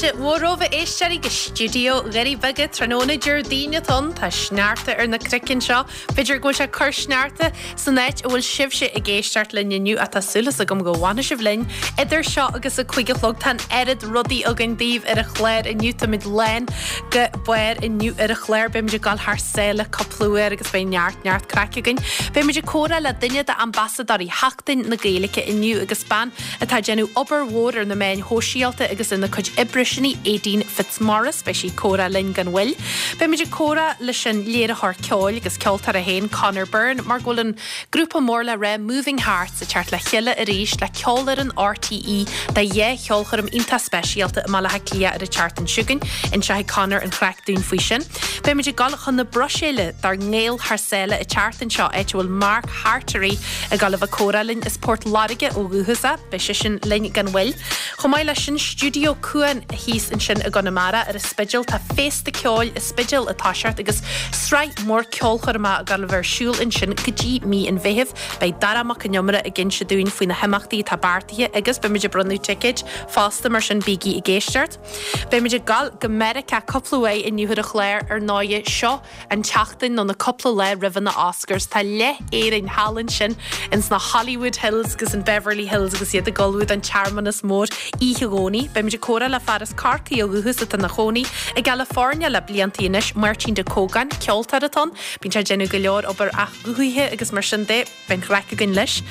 Fáilte mhór romhaibh a éisteoirí go stiúideo Dhoirí Beaga tráthnóna Déardaoin atá ann. Tá sneachta ar na cnoic anseo. B'fhéidir go bhfuil sé ag cur sneachta san áit a bhfuil sibhse ag éisteacht linn inniu ach tá súil agam go bhfanfaidh sibh linn idir seo agus a 5 a chlog. Tá an oiread rudaí againn daoibh ar an chlár inniu. Táimid lán go barr inniu ar an chlár. Beimid ag dul thar sáile cúpla uair agus beidh neart neart craic againn. Beimid ag comhrá le duine d'ambasadóirí Sheachtain na Gaeilge inniu agus bean atá ag déanamh obair mhór ar na meáin shóisialta agus ina cuid oibre sin í Aedín Fitzmaurice. Beidh sí ag comhrá linn gan mhoill. Beimid ag comhrá leis an léiritheoir ceoil agus ceoltóir é féin, Conor Byrne, mar go bhfuil an grúpa mór le rá Moving Hearts ag teacht le chéile arís le Ceolfhoireann RTÉ do dhá cheolchoirm iontach speisialta i mBaile Átha Cliath ar an tseachtain seo chugainn. Inseoidh Conor an chraic dúinn faoi sin. Beimid ag dul chun na Bruiséile dár nGael thar sáile an tseachtain seo, áit a bhfuil Mark Hartery ag dul a bheith ag comhrá linn as Port Láirge ó dhúchas é. Beidh seisean linn gan mhoill. Chomh maith leis sin, Stiúideo Cuan thíos ansin i gConamara ar an Spidéal. Tá féasta ceoil an Spidéil ag toiseacht agus sraith mhór ceolchoirmeacha ag dul a bheith ar siúl ansin go dtí mí an Mheithimh. Beidh Dara Mac Con Iomaire ag inse dúinn faoi na himeachtaí atá beartaithe agus beimid ag bronnadh ticéid fosta mar sin bígí ag éisteacht. Beimid ag dul go Meiriceá cúpla uair inniu ar an chlár ar ndóighe. Seo an tseachtain nó na cúpla lá roimhe na Oscars. Tá leath Éirinn thall ansin ins na Hollywood Hills agus in Beverly Hills agus iad ag ullmhú don tsearmanas mór oíche Dhomhnaigh. Beimid ag comhrá le fear as Corcaigh ó dhúchas atá ina chónaí i gCalifornia le bliantaí anois, Máirtín Ó Cógáin, ceoltóir atá ann. Bíonn sé ag déanamh go leor obair athghuthaithe agus mar sin de. Beidh an chraic againn leis.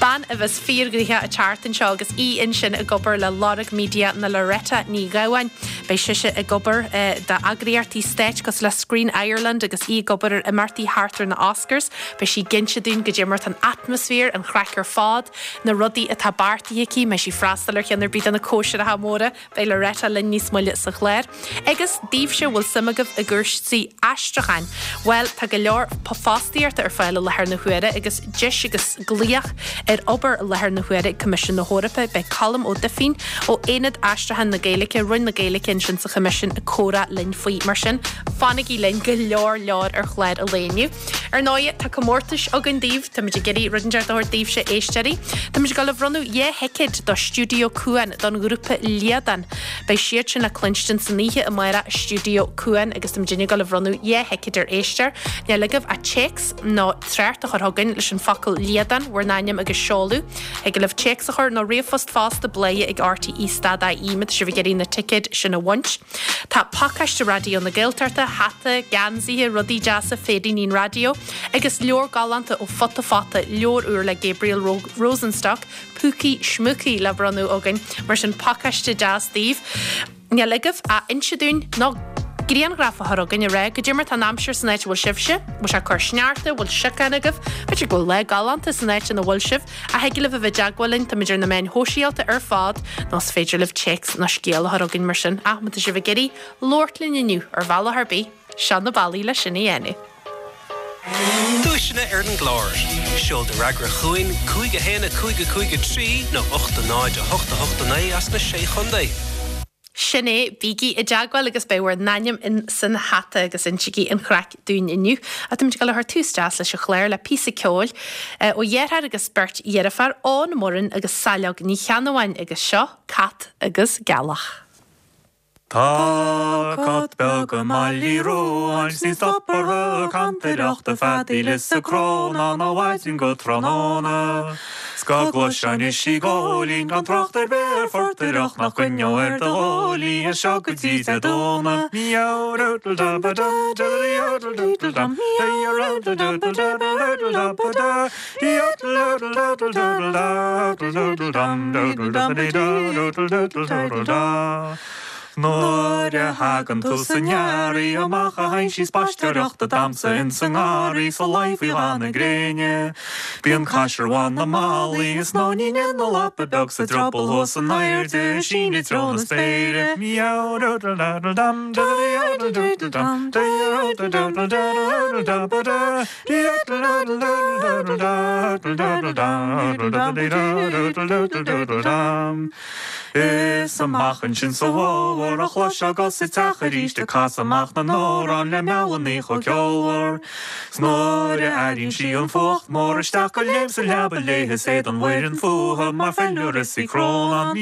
Bean a bheas fíorghnoitheach an tseachtain seo agus í ansin ag obair le Lorg Media ná Loretta Ní Ghabháin. Beidh sise ag obair d'eagraíochtaí stáit cosúil le Screen Ireland agus í ag obair ar imeachtaí thart ar na Oscars. Beidh sí ag inse dúinn goidé mar atá an atmaisféar, an chraic ar fad, na rudaí atá beartaithe aici, an mbeidh sí ag freastal ar cheann ar bith de na cóisireacha móra. Beidh Loretta linn níos moille sa chlár. Agus daoibhse a bhfuil suim agaibh i gcúrsaí aistriúcháin, bhuel, tá go leor fostaíochta ar fáil i láthair na huaire agus deis agus glaoch ar obair i láthair na huaire ag Coimisiún na hEorpa. Beidh Colm Ó Duifín ó Aonad Aistriúcháin na Gaeilge, Roinn na Gaeilge ansin sa Choimisiún ag comhrá linn faoi. Mar sin, fanaigí linn, go leor leor ar chlár an lae inniu. Ar ndóigh, tá comórtais againn daoibh. Táimid ag iarraidh rud inteacht a thabhairt daoibhse, a éisteoirí. Táimid ag dul a bhronnadh 2 thicéad do Stiúideo Cuan don ghrúpa Liadán. Beidh siad sin le cluinstin san oíche amárach i Stiúideo Cuan agus táimid ag dul a bhronnadh 2 thicéad ar éisteoir. Níl agaibh ach téacs nó trácht a chur chugainn leis an focal Liadán, bhur n-ainm agus seoladh. Thig libh téacs a chur nó ríomhphost fosta, bladhaire ag rte stad ie má tá sibh ag iarraidh na ticéid sin a bhaint. Tá pacáiste Raidió na Gaeltachta, hata, geansaithe, rudaí deasa, féiríní an raidió, agus leabhar galánta ó Futa Fata, leabhar úr le Gabriel Rosenstock, Púcaí Schmúcaí, le bronnadh againn. Mar sin, pacáiste deas daoibh. Níl agaibh ach inse dúinn nó grianghraf a chur chugainn ag rá goidé mar tá an aimsir san áit a bhfuil sibhse, bhfuil sé ag cur sneachta, bhfuil siocán agaibh, b'fhéidir go bhfuil lá galánta san áit ina bhfuil sibh. Ach thig libh a bheith i dteagmháil linn, táimid ar na meáin shóisialta ar fad, nó is féidir libh téacs nó scéal a chur chugainn mar sin. Ach má tá sibh ag iarraidh labhairt linn inniu, ar bhealach ar bith, seo na bealaí le sin a dhéanamh. Duaiseanna ar an gclár. Seol do fhreagra chugainn, 5 1 5 5 3 nó 8 0 8 8 9 as na Sé Chontae. Sin é, bígí i dteagmháil agus beidh bhur n-ainm in san hata agus insigí an chraic dúinn inniu. Ach táimid ag dul a chur tús deas leis an chlár le píosa ceoil ó dheartháir agus beirt dheirféar, Eoin Murrin agus Saileog Ní Cheannabháin agus seo Cat agus Gealach. Tá cat beag i mBaile Uí Ruáin 's ní stop orthu ag cantaireacht, ag feadaíl is ag crónán ó mhaidin go tráthnóna. 'S go gcloisfinn ise ag góilín gan trácht ar bith ar phortaireacht nach gcoinneodh ar do ghuaillí as seo go dtí Dé Domhnaigh. Nuair a thagann tús an earraigh amach a théann sí spaisteoireacht ag damhsa ins an ngarraí sa luí faoi dhath na gréine. Bíonn caisearbhán na mballaí is nóinín ina lapa beag 's a drioball thuas in airde ag síneadh i dtreo na spéire. Is amach ansin sa bhfómhar a chloisfeá 'gus sa teach aríst ag casadh amach na n-amhrán le meallannaí chomh ceolmhar. 'S nuair a airíonn sí an fuacht mór isteach go léim sa leaba léithe is éadan Mhuireann fúthu mar feilméara is í Crónán.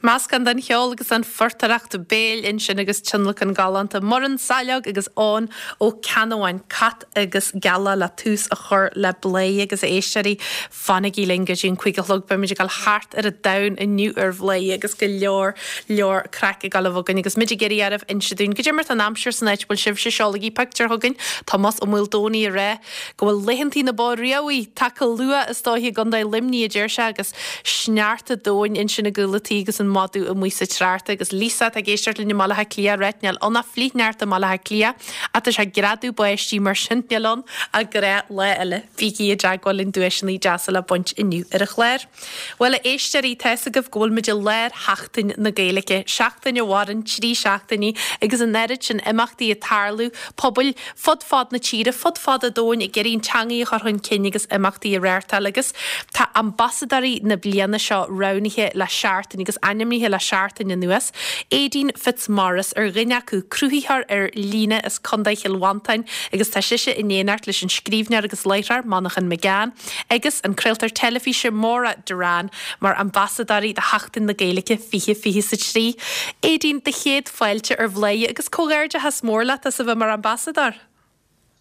Meascán den cheol agus an phortaireacht béil ansin agus tionlacan galánta Muireann Saileog agus Eoin Ó Ceannabháin, Cat agus Gealach le tús a chur le Bladhaire agus a éisteoirí, fanaigí linn go dtí an 5 a chlog, beimid ag dul thart ar an domhan inniu ar Bhladhaire agus go leor leor craic ag dul a bheith againn agus muid ag iarraidh oraibh inse dúinn goidé mar tá an aimsir san áit a bhfuil sibhse, seolaigí pictiúr chugainn, Tomás Ó Maoldomhnaigh ag rá go bhfuil laethantaí na bó riabhaí tagtha luath is dóiche i gContae Luimnigh a deir sé agus sneachta domhain ansin i gcúl a' tí agus an madadh amuigh sa treárta agus Lisa atá ag éisteacht linn i mBaile Átha Cliath ag ráit níl ann ach flichshneachta i mBaile Átha Cliath ach tá sé ag greadadh báistí mar sin níl ann ach gnáthlá eile. Bígí i dteagmháil linn duaiseanna deasa le baint inniu ar an chlár. Bhuel a éisteoirí, tá fhios agaibh go bhfuil muid i lár Sheachtain na Gaeilge, seachtain a mhaireann 3 seachtainí agus an oiread sin imeachtaí ag tarlú, pobail fud fad na tíre, fud fad an domhain ag iarraidh an teangaidh a chur chun cinn agus imeachtaí a reáchtáil agus tá ambasadóirí na bliana seo roghnaithe le seachtain agus ainmnithe le seachtain anuas. Aedín Fitzmaurice ar dhuine acu, cruthaitheoir ar líne as Contae Chill Mhantáin agus tá sise in éineacht leis an scríbhneoir agus láithreoir Manchán Magan agus an craoltóir teilifíse Maura Derrane mar ambasadóirí do Sheachtain na Gaeilge 2023. Aedín, do chéad fáilte ar Bhladhaire agus comhghairdeachas mór leat as a bheith mar ambasadóir.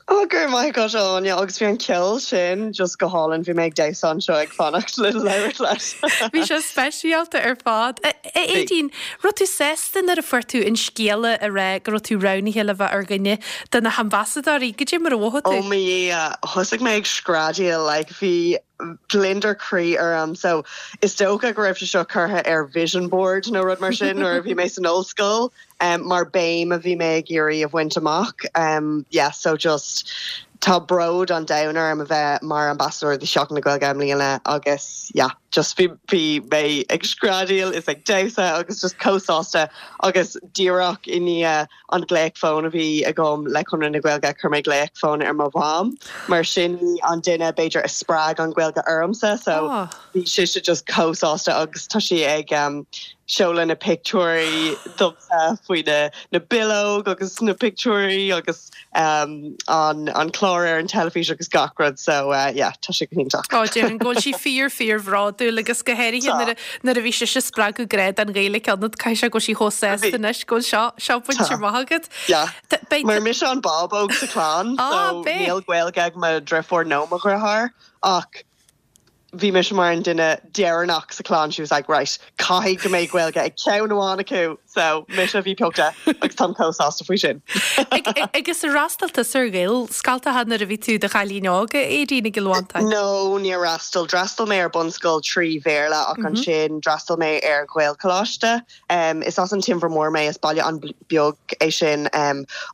Oh, go raibh maith agat, Áine, agus bhí an ceol sin just go hálainn, bhí mé ag damhsa anseo ag fanacht le labhairt leat. Bhí sé speisialta ar fad. A Aedín, raibh tú sásta nuair a fuair tú an scéala a rá go raibh tú roghnaithe le bheith ar dhuine de na hambasadóirí? Goidé mar a mhothaigh tú? Oh mo Dhia, thosaigh mé ag screadaíl, like bhí gliondar croí orm, so is dócha go raibh sé seo curtha ar vision board nó rud mar sin nuair a bhí mé san ollscoil. mar béim a bhí mé ag iarraidh a bhaint amach. Yeah so just tá bród an domhain orm a bheith mar ambasadóir do Sheachtain na Gaeilge i mbliana agus yeah just bhí bhí mé ag screadaíl is ag damhsa agus just chomh sásta agus díreach i ndiaidh an glaoch fóin a bhí agam le Conradh na Gaeilge chuir mé glaoch fóin ar mo mham mar sin í an duine b'fhéidir a spreag an Ghaeilge ormsa so bhí sise just chomh sásta agus tá sí ag seoladh na pictiúirí domsa faoi na na bileog agus na pictiúirí agus an an clár ar an teilifís agus gach rud so yeah tá sé go hiontach. Ó déarfainn go bhfuil sí fíor fíor bhródúil agus go háirithe nuair a nuair a bhí sise ag spreagadh grá don Ghaeilge ionat caithfidh sé go bhfuil sí chomh sásta anois go bhfuil seo seo bainte amach agat. Yeah. Mar mise an bábóg sa chlann so níl Gaeilge ag mo dhriofúr nó mo dhriotháir ach bhí mise mar an duine deireanach sa chlann, she was like right, caithfidh go mbeidh Gaeilge ag ceann amháin acu, so mise a bhí pioctha agus táim chomh sásta faoi sin. Agus ar fhreastail tusa ar Ghaelscoltacha nuair a bhí tú i do chailín óg, a Aedín, i gCill Mhantáin? No, níor fhreastail. D'fhreastail mé ar bunscoil 3 Bhéarla ach ansin d'fhreastail mé ar Ghaelcholáiste. Is as an Teamhair Mhór mé, is baile an-bheag é sin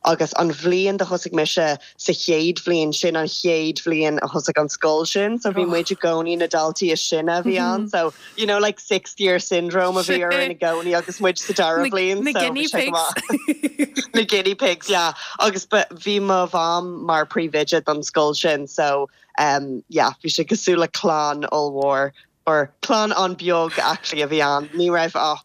agus an bhliain do thosaigh mise sa chéad bhliain, sin an chéad bhliain a thosaigh an scoil sin so bhí muid i gcónaí na daltaí is sine a bhí ann so you know like sixth year syndrome a bhí orainn i gcónaí agus muid sa dara bhliain so bhí sé go maith. Na guinea pigs, yeah. Agus bhí mo mham mar príomhoide don scoil sin so yeah bhí sé cosúil le clann ollmhór or clann an-bheag actually a bhí ann, ní raibh ach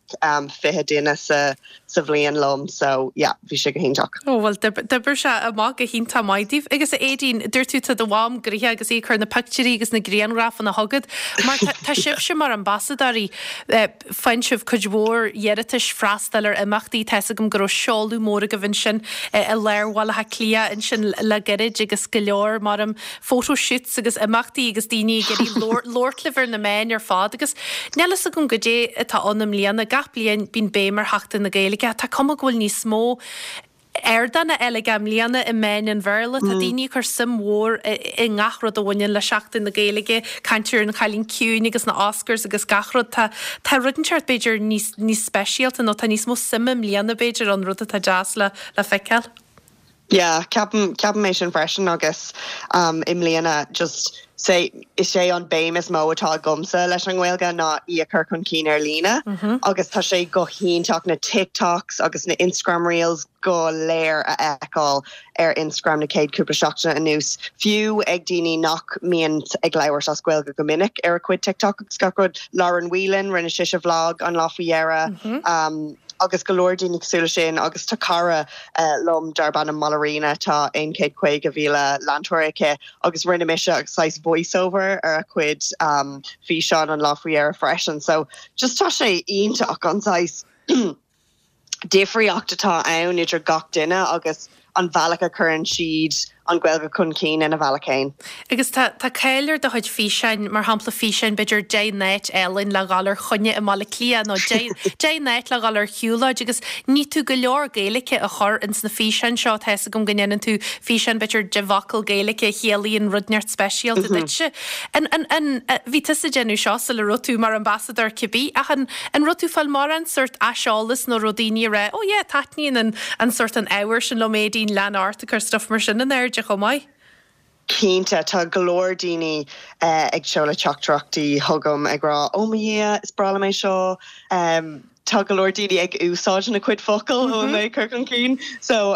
20 duine sa sa bhliain liom so yeah bhí sé go hiontach. Ó bhuel d'oibir sé amach go hiontach maith daoibh. Agus a Aedín, dúirt tú tá do mham gnoitheach agus í ag cur na pictiúirí agus na grianghrafanna chugat mar tá sibhse mar ambasadóirí Faigheann sibh cuid mhór iarratais freastal ar imeachtaí. Tá 'fhios agam go raibh seoladh mór agaibh ansin i lár Bhaile Átha Cliath ansin le gairid agus go leor mar photo shoots agus imeachtaí agus daoine ag iarraidh labhairt libh ar na meáin ar fad agus níl 'fhios agam goidé atá ann i mbliana. Gach bliain bíonn béim ar Sheachtain na Gaeilge ach tá cuma go bhfuil níos mó ardáin eile aige i mbliana i meáin an Bhéarla. Tá daoine ag cur suim mhór i ngach rud a bhaineann le Seachtain na Gaeilge, caint ar an Chailín Ciúin agus na Oscars agus gach rud. Tá tá rud inteacht b'fhéidir níos níos speisialta nó tá níos mó suime i mbliana b'fhéidir ann, rud atá deas le le feiceáil. Yeah, ceapaim ceapaim é sin freisin agus um i mbliana just say is é an béim is mó atá agamsa leis an nGaeilge ná í a chur chun cinn ar líne agus tá sé go hiontach na TikToks agus na Instagram reels go léir a fheiceáil ar Instagram na chéad cúpla seachtaine anuas, fiú ag daoine nach mbíonn ag labhairt as Gaeilge go minic ar a cuid TikTok agus gach rud. Lauren Whelan, rinne sise vlog an lá faoi dheireadh agus go leor daoine cosúil leis sin agus tá cara liom darb ainm Mollerina, tá 150,000 leantóir aici agus rinne mise saghas voice-over ar a cuid físeán an lá faoi dheireadh freisin. So just tá sé iontach an saghas difríocht atá ann idir gach duine agus an bhealach a chuireann siad an Ghaeilge chun cinn ina bhealach féin. Agus tá tá cáil ar do chuid físeáin, mar shampla físeáin b'fhéidir 10 n-áit álainn le dhul ar choinne i mBaile Átha Cliath nó 10 10 n-áit le dhul ar shiúlóid agus ní tú go leor Gaeilge a chur ins na físeáin seo, tá 'fhios agam go ndéanann tú físeán b'fhéidir 10 bhfocal Gaeilge a chiallaíonn rud inteacht speisialta duitse. An an an bhí tusa ag déanamh seo sula raibh tú mar ambasadóir cibé ach an an raibh tú ag fáil mórán sórt aiseolas nó raibh daoine ag rá oh yeah taitníonn an an sórt an ábhar sin liom Aedín lean ort ag cur stuff mar sin in airde chomh maith? Cinnte, tá go leor daoine ag seoladh teachtaireachtaí chugam ag rá 'oh mo Dhia, is breá liom é seo'. Tá go leor daoine ag úsáid na cuid focal a bhfuil mé ag cur chun cinn. So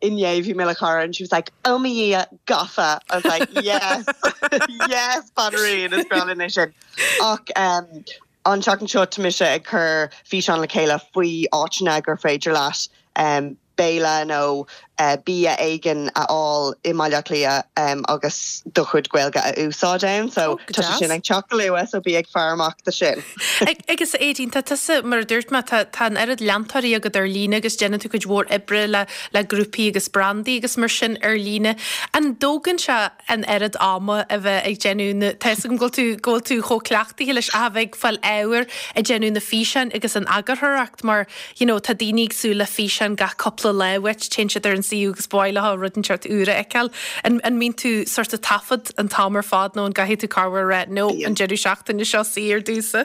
inné bhí mé le cara and she was like 'oh mo Dhia, gafa'. I was like 'yes, yes banríon, is breá linn é sin'. Ach an tseachtain seo tá mise ag cur físeán le chéile faoi áiteanna gur féidir leat béile nó. Bia éigin a fháil i mBaile Átha Cliath agus do chuid Gaeilge a úsáid ann. So tá sé sin ag teacht go luath so bí ag faire amach do sin. Agus Aedín, tá tusa, mar a dúirt mé, tá tá an oiread leantóirí agat ar líne agus déanann tú cuid mhór oibre le le grúpaí agus brandaí agus mar sin ar líne. An dtógann sé an oiread ama a bheith ag déanamh na, tá 'fhios agam go bhfuil tú go bhfuil tú chomh cleachtaithe leis ach a bheith ag fáil ábhair ag déanamh na físeáin agus an eagarthóireacht mar you know tá daoine ag súil le físeán gach cúpla lá uait, téann siad ar an suíomh agus ba mhaith leo rud inteacht úr a fheiceáil. An an mbíonn tú sort of taifead an t-am ar fad nó an gcaithfidh tú corruair a rá no an deireadh seachtaine seo saor domhsa?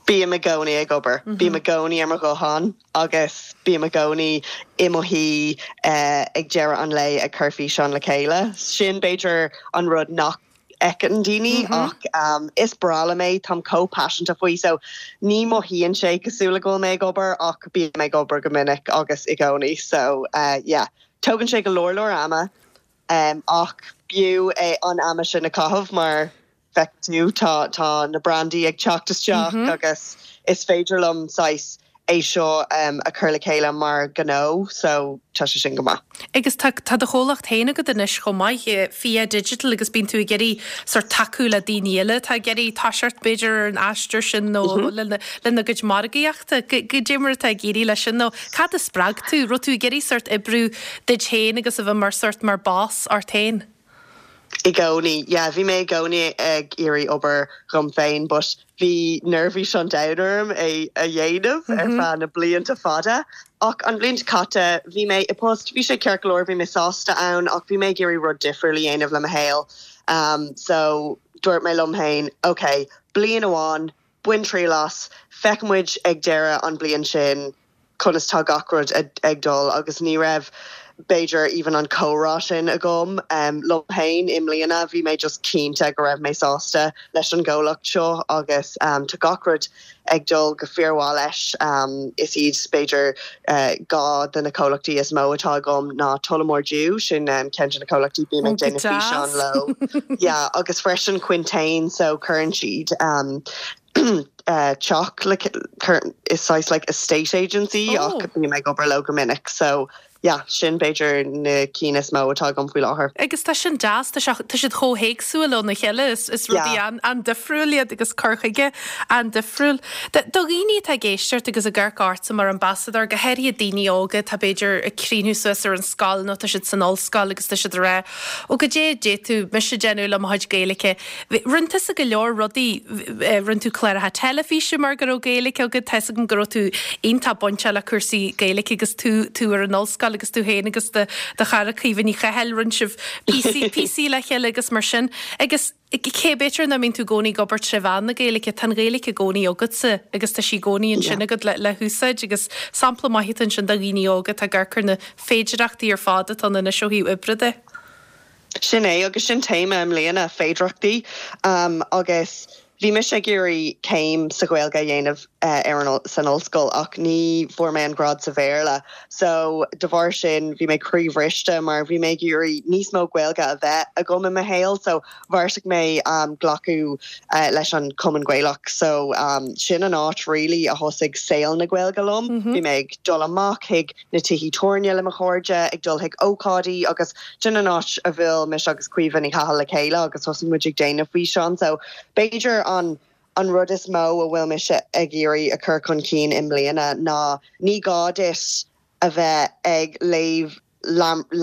Bím i gcónaí ag obair. Bím i gcónaí ar mo ghuthán agus bím i gcónaí i mo shuí ag deireadh an lae ag cur físeán le chéile. Sin b'fhéidir an rud nach fheiceann daoine ach is breá liom é, táim chomh paiseanta faoi so ní mothaíonn sé cosúil le go bhfuil mé ag obair ach bím ag obair go minic agus i gcónaí so yeah. Tógann sé go leor leor ama ach b'fhiú é an ama sin a chaitheamh mar feiceann tú tá tá na brandaí ag teacht isteach agus is féidir liom saghas é seo a chur le chéile mar ghnó so tá sé sin go maith. Agus tá tá do chomhlacht féin agat anois chomh maith, Fia Digital agus bíonn tú ag iarraidh sort tacú le daoine eile atá ag iarraidh toiseacht b'fhéidir ar an aistear sin nó lena lena gcuid margaíochta. Goidé mar atá ag éirí leis sin nó cad a spreag tú? Raibh tú ag iarraidh sort oibriú duit féin agus a bheith mar sort mar boss ort féin? I gcónaí, yeah, bhí mé i gcónaí ag iarraidh obair dhom féin but bhí neirbhís an domhain orm é a dhéanamh ar feadh na blianta fada. Ach an bhliain seo caite bhí mé i post, bhí sé ceart go leor, bhí mé sásta ann ach bhí mé ag iarraidh rud difriúil a dhéanamh le mo shaol. So dúirt mé liom féin, ok, bliain amháin, bain triail as, feicfidh muid ag deireadh an bliain sin conas tá gach rud ag dul agus ní raibh b'fhéidir even an comhrá sin agam liom féin i mbliana, bhí mé just cinnte go raibh mé sásta leis an gcomhlacht seo agus tá gach rud ag dul go fíormhaith leis. Is iad b'fhéidir 2 de na comhlachtaí is mó atá agam ná Tullamore Dew, sin ceann de na comhlachtaí bím ag déanamh físeán leo, yeah, agus freisin Quintain so cuireann siad teach le is saghas like estate agency ach bím ag obair leo go minic so yeah sin b'fhéidir na cinn is mó atá agam faoi láthair. Agus tá sin deas, tá sé, tá siad chomh héagsúil óna chéile, is, is rudaí Yeah. an-difriúil iad agus cur chuige an-difriúil. Do, do dhaoine atá ag éisteacht agus ag amharc ortsa mar ambasadóir, go háirithe daoine óga atá b'fhéidir ag críochnú suas ar an scoil nó tá siad san ollscoil agus tá siad ag rá, ó goidé a d'fhéadfadh mise déanamh le mo chuid Gaeilge. Rinne tusa go leor rudaí, rinne tú cláracha teilifíse mar go raibh Gaeilge agat, tá 'fhios agam go raibh tú iontach bainteach le cúrsaí Gaeilge agus tú tú ar an ollscoil agus tú féin agus do do chara Caoimhe Ní Chathail, rinne sibh píosaí píosaí le chéile agus mar sin. Agus cé b'fhéidir nach mbíonn tú i gcónaí ag obair tré mheán na Gaeilge, tá an Ghaeilge i gcónaí agatsa agus tá sí i gcónaí ansin agat le le húsáid agus sampla maith atá ansin do dhaoine óga atá ag amharc ar na féidireachtaí ar fad atá ann anois ó thaobh oibre de. Sin é, agus sin téama i mbliana, féidireachtaí. Agus bhí mise ag iarraidh céim sa Ghaeilge a dhéanamh ar an san ollscoil ach ní fuair mé an grád sa Bhéarla. So de bharr sin bhí mé croíbhriste mar bhí mé ag iarraidh níos mó Gaeilge a bheith agam i mo shaol. So bheartaigh mé glacadh leis an Chumann Gaelach. So sin an áit really a thosaigh saol na Gaeilge liom. Bhí mé ag dul amach chuig na tithí tabhairne le mo chairde, ag dul chuig ócáidí agus sin an áit a bhuail mise agus Caoimhe Ní Chathail le chéile agus thosaigh muid ag déanamh físeán. So b'fhéidir an an rud is mó a bhfuil mise ag iarraidh a chur chun cinn i mbliana ná ní gá duit a bheith ag léamh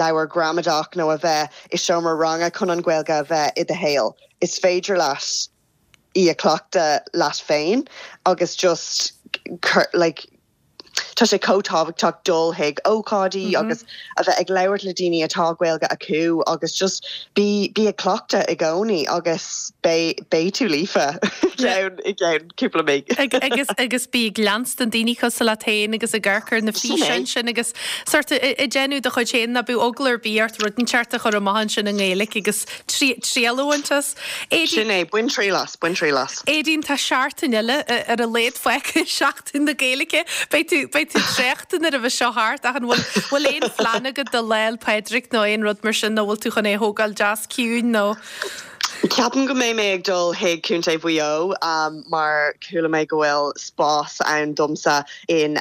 leabhar gramadach nó a bheith i seomra ranga chun an Ghaeilge a bheith i do shaol. Is féidir leat í a chleachtadh leat féin agus just like Tá sé chomh tábhachtach dul chuig ócáidí agus a bheith ag labhairt le daoine atá Gaeilge acu agus just bí bí ag cleachtadh i gcónaí agus beidh beidh tú líofa i gceann i gceann cúpla mí. Agus agus bí ag leanstan daoine cosúil leat féin agus ag amharc ar na físeáin sin agus sort ag déanamh do chuid féin ná bíodh eagla ar bith ort rud inteacht a chur amach ansin i nGaeilge agus triail a bhaint as. Sin é, bain triail as, bain triail as. Aedín, tá seachtain eile ar a laghad fágtha, Seachtain na Gaeilge. Beidh tú, beidh tú traochta nuair a bheidh seo thart ach an bhfuil, bhfuil aon phlean agat do Lá 'le Pádraig nó aon rud mar sin nó bhfuil tú chun é a thógáil deas ciúin nó? Ceapaim go mbeidh mé ag dul chuig Contae Mhaigh Eo mar chuala mé go bhfuil spás ann domsa in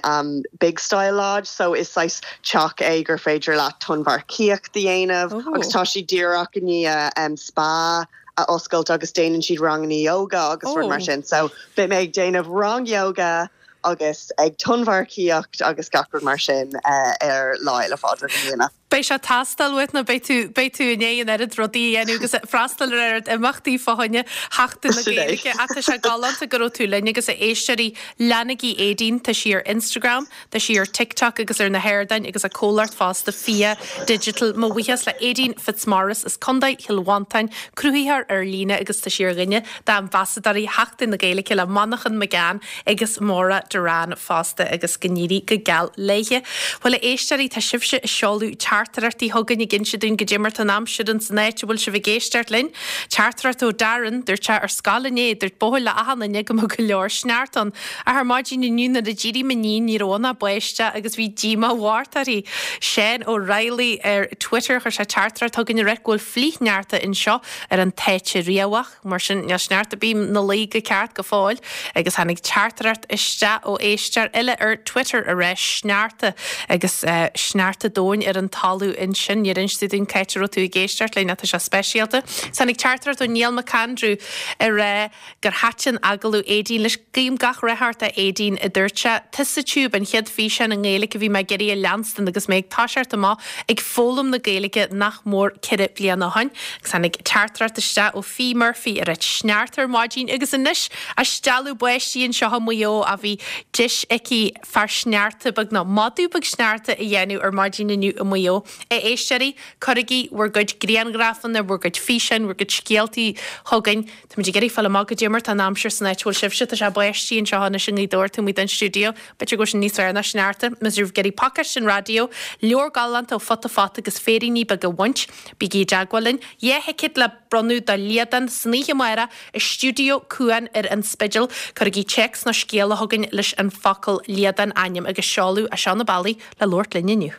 Big Style Lodge so is saghas teach é gur féidir leat tonnmharcaíocht a dhéanamh agus tá siad díreach i ndiaidh spa a oscailt agus déanann siad ranganna yoga agus rud mar sin so beidh mé ag déanamh rang yoga agus ag tonnmharcaíocht agus gach rud mar sin ar Lá Fhéile Phádraig i mbliana. Beidh sé ag teastáil uait nó beidh tú, beidh tú i ndiaidh an oiread rudaí a dhéanamh agus freastal ar oiread imeachtaí fá choinne Sheachtain na Gaeilge. Ach tá sé galánta go raibh tú linn agus a éisteoirí, leanaigí Aedín, tá sí ar Instagram, tá sí ar TikTok agus ar na hardáin agus a comhlacht fosta Fia Digital. Mo bhuíochas le Aedín Fitzmaurice as Contae Chill Mhantáin, cruthaitheoir ar líne agus tá sí ar dhuine d'ambasadóirí Sheachtain na Gaeilge le Manchán Magan agus Maura Derrane fosta agus go n-éirí go geal léithe. Bhuel a éisteoirí, tá sibhse ag seoladh teachtaireachtaí chugainn ag inse dúinn goidé mar tá an aimsir ins an áit a bhfuil sibh ag éisteacht linn. Teachtaireacht ó Darren, dúirt sé ar scoil inné, dúirt buachaill le achan duine go mbeadh go leor sneachta ann. Ach ar maidin inniu nuair a d'éirigh m'iníon ní raibh ann ach báisteach agus bhí díomá mhór uirthi. Seán Ó Raghallaigh ar Twitter, chuir sé teachtaireacht chugainn ag ráit go bhfuil flichshneachta anseo ar an Táite Riabhach. Mar sin, níl sneachta ar bith 'na luí go ceart go fóill. Agus tháinig teachtaireacht isteach ó éisteoir eile ar Twitter a rá sneachta agus sneachta domhain ar an talamh ansin. Níor inis tú dúinn cá háit a raibh tú ag éisteacht linn ach tá sé speisialta. Is tháinig teachtaireacht ó Niall McAndrew a rá gur thaitin agallamh Aedín leis. Guím gach rath ort a Aedín, a dúirt sé. Tusa Tube an chéad físeán i nGaeilge a bhí mé ag iarraidh a leanstan agus mé ag toiseacht amach ag foghlaim na Gaeilge nach mór 4 bliana ó shoin. Agus tháinig teachtaireacht isteach ó Fee Murphy a ráit sneachta ar maidin agus anois a' stealladh báistí anseo i Maigh Eo a bhí deis aici fear sneachta beag nó madadh beag sneachta a dhéanamh ar maidin inniu i Maigh Eo. A éisteoirí, cuirigí bhur gcuid grianghrafanna, bhur gcuid físeáin, bhur gcuid scéaltaí chugainn. Táimid ag iarraidh fáil amach goidé mar tá an aimsir san áit a bhfuil sibhse. Tá sé ag báistí anseo anois i nGaoth Dobhair, taobh amuigh den stiúideo. B'fhéidir go bhfuil sin níos fearr ná sneachta. Má tá sibh ag iarraidh pacáiste an raidió, leabhar galánta ó Futa Fata agus féiríní beaga a bhaint, bígí i dteagmháil linn. 2 thicéad le bronnadh do Liadán san oíche amárach i stiúideo Cuan ar an Spidéal. Cuirigí téacs nó scéala chugainn leis an focal Liadán, ainm agus seoladh, as seo na bealaí le labhairt linn inniu.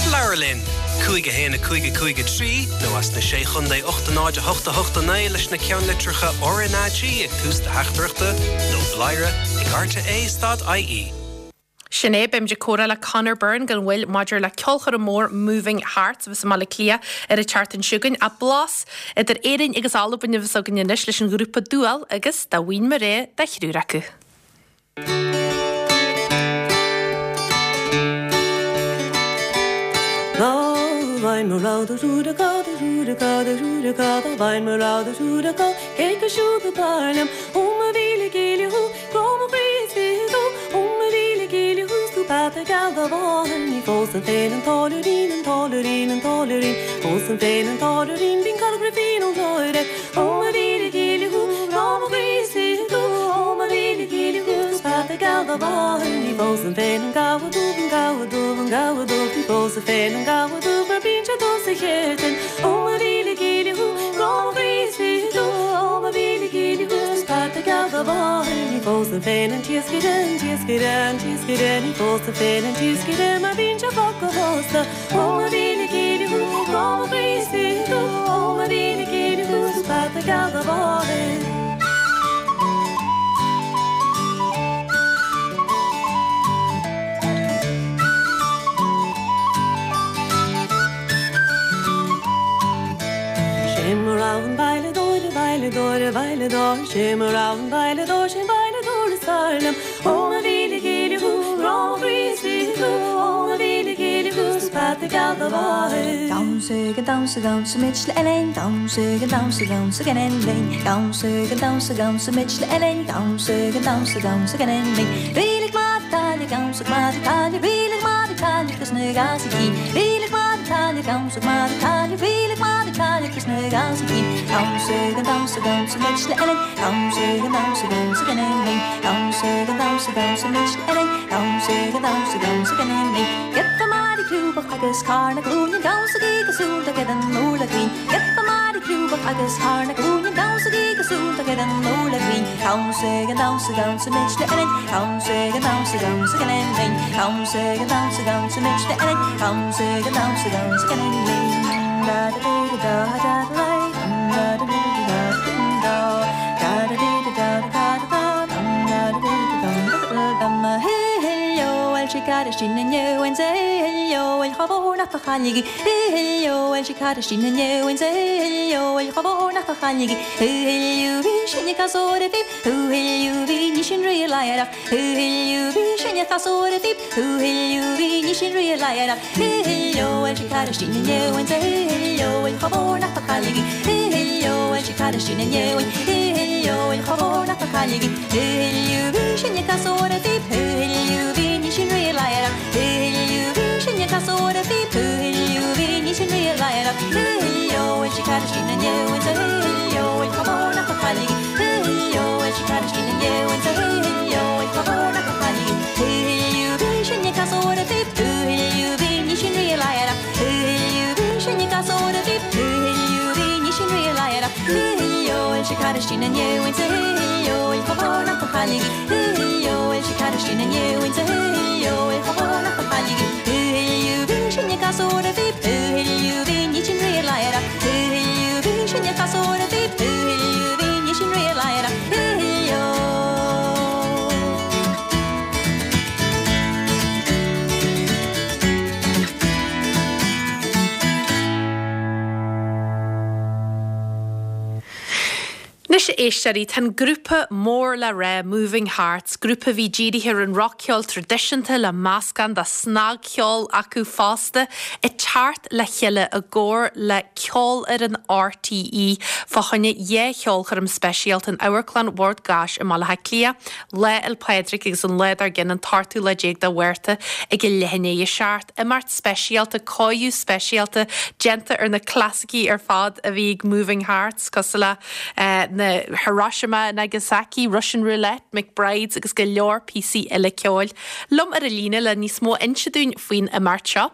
Labhair linn! 5 1 5 5 3 nó as na Sé Chontae 8 0 8 8 9 leis na ceannlitreacha RnaG ag tús do theachtaireachta nó bladhaire ag rte stad ie. Sin é, beimid ag comhrá le Conor Byrne gan mhoill maidir le ceolchoirm mór Moving Hearts a bheas i mBaile Átha Cliath ar an tseachtain seo chugainn. Ach blas idir Éirinn agus Albain a bheas againn anois leis an ghrúpa Dùal agus Dá Bhfaighinn Mo Rogha de Thriúr Acu. Dá bhfaighinn mo rogha de thriúr acu, de thriúr acu, de thriúr acu, dá bhfaighinn mo rogha de thriúr acu, cé acu siúd ab fhearr liom? Ó mo mhíle gile thú, grá mo chroí is fiche thú, ó mo mhíle gile thú, 's tú peata geal do mháthar, ní phósfainn féin an táilliúirín, an táilliúirín, an táilliúirín, phósfainn féin an táilliúirín, bíonn caill grifín ón gcláir air. Ó mo mhíle gile thú, grá mo chroí is fiche thú, ó mo mhíle gile thú, 's peata geal do mháthar, ní phósfainn féin an gabha dubh, an gabha dubh, an gabha dubh, ní phósfainn féin an gabha dubh mar bíonn sé dubh sa cheirtlinn. Ó mo mhíle gile thú, grá mo chroí is fiche thú, ó mo mhíle gile thú, 's peata geal do mháthar, ní phósfainn féin an t-iascaire, an t-iascaire, an t-iascaire, ní phósfainn féin an t-iascaire mar bíonn sé fliuch go fosta. Ó mo mhíle gile thú, grá mo chroí is fiche thú, ó mo mhíle gile thú, 's peata geal do mháthair. Sé mo rogha an veidhleadóir, a veidhleadóir, a veidhleadóir, sé mo rogha an veidhleadóir, sé'n veidhleadóir is fearr liom. Ó mo mhíle gile thú, grá mo chroí is fiche thú, ó mo mhíle gile thú, 's peata geal do mháthair. Damhsa gan damhsa damhsaimid le Elaine Damhsa gan damhsa damhsa gan linn Damhsa gan damhsa damhsaimid le Elaine Damhsa gan damhsa damhsa gan linn Rílig maith taile damhsa maith taile Rílig maith taile agus na gasaí Rílig maith taile damhsa maith taile Rílig maith taile agus na gasaí Damhsa gan damhsa damhsaimid le Elaine Damhsa gan damhsa damhsa gan linn Damhsa gan damhsa damhsaimid le Elaine Damhsa gan damhsa damhsa gan linn Giota maith crúbach agus carn na glúine Damhsaigí go suaimhneach ar an urlár cruinn Giota maith crúbach agus carn na glúine Damhsaigí go suaimhneach ar an urlár cruinn Damhsa gan damhsa damhsaimid le Elaine Damhsa gan damhsa damhsa gan linn Damhsa gan damhsa damhsaimid le Elaine Damhsa gan damhsa damhsa gan linn Da da da da da da da da da da da. Caráistí na nEoin 's heileo bhuel chomh mór nach do chailligí heileo bhuel sí Caráistí na nEoin 's heileo bhuel chomh mór nach do chailligí heileo bhí sinne casúr a bhí heileo bhí ní sin rí ladhar heileo bhí sinne casúr a bhí heileo bhí ní sin rí ladhar heileo bhuel sí Caráistí na nEoin 's heileo bhuel chomh mór nach do chailligí heileo bhuel sí Caráistí na nEoin heileo bhuel chomh mór nach do chailligí heileo bhí sinne casúr a bhí heileo bhí ní sin rí ladhar heileo bhí sinne casúr a bhí heileo bhí ní sin rí ladhar heileo bhuel sí Caráistí na nEoin 's heileo bhuel chomh mór nach do chailligí heileo bhuel sí Caráistí na nEoin 's heileo bhuel chomh mór nach do chailligí heileo bhí sinne casúr a bhí heileo bhí ní sin rí ladhar heileo bhí sinne casúr a bhí heileo bhí ní sin rí ladhar heileo bhuel sí Caráistí na nEoin 's heileo bhuel chomh mór nach do chailligí heileo bhuel sí Caráistí na nEoin 's heileo bhuel chomh mór nach do chailligí heileo bhí sinne casúr a bhí heileo bhí ní sin rí ladhar heileo bhí sinne casúr a bhí heileo bhí ní sin rí ladhar heileo. Anois a éisteoirí, tá an grúpa mór le rá Moving Hearts, grúpa a bhí dírithe ar an roc-cheol traidisiúnta le meascán de snagcheol acu fosta, ag teacht le chéile i gcomhar le Ceolfhoireann RTÉ fá choinne dhá cheolchoirm speisialta in Amharclann Bhord Gáis i mBaile Átha Cliath, Lá Fhéil Pádraig agus an lá dár gcionn, an t-ochtú lá déag de Mhárta ag a leath i ndiaidh a 7. Imeacht speisialta, cóiriú speisialta déanta ar na clasaicí ar fad a bhí ag Moving Hearts, cosúil le na Hiroshima, Nagasaki, Russian Roulette, McBrides agus go leor píosaí eile ceoil. Liom ar an líne le níos mó a inse dúinn faoin imeacht seo,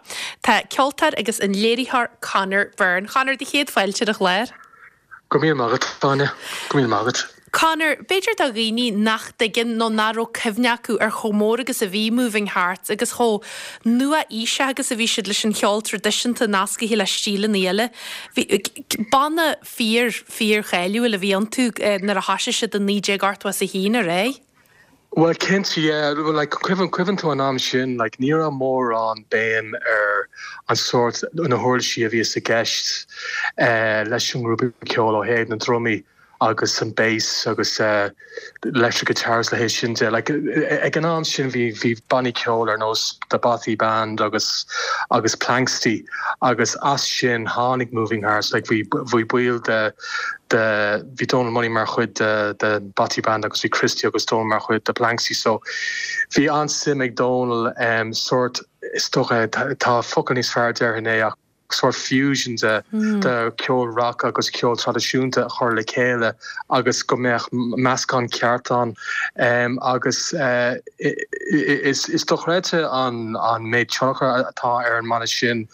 tá ceoltóir agus an léiritheoir Conor Byrne. Conor, do chéad fáilte ar an chlár. Go raibh míle maith agat, Áine. Go raibh míle maith agat. Conor, b'fhéidir do dhaoine nach dtuigeann nó nach raibh cuimhne acu ar chomh mór agus a bhí Moving Hearts agus chomh nua-aoiseach agus a bhí siad leis an cheol traidisiúnta nascaithe le stíleanna eile. Bhí banna fíor, fíor-cháiliúil a bhí iontu nuair a thoisigh siad i 1981, ar aghaidh. Bhuel cinnte, yeah. Like cuimhin, cuimhin tú an am sin, like ní raibh mórán béim ar an sórt, na huirlisí a bhíos i gceist eh leis an ngrúpa ceoil ó thaobh na ndrumaí agus an bass agus eh electric guitars leithéid sin de. Like ag an am sin bhí, bhí bannaí ceoil ar nós The Bothy Band agus, agus Planxty agus as sin tháinig Moving Hearts, like bhí, bhí baill de, de, bhí Donal Money mar chuid de de Bothy Band agus bhí Christy agus Donal mar chuid de Planxty so bhí an-suim ag Donal em sórt is dócha tá focal níos fearr déarfainn é ach sórt fusion de de ceol rock agus ceol traidisiúnta a chur le chéile agus go mbeadh meascán ceart ann em agus eh is is dochreidte an an méid tionchar atá ar an mbanna sin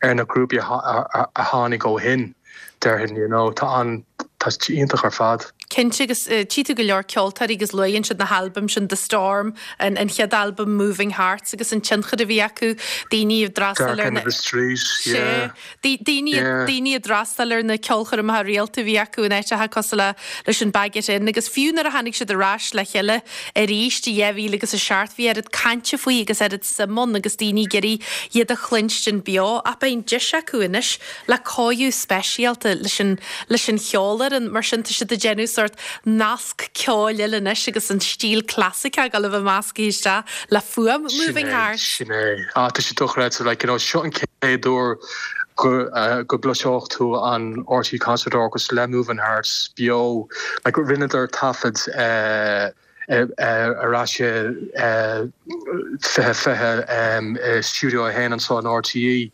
ar na grúpaí a a tháinig ó shin. déarfainn, you know, tá an, tá sé iontach ar fad. Cinnte, agus tchí tú go leor ceoltóirí agus luann siad na halbaim sin, The Storm, an an chéad albam Moving Hearts agus an tionchar a bhí acu, daoine ag d'fhreastal ar na. Dark End of the Street, yeah. Sea, daoine, yeah. daoine ag d'fhreastal ar na ceolchoirmeacha rialta a bhí acu in áiteacha cosúil le leis an Baggot Inn agus fiú nuair a tháinig siad ar ais le chéile arís i 2007 bhí oiread cainte faoi agus oiread suim ann agus daoine ag iarraidh iad a chluinstin beo ach beidh an deis acu anois le cóiriú speisialta leis an leis an cheolfhoireann, mar sin tá siad ag déanamh sórt nasc ceoil eile anois agus an stíl clasaiceach ag dul a bheith measctha isteach le fuaim Moving Hearts. Sin é, sin é. Ah, tá sé dochreidte, like, you know, seo an chéad uair go go gcloisfeadh tú an RTÉ Concert Orchestra le Moving Hearts beo, like, rinneadar taifead eh, ar ais i 2020 i Studio 1 anseo in RTÉ,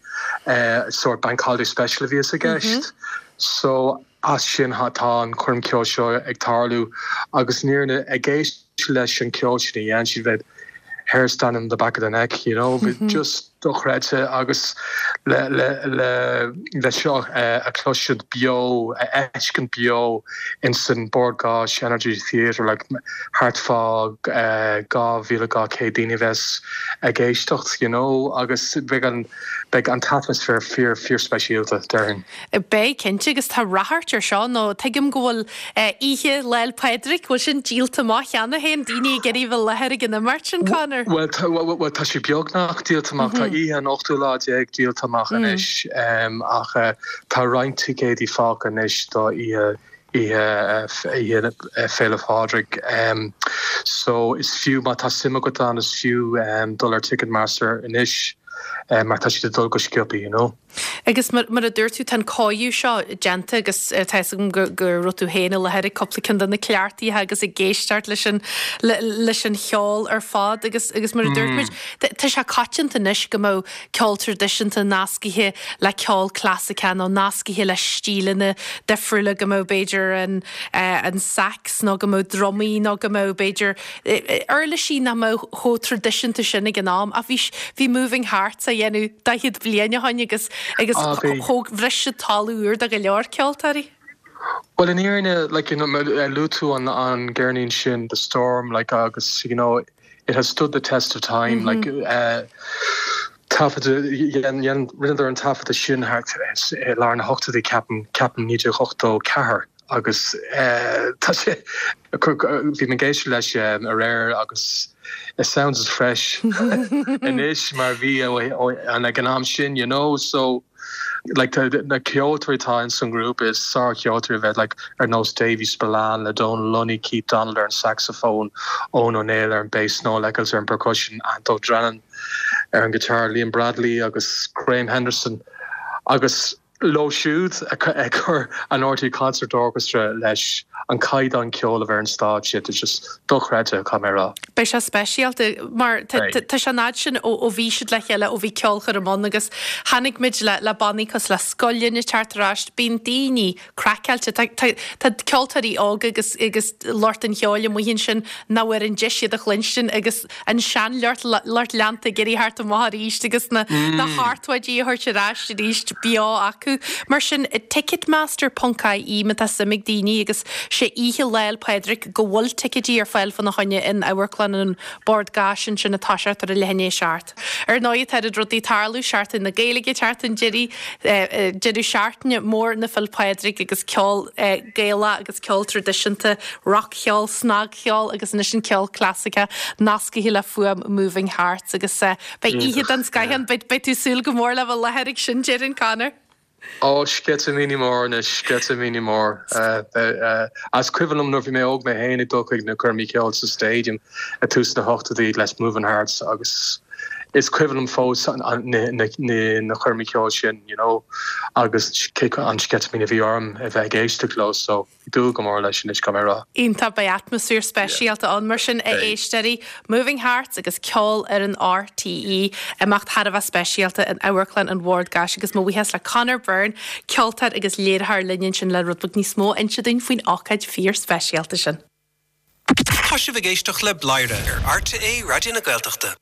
sórt Bank Holiday Special a bhíos i gceist. So as sin tá an choirm ceoil seo ag tarlú agus an fhírinne ag éisteacht leis an ceol sin a dhein siad bheadh hairs standing on the back of the neck, you know, just. dochreidte agus le le le le seo a chloisint beo, a fheiscint beo insan Bord Gáis Energy Theatre like thart fá 2,200 daoine a bheas ag éisteacht you know agus beidh an beidh an t-atmaisféar fíor fíor speisialta déarfainn. Beidh, cinnte, agus tá ráchairt ar seo nó tuigim go bhfuil oíche Lá 'le Pádraig, bhfuil sin díolta amach cheana féin, daoine ag iarraidh bheith i láthair ag an imeacht sin, Conor? Bhuel, bhuel tá sé beagnach díolta amach, tá oíche an ochtú lá déag díolta amach anois ach tá roinnt ticéidí fágtha anois do oíche oíche Féile Phádraig. So is fiú, má tá suim agat ann, is fiú dul ar Ticketmaster anois mar tá siad ag dul go sciobtha, you know. Agus mar a dúirt tú, tá an cóiriú seo déanta agus tá fhios agam go raibh tú féin i láthair ag cúpla ceann de na cleachtaithe agus ag éisteacht leis an leis an cheol ar fad agus agus mar a dúirt muid, tá sé coitianta anois go mbeadh ceol traidisiúnta nascaithe le ceol clasaiceach nó nascaithe le stíleanna difriúla, go mbeadh b'fhéidir an an sax nó go mbeadh drumaí nó go mbeadh b'fhéidir uirlisí nach mbeadh chomh traidisiúnta sin ag an am ach bhí bhí Moving Hearts á dhéanamh 40 bliain ó shoin agus agus Ah, bhí. thóg bhris siad talamh úr do go leor ceoltóirí. Bhuel in fhírinne like you know luaigh tú an an gceirnín sin The Storm like agus you know it has stood the test of time like eh taifeadadh dhein dhein rinneadar an taifeadadh sin thart i lár na hochtóidí ceapaim ceapaim 1984 agus tá sé, bhí mé ag éisteacht leis aréir agus it sounds as fresh anois mar a bhí ag an am sin, you know, so like na ceoltóirí atá ins an ngrúpa is sár-cheoltóirí a bheith like ar nós Davy Spillane le Donal Lunny, Keith Donald ar an saxophone, Eoin Ó Néill ar an bass, Noel Eccles ar an percussion, Anto Drennan ar an guitar, Liam Bradley agus Graham Henderson agus Leo siúd ag cur an RTÉ Concert Orchestra leis an caighdeán ceoil a bheidh ar an stáitse, it's just dochreidte, caithfidh mé a rá. Beidh sé speisialta mar tá sé an fhad sin ó bhí siad le chéile, ó bhí ceolchoirm ann agus chonaic muid le bannaí cosúil le Scoil Linn ag teacht ar ais, bíonn daoine craiceáilte, tá ceoltóirí óga agus agus lucht an cheoil amuigh ansin nach bhfuair an deis iad a chluinstin agus an seanlucht lucht leanta ag iarraidh theacht amach arís agus na seachtóidí a thabhairt ar ais arís beo acu. Mar sin, Ticketmaster ponc ie má tá suim ag daoine agus sé oíche Lá 'le Pádraig go bhfuil ticéidí ar fáil fána choinne in Amharclann an Bord Gáis ansin ag toiseacht ar a leath i ndiaidh a 7. Ar ndóigh tá oiread rudaí ag tarlú, Seachtain na Gaeilge ag teacht chun deiridh, deireadh seachtaine mór na Féile Pádraig agus ceol Gaelach agus ceol traidisiúnta, rac-cheol, snag. cheol agus anois an ceol clasaiceach nascaithe le fuaim Moving Hearts agus beidh oíche den scoith ann. Beidh tú ag súil go mór le bheith i láthair ag sin, déarfainn, Conor. Ó, sceitimíní mór anois, sceitimíní mór. Is cuimhin liom nuair a bhí mé óg mé féin ag dul chuig na coirmí ceoil sa Stadium ag tús na hochtóidí leis Moving Hearts agus is cuimhin liom fós na coirmí ceoil sin, you know, agus an sceitimíní a bhí orm a bheith ag éisteacht leo so. Ag dúil go mór leis anois, caithfidh mé a rá. Iontach, beidh atmaisféar speisialta ann mar sin, a éisteoirí. Moving Hearts agus ceol ar an RTÉ, imeacht thar a bheith speisialta in Amharclann an Bhord Gáis agus mo bhuíochas le Conor Byrne, ceoltóir agus léiritheoir linn ansin le rud beag níos mó a inse dúinn faoin ócáid fíor-speisialta sin. Tá sibh ag éisteacht le Bladhaire ar RTÉ Raidió na Gaeltachta.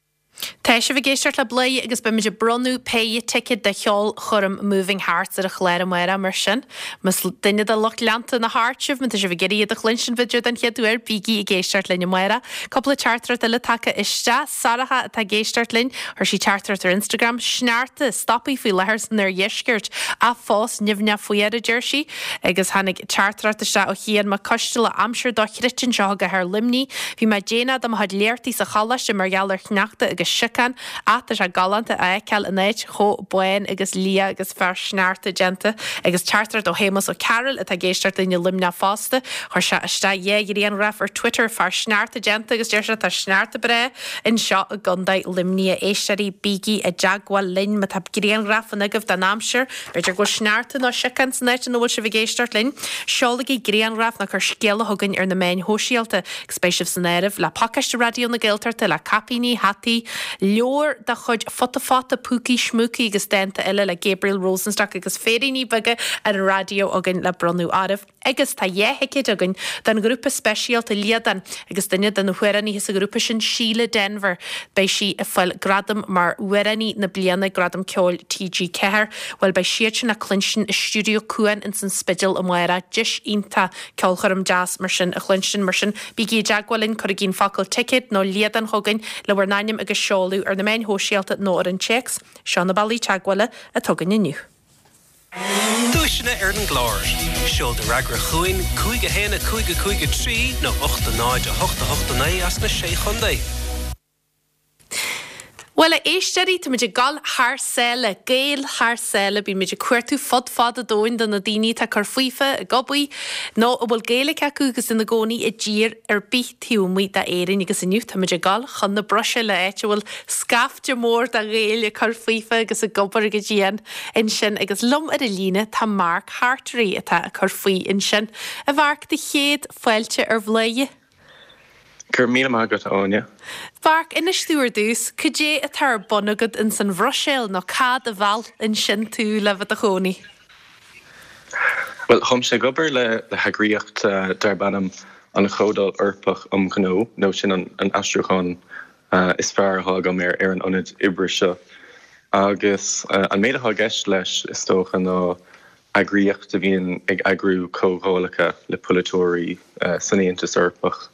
Tá sibh ag éisteacht le Bladhaire agus beimid ag bronnadh péire ticéad do cheolchoirm Moving Hearts ar an chlár amárach mar sin más duine de lucht leanta na Hearts sibh, má tá sibh ag iarraidh iad a chluinstin b'fhéidir den chéad uair, bígí ag éisteacht linn amárach. Cúpla teachtaireacht eile tagtha isteach. Sorcha atá ag éisteacht linn, chuir sí teachtaireacht ar Instagram, Sneachta, stoptha faoi láthair san oirdheisceart, ach fós nimhneach fuar, a deir sí. Agus tháinig teachtaireacht isteach ó Chian Mac Coisteala, aimsir dochreidte anseo i gcathair Luimnigh. Bhí mé déanach do mo chuid léachtaí sa choláiste mar gheall ar shneachta agus siocán, ach tá sé galánta a fheiceáil an áit chomh bán agus liath agus fear sneachta déanta. Agus teachtaireacht ó Shéamus Ó Cearúil atá ag éisteacht linn i Luimneach fosta. Chuir sé isteach dhá ghrianghraf ar Twitter, fear sneachta déanta agus deir sé tá sneachta breá anseo i gContae Luimnigh. A éisteoirí, bígí i dteagmháil linn má tá grianghrafanna agaibh den aimsir. B'fhéidir go bhfuil sneachta nó siocán san áit ina bhfuil sibh ag éisteacht linn. Seolaigí grianghraf nó cuir scéala chugainn ar na meáin shóisialta agus beidh sibh san áireamh le pacáiste Raidió na Gaeltachta le caipíní, hataí. Leabhar de chuid Futa Fata, Púcaí Smúcaí agus dánta eile le Gabriel Rosenstock agus Féiríní Beaga ar an Raidió againn le bronnadh oraibh. Agus tá 2 thicéad againn don ghrúpa speisialta Liadán agus duine de na hamhránaithe sa ghrúpa sin, Síle Denvir. Beidh sí ag fáil gradam mar Amhránaí na Bliana ag Gradaim Ceoil TG4. Bhuel, beidh siad sin le cluinstin i Stiúideo Cuan ins an Spidéal amárach. Deis iontach ceolchoirm deas mar sin a chluinstin. Mar sin, bígí i dteagmháil linn, cuirigí an focal 'ticéad' nó 'Liadán' chugainn le bhur n-ainm agus seoladh ar na meáin shóisialta nó ar an téacs. Seo na bealaí teagmhála atá againn inniu. Duaiseanna ar an gclár. Seol do fhreagra chugainn, 5 1 5 5 3 nó 8 0 8 8 9 as na Sé Chontae. Bhuel, a éisteoirí, táimid ag dul thar sáile, Gaeil thar sáile. Bímid ag cuartú fud fad an domhain do na daoine atá ag cur faofa, ag obair, nó a bhfuil Gaeilge acu agus ina gcónaí i dtír ar bith taobh amuigh d'Éirinn. Agus inniu táimid ag dul chun na Bruiséile, áit a bhfuil scaifte mór de Ghaeil ag cur faofa agus ag obair go dian ansin. Agus liom ar an líne tá Mark Hartery atá ag cur faoi ansin. A Mhark, do chéad fáilte ar Bhladhaire. Go raibh míle maith agat, a Áine. Mharc, inis domh ar dtús, cad é atá ar bun agat ins an Bhruiséil nó cad a mheall ansin tú le bheith i do chónaí? Bhuel, táimse ag obair le heagraíocht darb ainm an Chomhdháil Eorpach um Ghnó, nó sin an aistriúchán is fearr atá agam ar an ionad oibre seo. Agus an méid atá i gceist leis, is dócha, ná eagraíocht a bhíonn ag eagrú comhdhálacha le polaiteoirí san Aontas Eorpach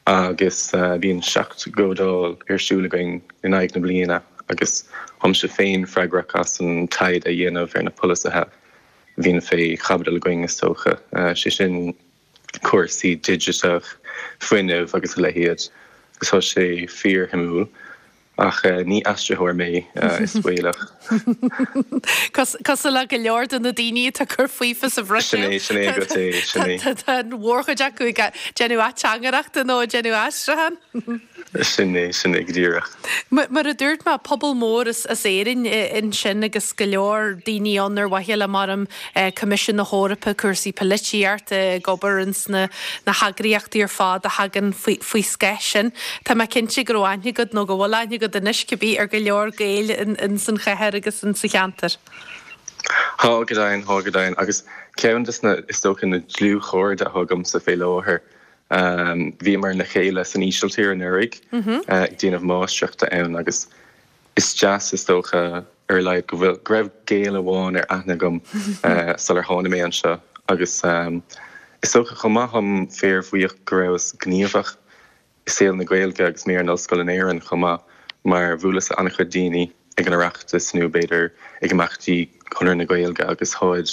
agus bíonn 7 gcomhdháil ar siúl againn in aghaidh na bliana agus táimse féin freagrach as an taighde a dhéanamh ar na polasaithe a bhíonn fé chaibidil againn, is dócha, sé sin cúrsaí digiteach, fuinneamh agus a leithéid agus tá sé fíorshuimiúil. Ach ní aistritheoir mé, is baolach. Cosúil le go leor de na daoine atá ag cur faofa sa Bhruiséil. Sin é, sin é agat é, sin é. Tá an mhórchuid acu ag déanamh ateangaireachta nó ag déanamh aistriúcháin. Sin é, sin é go díreach. Mar a dúirt mé, pobal mór as Éirinn ansin agus go leor daoine ann ar mhaithe le mar Coimisiún na hEorpa, cúrsaí polaitíochta, ag obair ins na heagraíochtaí ar fad a thagann faoi scáth sin. Tá mé cinnte go raibh aithne agat, nó go bhfuil aithne agat anois cibé, ar go leor Gaeil ins an chathair agus ins an cheantar. Tá go deimhin, tá go deimhin. Agus ceann de na, is dócha, na dlúthchairde atá agamsa fé láthair, bhíomar le chéile san Ísiltír anuraidh ag déanamh máistreachta ann agus Is deas, is dócha, ar a laghad, go bhfuil, go raibh Gael amháin ar aithne agam sular tháinig mé anseo agus is dócha chomh maith táim fíorbhuíoch go rabhas gníomhach i saol na Gaeilge agus mé ar an ollscoil in Éirinn chomh maith mar bhuaileas le an-chuid daoine ag an Oireachtas nó b'fhéidir ag imeachtaí Chonradh na Gaeilge agus táid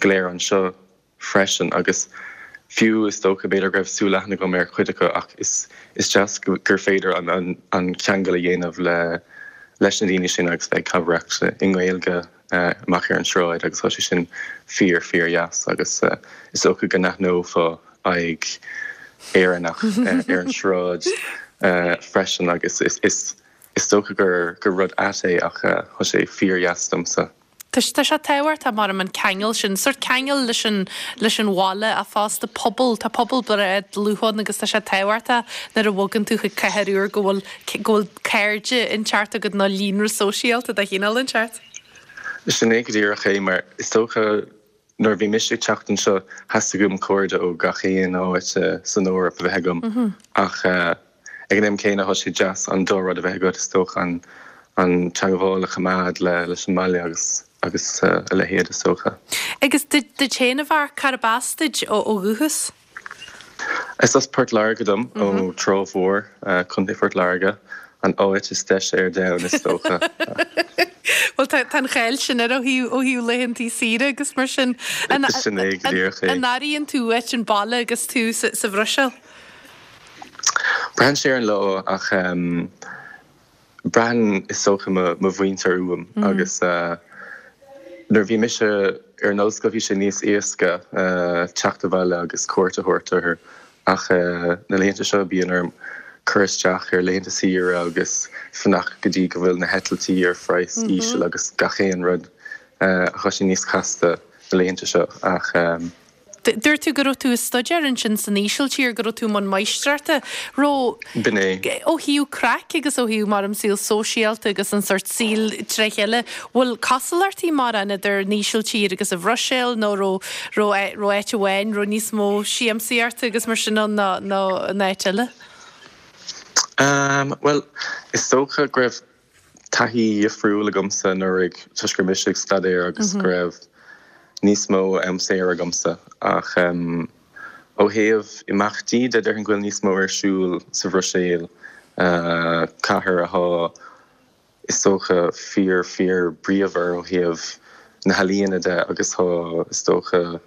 go léir anseo freisin agus fiú is dócha b'fhéidir go raibh súil-aithne agam ar chuid acu ach is is deas gur féidir an an ceangal a dhéanamh le leis na daoine sin agus bheith ag cabaireacht i nGaeilge amach ar an sráid agus tá sé sin fíor fíor dheas agus is dócha go n-aithneofá aghaidh Éireannach ar an sráid freisin agus is is is dócha gur gur rud ait é ach tá sé fíor dheas domsa. Tá sé tábhachtach mar an ceangal sin, sórt ceangal leis an, leis an bhaile ach fosta pobal, tá pobal breá dlúth ann agus tá sé tábhachtach nuair a bhogann tú chuig cathair úr go bhfuil, go bhfuil cairde inteacht agat nó líonra sóisialta de chineál inteacht. Sin é go díreach é mar is dócha Nuair a bhí mise ag teacht anseo, theastaigh uaim cairde ó gach aon áit san Eoraip a bheith agam. Ach ag an am céanna, tá sé deas an dá rud a bheith agat, is dócha, an an teagmháil a choimeád leis an mbaile agus agus a leithéid, is dócha. Agus duit féin, a Mharc, cárb as duit ó dhúchas? Is as Port Láirge dom, ó Trá Mhór, Contae Phort Láirge, an áit is deise ar domhan, is dócha. Bhuel, tá an cháil sin air ó thaobh ó thaobh laethantaí saoire agus mar sin. Sin é go díreach é. An airíonn tú uait an baile agus tú sa Bhruiséil? Braitheann sé ar an lá ach Braitheann, is dócha, mo mhuintir uaim agus nuair a bhí mise ar an ollscoil bhí sé níos éasca teacht abhaile agus cuairt a thabhairt orthu ach na laethanta seo bíonn orm cur isteach ar laethanta saoire agus fanacht go dtí go bhfuil na heitiltí ar phraghas íseal agus gach aon rud. Tá sé níos casta na laethanta seo ach. Dúirt tú go raibh tú ag staidéar ansin san Ísiltír, go raibh tú i mbun máistreachta. Raibh. B'in é. Ó thaobh craic agus ó thaobh mar an saol sóisialta agus an sórt saoil tré chéile, bhfuil cosúlachtaí mórán idir an Ísiltír agus an Bhruiséil nó raibh, raibh, raibh áit amháin, raibh níos mó siamsaíochta agus mar sin ann ná, ná an áit eile? Bhuel, is dócha go raibh taithí dhifriúil agamsa anuraidh toisc go raibh mise ag staidéar agus go raibh níos mó am saor agamsa ach ó thaobh imeachtaí de déarfainn go bhfuil níos mó ar siúl sa Bhruiséil, cathair athá is dócha fíor fíor bríomhar ó thaobh na healaíona de agus tá is dócha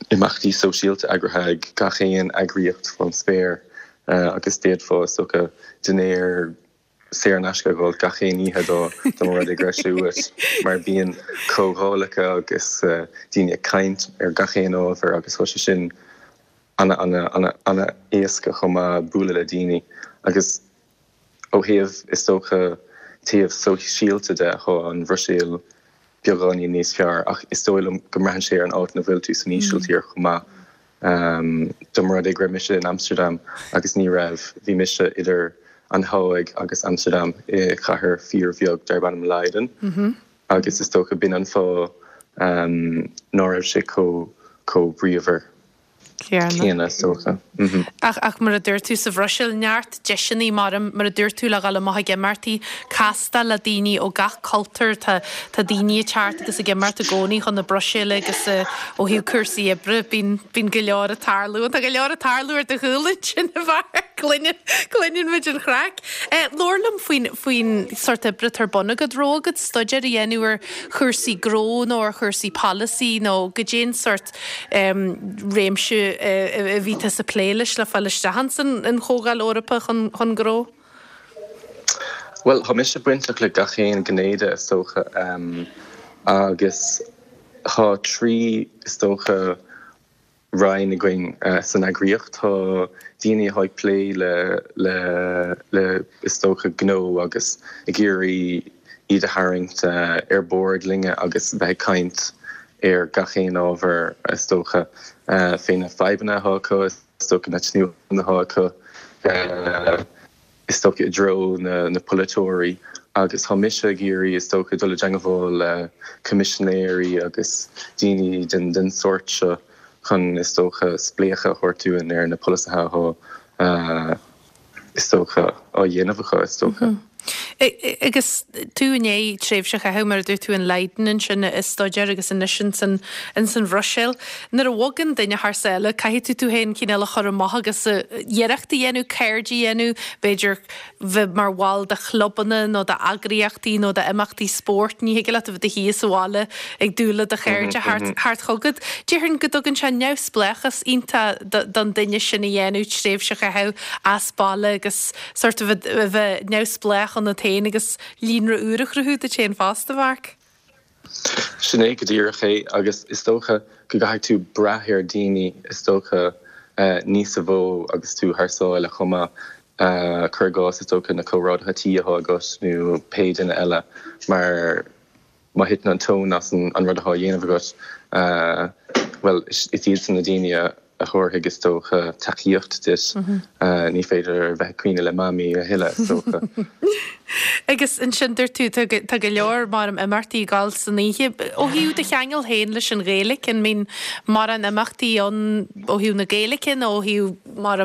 imeachtaí sóisialta eagraithe ag gach aon eagraíocht fán spéir agus d'fhéadfá is dócha dinnéar saor in aisce a dhul gach aon oíche dá mba rud é go raibh sé uait mar bíonn comhdhálacha agus daoine ag caint ar gach aon ábhar agus tá sé sin ana ana ana ana éasca chomh maith bualadh le daoine agus ó thaobh is dócha taobh sóisialta de tá an Bhruiséil beagáinín níos fearr ach is dóigh liom go mbraitheann sé ar an áit ina bhfuil tú san Ísiltír chomh maith. Dá mba rud é go raibh mise in Amsterdam agus ní raibh, bhí mise idir an Háig agus Amsterdam i chathair fíorbheag darb ainm Leiden agus is dócha b'in an fáth ná raibh sé chomh bríomhar céanna is dócha. Ach, ach mar a dúirt tú, sa Bhruiséil, neart deiseanna mar, mar a dúirt tú, le dhul amach ag imeachtaí, castáil le daoine ó gach cultúr, tá, tá daoine ag teacht agus ag imeacht i gcónaí chun na Bruiséile agus ó thaobh cúrsaí oibre, bíonn, bíonn go leor ag tarlú. Tá go leor ag tarlú ar do chúl ansin, a Mharc, cluineann, cluineann muid an chraic. Labhair liom faoin, faoin sórt oibre atá ar bun agat, raibh agat staidéar a dhéanamh ar chúrsaí gnó nó ar chúrsaí polasaí nó goidé an sórt réimse a bhí tusa ag plé leis le fáil isteach ins an Chomhdháil Eorpach chun Gnó? Bhuel, tá mise bainteach le gach aon ghné de, is dócha, agus tá 3, is dócha, roinn againn san eagraíocht. Tá daoine atá ag plé le, le, le, is dócha, gnó agus ag iarraidh iad a tharraingt ar bord linne agus bheith ag caint ar gach aon ábhar, is dócha, fé na fadhbanna atá acu, is dócha, na tnúthanna atá acu, is dócha, i dtreo na polaiteoirí. Agus tá mise ag iarraidh, is dócha, dul i dteangmháil le coimisinéirí agus daoine den sórt seo chun, is dócha, spléachadh a thabhairt dúinn ar na polasaithe atá is dócha, á dhéanamh acu, is dócha. Agus tú i ndiaidh tréimhse a chaitheamh, mar a dúirt tú, in Leiden ansin ag staidéar agus anois ins an Bhruiséil. Nuair a bhogann duine thar sáile, caithfidh tú tú féin cineál a chur amach agus iarracht a dhéanamh, cairde a dhéanamh, b'fhéidir bheith mar bhall de chlubanna nó d'eagraíochtaí nó d'imeachtaí spóirt. Ní thig leat a bheith i do shuí sa bhaile ag dúil le do chairde theacht chugat. Déarfainn go dtugann sé neamhspleáchas iontach don duine sin a dhéanamh, tréimhse a chaitheamh as baile agus sort of a bheith neamhspleách ionat féin agus líonra úr a chruthú duit féin fosta, Mharc. Sin é go díreach é agus is dócha go gcaithfidh tú brath ar daoine is dócha níos mó agus tú thar sáile chomh maith. Cuir i gcás is dócha na comrádaithe tí atá agat nó pé duine eile mar má thiteann an tóin as an rud atá á dhéanamh agat, bhuel, is iadsan na daoine a thabharfaidh, is dócha, tacaíocht duit. Ní féidir a bheith ag caoineadh le Mamaí a thuilleadh, is dócha. Agus ansin, dúirt tú, tá go leor mar imeachtaí ag gabháil san oíche. Ó thaobh do cheangal féin leis an Ghaeilge, an mbíonn mórán imeachtaí ann ó thaobh na Gaeilge nó ó thaobh mar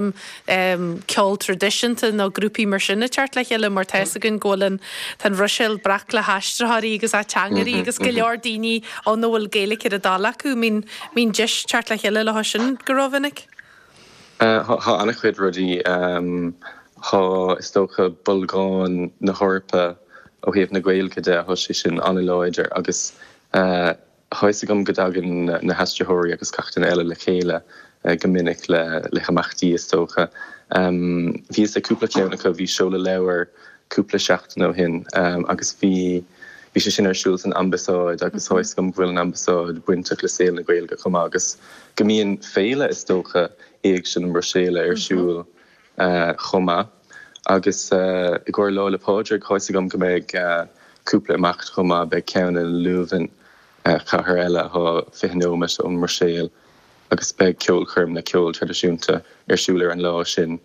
ceol traidisiúnta nó grúpaí mar sin ag teacht le chéile mar tá fhios againn go bhfuil an, tá an Bhruiséil breac le haistritheoirí agus ateangairí agus go leor daoine ann a bhfuil Gaeilge ar a dtoil acu. Mbíonn, mbíonn deis teacht le chéile leo sin go rómhinic? Tá an-chuid rudaí. Tá, is dócha, bolgán na hEorpa ó thaobh na Gaeilge de, tá sé sin an-láidir agus Tá fhios agam go dtagann na haistritheoirí agus gach duine eile le chéile go minic le himeachtaí, is dócha. Bhíos ag cúpla ceann acu, bhí seoladh leabhair cúpla seachtain ó shin agus bhí bhí sé sin ar siúl san Ambasáid agus tá fhios agam go bhfuil an Ambasáid bainteach le saol na Gaeilge chomh maith agus go mbíonn féile, is dócha, Éigse na Bruiséile ar siúl chomh maith. Agus i gcomhair Lá 'le Pádraig, tá fhios agam go mbeidh cúpla imeacht chomh maith, beidh ceann i Leuven, cathair eile atá 20 nóiméad ón mBruiséil. agus beidh ceolchoirm le ceol traidisiúnta ar siúl ar an lá sin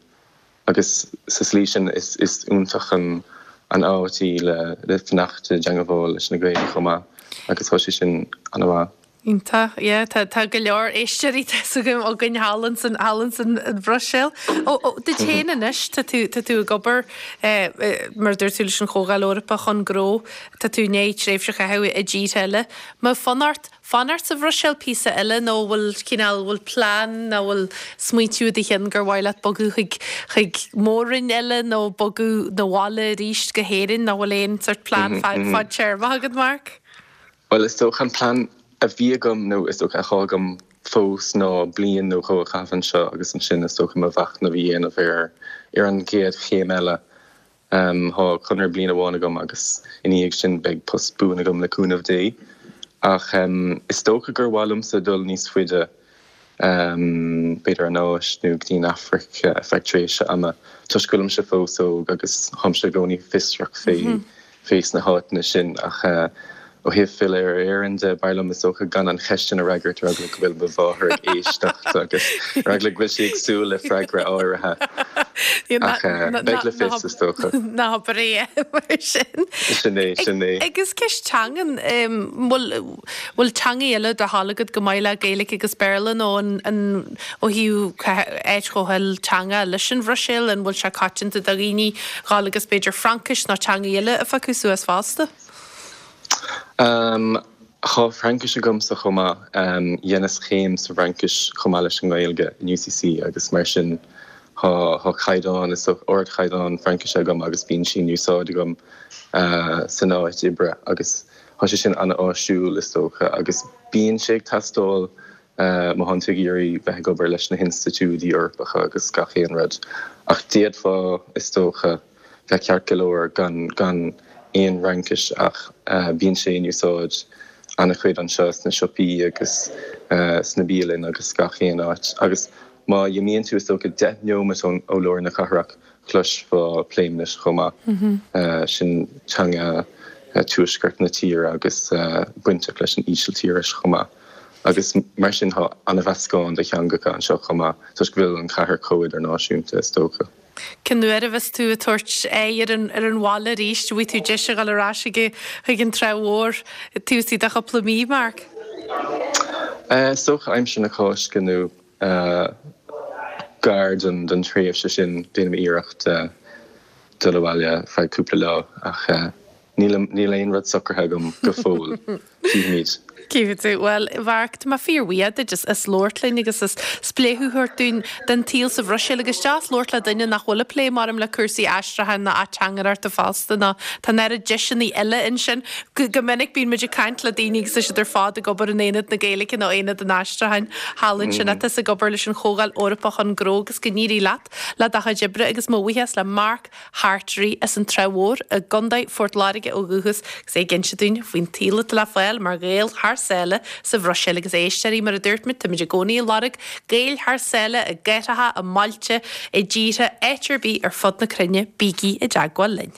agus sa slí sin is iontach an áit í le fanacht i dteangabháil leis na Gaeil chomh maith agus tá sé sin ana-mhaith. Iontach, yeah, tá tá go leor éisteoirí tá 'fhios agam againn thall ansan thall ansan an Bhruiséil. Ó ó duit féin anois, tá tú tá tú ag obair eh mar a dúirt tú leis an Chomhdháil Eorpach chun Gnó, tá tú i ndiaidh tréimhse a chaitheamh i dtíortha eile. Mbeadh fonn ort fanacht sa Bhruiséil píosa eile nó bhfuil cineál bhfuil plean nó bhfuil smaointiú i do chionn gur mhaith leat bogadh chuig chuig mór-roinn eile nó bogadh 'na bhaile arís go hÉirinn nó bhfuil aon sort plean fadtéarmach agat Mark? Bhuel is dócha an plean a bhí agam nó is dócha atá agam fós ná bliain nó dhó a chaitheamh anseo agus ansin is dócha mo mhachnamh a dhéanamh ar ar an gcéad chéim eile. Tá conradh bliain amháin agam agus ina dhiaidh sin beidh post buan agam le cúnamh Dé. Ach is dócha gur mhaith liomsa dul níos faide, b'fhéidir an Áis nó go dtí an Afraic ar feadh tréimhse ama, toisc go bhfuilimse fós óg agus táimse i gcónaí fiosrach fé fé sna háiteanna sin. Ach ó thaobh filleadh ar Éirinn de, b'fhearr liom is dócha gan an cheist sin a fhreagairt ar eagla go bhfuil mo mháthair ag éisteacht agus ar eagla go bhfuil sí ag súil le freagra áirithe. Ach beidh le fios is dócha. Ná habair é mar sin. Sin é, sin é. Agus ceist teangan, bhfuil bhfuil teangaí eile do thoil agat chomh maith le Gaeilge agus Béarla nó an an ó thaobh áit chomh hilteangach leis an Bhruiséil, an bhfuil sé coitianta do dhaoine dhul agus b'fhéidir Fraincis nó teangaí eile a phiocadh suas fosta? Tá Fraincis agamsa chomh maith. Dheineas céim sa bhFraincis chomh maith leis an nGaeilge in UCC agus mar sin tá caighdeán, is dócha, ardchaighdeán Fraincise agam agus bíonn sí in úsáid agam san áit oibre agus tá sé sin an-áisiúil is dócha agus bíonn sé ag teastáil má thánn tú ag iarraidh bheith ag obair leis na hinstitiúidí Eorpacha agus gach aon rud. Ach d'fhéadfá, is dócha, bheith ceart go leor gan gan aon Fhraincis ach bíonn sé in úsáid an-chuid anseo sna siopaí agus sna bialanna agus gach aon áit. Agus má imíonn tú is dócha 10 neomat ó lár na cathrach chloisfeá Pléimnis chomh maith. Sin teanga tuaisceart na tíre agus bainteach leis an Ísiltíris chomh maith. Agus mar sin tá an-mheascán de theangacha anseo chomh maith toisc go bhfuil an chathair chomh idirnáisiúnta is dócha. Cén uair a bheas tú ag tabhairt aghaidh ar an ar an bhaile arís? An bhfaighidh tú deis a dhul ar ais chuig chuig an Trá Mhór taobh istigh de chúpla mí, Mark? Is dócha aimsir na Cásca nó gar don don tréimhse sin déanaim iarracht dul abhaile ar feadh cúpla lá ach níl níl aon rud socraithe agam go fóill. Cífimid. Cífidh tú. Bhuel, a Mharc, tá mé fíorbhuíoch duit as labhairt linn agus as spléachadh a thabhairt dúinn den tsaol sa Bhruiséil agus deas labhairt le duine nach bhfuil ag plé maram le cúrsaí aistriúcháin ná ateangaireachta fosta nó tá an oiread deiseanna eile ansin. Go minic bíonn muid ag caint le daoine agus tá siad ar fad ag obair in Aonad na Gaeilge nó Aonad an Aistriúcháin thall ansin ach tusa ag obair leis an Chomhdháil Eorpach chun Gnó agus go n-éirí leat le do chuid oibre agus mo bhuíochas le Mark Hartery as an Trá Mhór i gContae Phort Láirge ó dhúchas agus é ag inse dúinn faoin tsaol atá le fáil mar Ghael thar sáile sa Bhruiséil agus a éisteoirí mar a dúirt muid táimid i gcónaí ag lorg Gaeil thar sáile i gcathracha, i mbailte, i dtíortha, áit ar bith ar fud na cruinne, bígí i dteagmháil linn.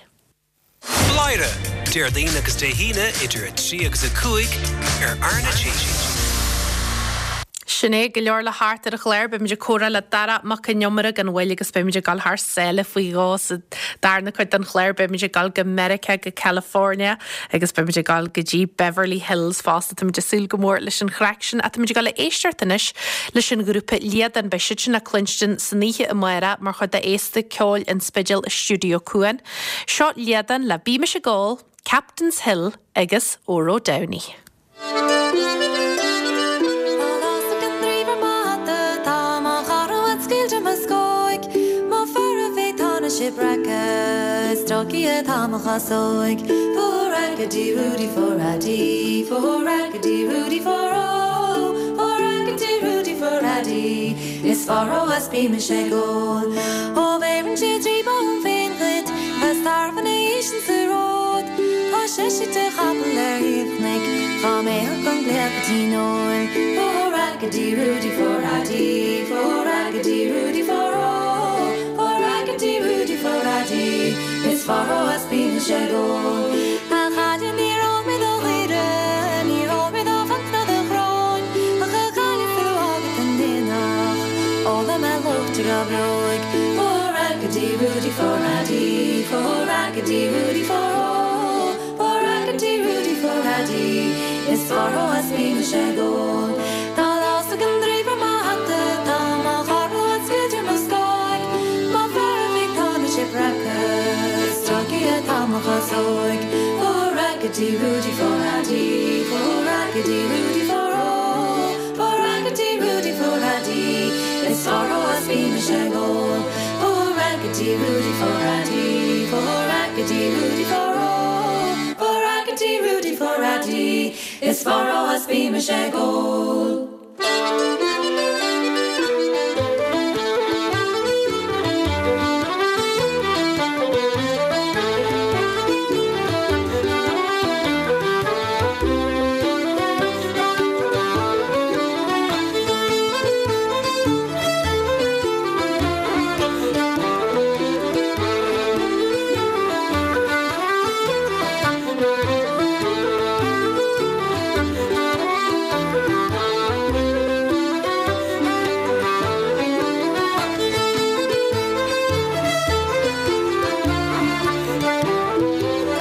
Bladhaire, Déardaoin agus Dé hAoine idir 3 agus 5 ar RnaG. Sin é, go leor le theacht ar an chlár. Beimid ag comhrá le Darach Mac Con Iomaire gan mhoill agus beimid ag dul thar sáile faoi dhó sa darna cuid den chlár. Beimid ag dul go Meiriceá, go California agus beimid ag dul go dtí Beverly Hills fosta. Táimid ag súil go mór leis an chraic sin. Ach táimid ag dul a éisteacht anois leis an ghrúpa Líadan. Beidh siad sin le cluinstin san oíche amárach mar chuid de Fhéasta Ceoil an Spidéil i Stiúideo Cuan. Seo Líadan le Bímis ag Ól, Captain's Hill agus Óró Downey. Tá lasadh den draoibh ar mo hata, tá mo chara uait scaoilte mo scóig, Mo fear a bhí tá na sé breaca, is tolgtha atá mo chasóig. For raggedy Rudy for Addy, for raggedy Rudy for O, for raggedy Rudy for Addy, is faro as bímis ag ól. Ó bheireann sé draoibh orm féin dhuit, bheas tarbh ina dhiaidh sin sa ród. Tá seisear de chapaill ar thaobh chnoic, dhá mbeadh an glaoch go dtí Noel. For Raggedy Rudy for Addy, for Raggedy Rudy for O, for Raggedy Rudy for Addy, is faro as bímis ag ól. A chailín níor ól mé do dhaoire, níor ól mé do phunt ná do choróin, ach a chailín sula bhfága tú. bhfáilte go breoigh. For Raggedy Rudy for Addy, for Raggedy Rudy for oh, for Raggedy Rudy for Addy, is fearr ó is bím mise ag ól. Tá lá ag an draoi ar mo hata, tá mo chara ag sciúradh mo scáil, mo fear a bhí tá na sé breactha, stráice atá mo chasóig. For Raggedy Rudy for Addy, for Raggedy Rudy for oh, for Raggedy Rudy for Addy, is fearr ó is bím mise ag ól. For Raggedy Rudy for Addy, for Raggedy Rudy for oh, for Raggedy Rudy for Addy, is fearr ó is bím mise ag ól.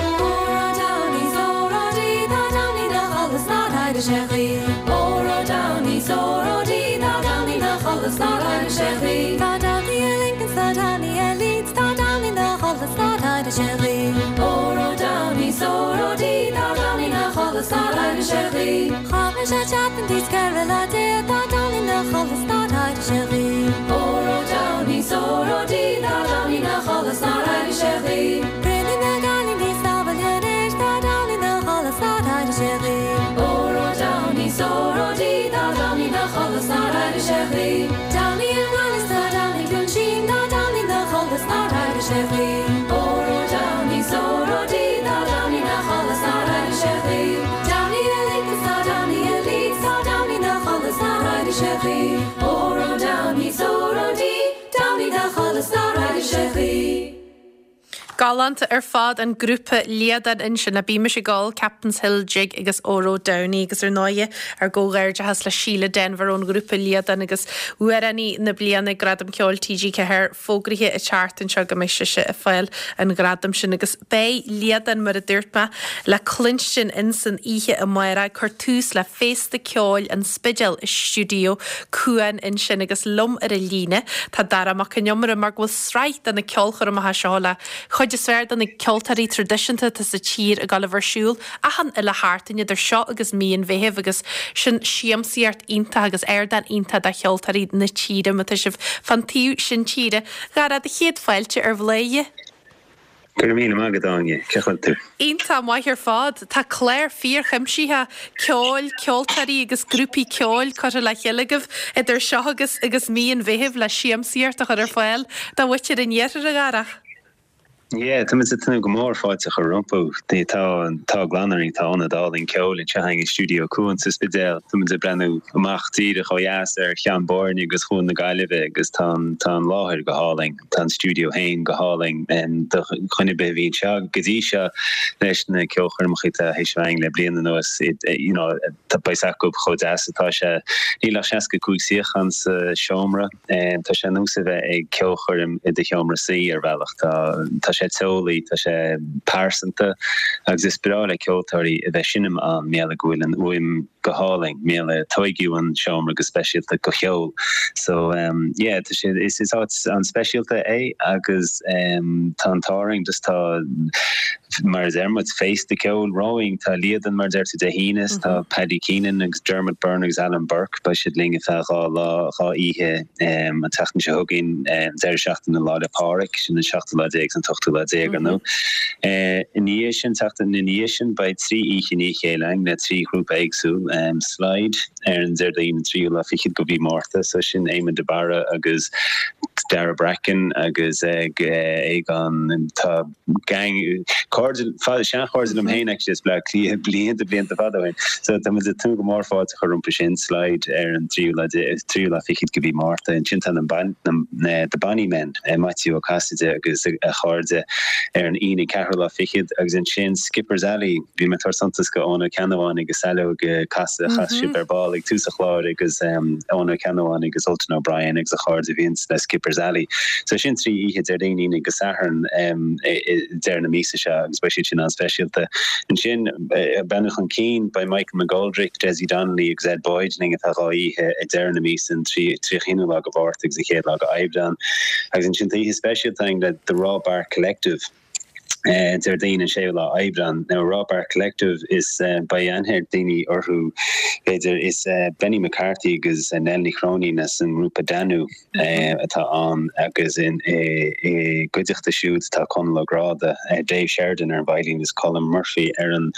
Óró Downey 's óró Dee tá Downey 'na chodladh 's nár éirigh sé choíche. Óró Downey 's óró Dee tá Downey 'na chodladh 's nár éirigh sé choíche. Tá Downey i Lincoln 's tá Downey i Leeds tá Downey 'na chodladh 's nár éirigh sé choíche. Óró Downey 's óró Dee tá Downey 'na chodladh 's nár éirigh sé choíche. Chaith mise seachtain dtí 14 lá tá Downey 'na chodladh 's nár éirigh sé choíche. Óró Downey 's óró Dee tá Downey 'na chodladh 's nár éirigh sé choíche. Cruinnigh na gcailíní sa bhaile anois tá Downey 'na chodladh 's nár éirigh sé choíche. Óró Downey 's óró Dee tá Downey 'na chodladh 's nár éirigh sé choíche. Downey i nGaillimh 's tá Downey Cluain Sín tá Downey 'na chodladh 's nár éirigh sé choíche. Óró Downey 's óró Dee tá Downey 'na chodladh 's nár éirigh sé choíche. Downey i Lincoln 's tá Downey i Leeds tá Downey 'na chodladh 's nár éirigh sé choíche. Óró Downey 's óró Dee Downey 'na chodladh 's nár éirigh sé choíche. Galánta ar fad an grúpa Liadán ansin le Bímis ag Ól, Captain's Hill Jig agus Óró Downey agus ar ndóighe ár gcomhghairdeachas le Síle Denvir ón ghrúpa Liadán agus Amhránaí na Bliana ag Gradaim Ceoil TG4 fógraithe an tseachtain seo go mbeidh sise ag fáil an ghradaim sin agus beidh Liadán mar a dúirt mé le cluinstin insan oíche amárach ag cur tús le Féasta Ceoil an Spidéil i Stiúideo Cuan ansin agus liom ar an líne tá Darach Mac Con Iomaire mar go bhfuil sraith de na ceolchoirmeacha seo le chuid is fearr de na ceoltóirí traidisiúnta atá sa tír ag dul a bheith ar siúl achan uile sheachtain idir seo agus mí an Mheithimh agus sin siamsaíocht iontach agus ardán iontach do cheoltóirí na tíre má tá sibh fán taobh sin tíre. A Dharach, do chéad fáilte ar Bhladhaire. Go raibh míle maith agat, Áine. Cén chaoi a bhfuil tú? Iontach maith ar fad. Tá clár fíorchuimsitheach ceoil, ceoltóirí agus grúpaí ceoil curtha le chéile agaibh idir seo agus agus mí an Mheithimh le siamsaíocht a chur ar fáil do mhuintir an iarthair, a Dharach. Yeah, tá muid ag tnúth go mór fáilte a chur rompu. Tá an t-ádh glan orainn, tá ionad álainn ceoil anseo againn i Stiúideo Cuan sa Spidéal. Tá muid ag breathnú amach díreach ó dheas ar Cheann Boirne agus Chuan na Gaillimhe agus tá an tá an láthair go hálainn. Tá an stiúideo féin go hálainn. Do dhuine ar bith a bhí anseo go dtí seo leis na ceolchoirmeacha atá théis a bheith againn le bliain anuas, you know, tá beidh a fhios acu chomh deas atá sé. Níl ach 65 suíochán sa seomra. Tá sé ar nós a bheith ag ceolchoirm i do sheomra suí ar bhealach. Tá tá sé teolaí, tá sé pearsanta agus is breá le ceoltóirí a bheith ag seinm ann, mar gheall go bhfuil an fhuaim go hálainn, mar gheall tóigeadh an seomra go speisialta do cheol. So yeah, tá sé, is is áit an-speisialta é agus tá an t-ádh orainn just tá, mar a deir muid, féasta ceoil romhainn. Tá Líadan, mar a deir tú, Dé hAoine, is tá Paddy Keenan agus Dermot Byrne agus Alan Burke, beidh siad linn ar feadh 2 lá, 2 oíche an tseachtain seo chugainn, an deireadh seachtaine Lá 'le Pádraig, sin an seachtú lá déag is an t-ochtú lá déag, ar ndóigh. Ina dhiaidh sin, tseachtain ina dhiaidh sin, beidh 3 oíche i ndiaidh a chéile againn le 3 ghrúpa éagsúil, Slide ar an Déardaoin an tríú lá fichead de mhí Márta, so sin Éamon de Barra agus Dara Bracken agus Aogán, tá gang, cairde, seanchairde liom féin actually as Bleá Cliath blianta, blianta fada ó shin. So tá muid ag tnúth go mór fáilte a chur rompu sin, Slide ar an tríú lá, tríú lá fichead de mhí Márta. Ansin tá na The Bonny Men, Maitiú Ó Casaide agus a chairde ar an Aoine ceathrú lá fichead agus ansin Skipper's Alley, bhí mé ag tabhairt suntas go Eoin Ó Ceannabháin agus Saileog. chas chas sibh ar ball ag tús an chláir agus Eoin Ó Ceannabháin agus Ultan O'Brien agus a chairde a bhíonns le Skipper's Alley. So sin 3 oíche, Déardaoin, Aoine agus Satharn i deireadh na míosa seo agus beidh siad sin an-speisialta. Ansin, ag breathnú chun cinn, beidh Michael McGoldrick, Dessie Donnelly agus Ed Boyd linn atá 2 oíche ag deireadh na míosa, an 31ú lá de Mhárta agus an chéad lá de Aibreán. Agus ansin tá oíche speisialta againn le The Raw Bark Collective. Déardaoin an 6ú lá Aibreán. Now Raw Bark Collective is beidh aithne ag daoine orthu b'fhéidir. Is Benny McCarthy agus Nell Ní Chróinín as an ngrúpa Danú atá ann agus ina gcuideachta siúd tá Conall Ó Gráda, Dave Sheridan ar an veidhlín agus Colm Murphy ar an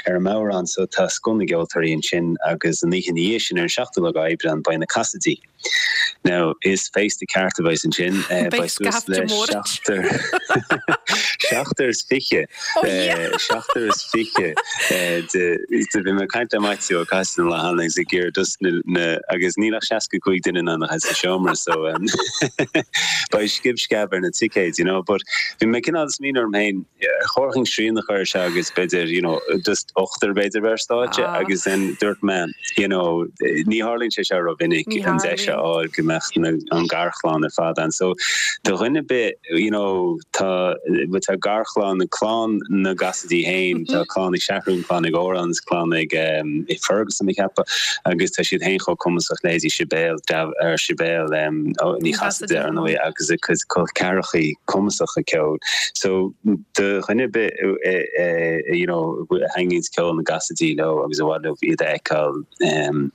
ar an mbodhrán. So tá scoth na gceoltóirí ansin agus an oíche ina dhiaidh sin ar an 7ú lá Aibreán beidh na Cassadys. Now, is féasta ceart a bheas ansin. Beidh scaifte mór ansin. Seachtar is fiche. Seachtar is fiche de bhí mé ag caint le Maitiú Ó Casaide an lá cheana agus ag iarraidh just na agus níl ach 65 duine in ann a bheith sa seomra so beidh scib sceab ar na ticéid, you know. But bhí mé cineál ag smaoineamh orm féin, ar chóir dhúinn srian a chur air seo agus b'fhéidir, you know, just ochtar b'fhéidir bheith ar stáitse agus then dúirt mé, you know, ní tharlaíonn sé seo rómhinic, an deis a fháil go mbeadh na, an garchlann ar fad ann. So, do dhuine ar bith, you know, tá, bhuel tá garchlann, clann na gCassidy féin, tá clann ag Seathrún, clann ag Órán is clann ag eh, Fergus tá mé ag ceapadh, agus tá siad féin chomh cumasach leithéidí Sibéal, ar Sibéal em, Ní Chasaide ar ndóigh agus a cuid col ceathrachaí cumasacha ceoil. So, do dhuine ar bith you know a thaitníonns ceol na gCassidy leo agus ar mhaith leo iad a fheiceáil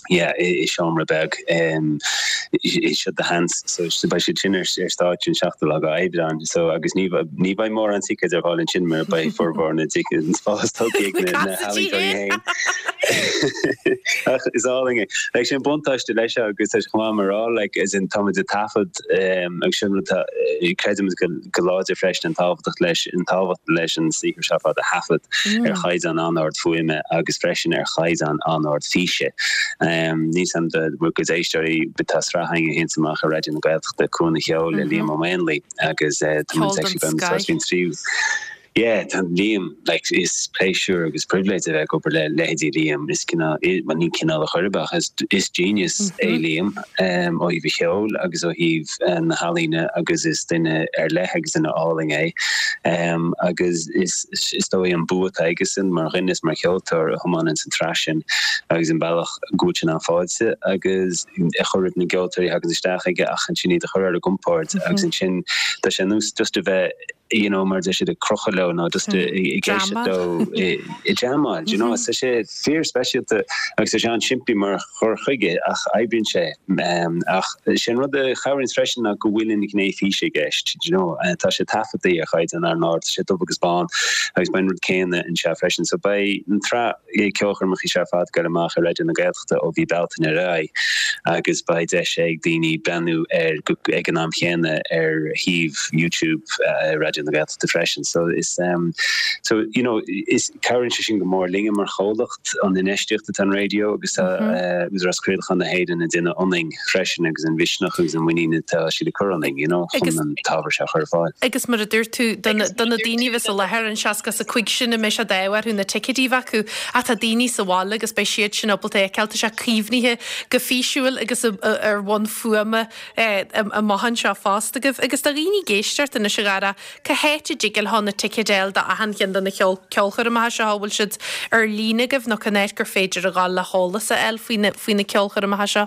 yeah i seomra beag seo do sheans. So beidh siad sin ar stáitse an seachtú lá d'Aibreán. So agus ní ní bheidh mórán ticéid ar fáil ansin mar beidh formhór na dticéad an spás tógtha ag na na healaíontóirí féin. Ach is álainn é. Like sin buntáiste leis seo agus tá sé chomh maith mar rá like as in táimid ag taifead Agus sin rud atá, creidimid go láidir freisin an tábhachtach leis, an tábhacht leis an saothar seo ar fad a thaifead ar chaighdeán an-ard fuaime agus freisin ar chaighdeán an-ard físe. Níl 'fhios a'm do bhur gcuid éisteoirí, tá sraith againn a théanns amach ar Raidió na Gaeltachta, Cuan an Cheoil le Liam Ó Maonlaí agus tá muid actually beimid ag Yeah, tá Liam, like, is pléisiúr agus pribhléid a bheith ag obair le leithéidí Liam, is cineál, bhuel ní cineál a chor ar bith ach is, is genius é Liam ó thaobh a cheoil agus ó thaobh na healaíne agus is duine ar leith agus duine álainn é. Agus is, is dóigh an bua atá aigesan mar dhuine is mar cheoltóir a thiomáineann an tsraith sin agus an bealach go bhfuil sé in ann fáilte agus a chur roimh na gceoltóirí a thagann isteach aige ach ansin iad a chur ar a gcompord agus ansin tá sé ar nós just a bheith you know, mar a deir siad ag crochadh leo nó just ag éisteacht leo ag jamáil, you know, tá sé fíor speisialta agus tá sé an-simplí mar chur chuige ach oibríonn sé. Ach sé an rud a chabhraíonn freisin ná go bhfuil an ghné físe i gceist, you know, tá sé taifeadta ar chaighdeán an-ard, tá sé dubh agus bán agus beidh an rud céanna anseo freisin. So beidh an tsraith ceolchoirmeacha seo ar fad ag goil amach ar Raidió na Gaeltachta ó mhí Bealtaine ar aghaidh agus beidh deis ag daoine breathnú air ag an am chéanna ar shuíomh YouTube Raidió na Gaeltachta freisin. So is so you know is cabhraíonn sé sin go mór linne mar chomhlacht an infheistíocht atá an raidió agus tá Údarás Craolacháin na hÉireann ag déanamh ionainn freisin agus an mhisneach agus an mhuinín atá siad ag cur ionainn you know chun an t-ábhar seo a chur ar fáil. Agus mar a dúirt tú, do na daoine a bheas i láthair, an 65 sin a mbeidh sé d'ádh orthu na ticéidí a bheith acu, ach tá daoine sa bhaile agus beidh siad sin ábalta é a fheiceáil, tá sé caomhnaithe go físiúil agus ar bhonn fuaime amach anseo fosta agaibh. Agus do dhaoine ag éisteacht anois a Dhara, cá háit a dtig leo na ticéid a fháil do achan cheann de na ceolchoirmeacha seo, an bhfuil siad ar líne agaibh nó cén áit gur féidir a ghabháil le heolas a fháil faoi na ceolchoirmeacha seo?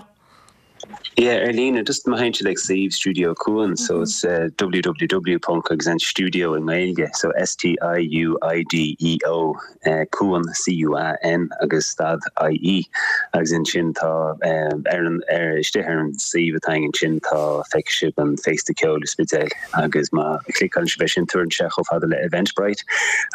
Yeah, ar líne, just má théann siad ag suíomh Stiúideo Cuan, so it's www ponc agus an stiúideo i nGaeilge, so S-T-I-U-I-D-E-O Cuan, C-U-A-N agus stad I-E agus ansin tá ar an, ar, istigh ar an suíomh atá againn ansin tá, feicfidh sibh an Féasta Ceoil i Spidéal. Agus má chliceálann sibh air sin tabharann sé chomh fada le Eventbrite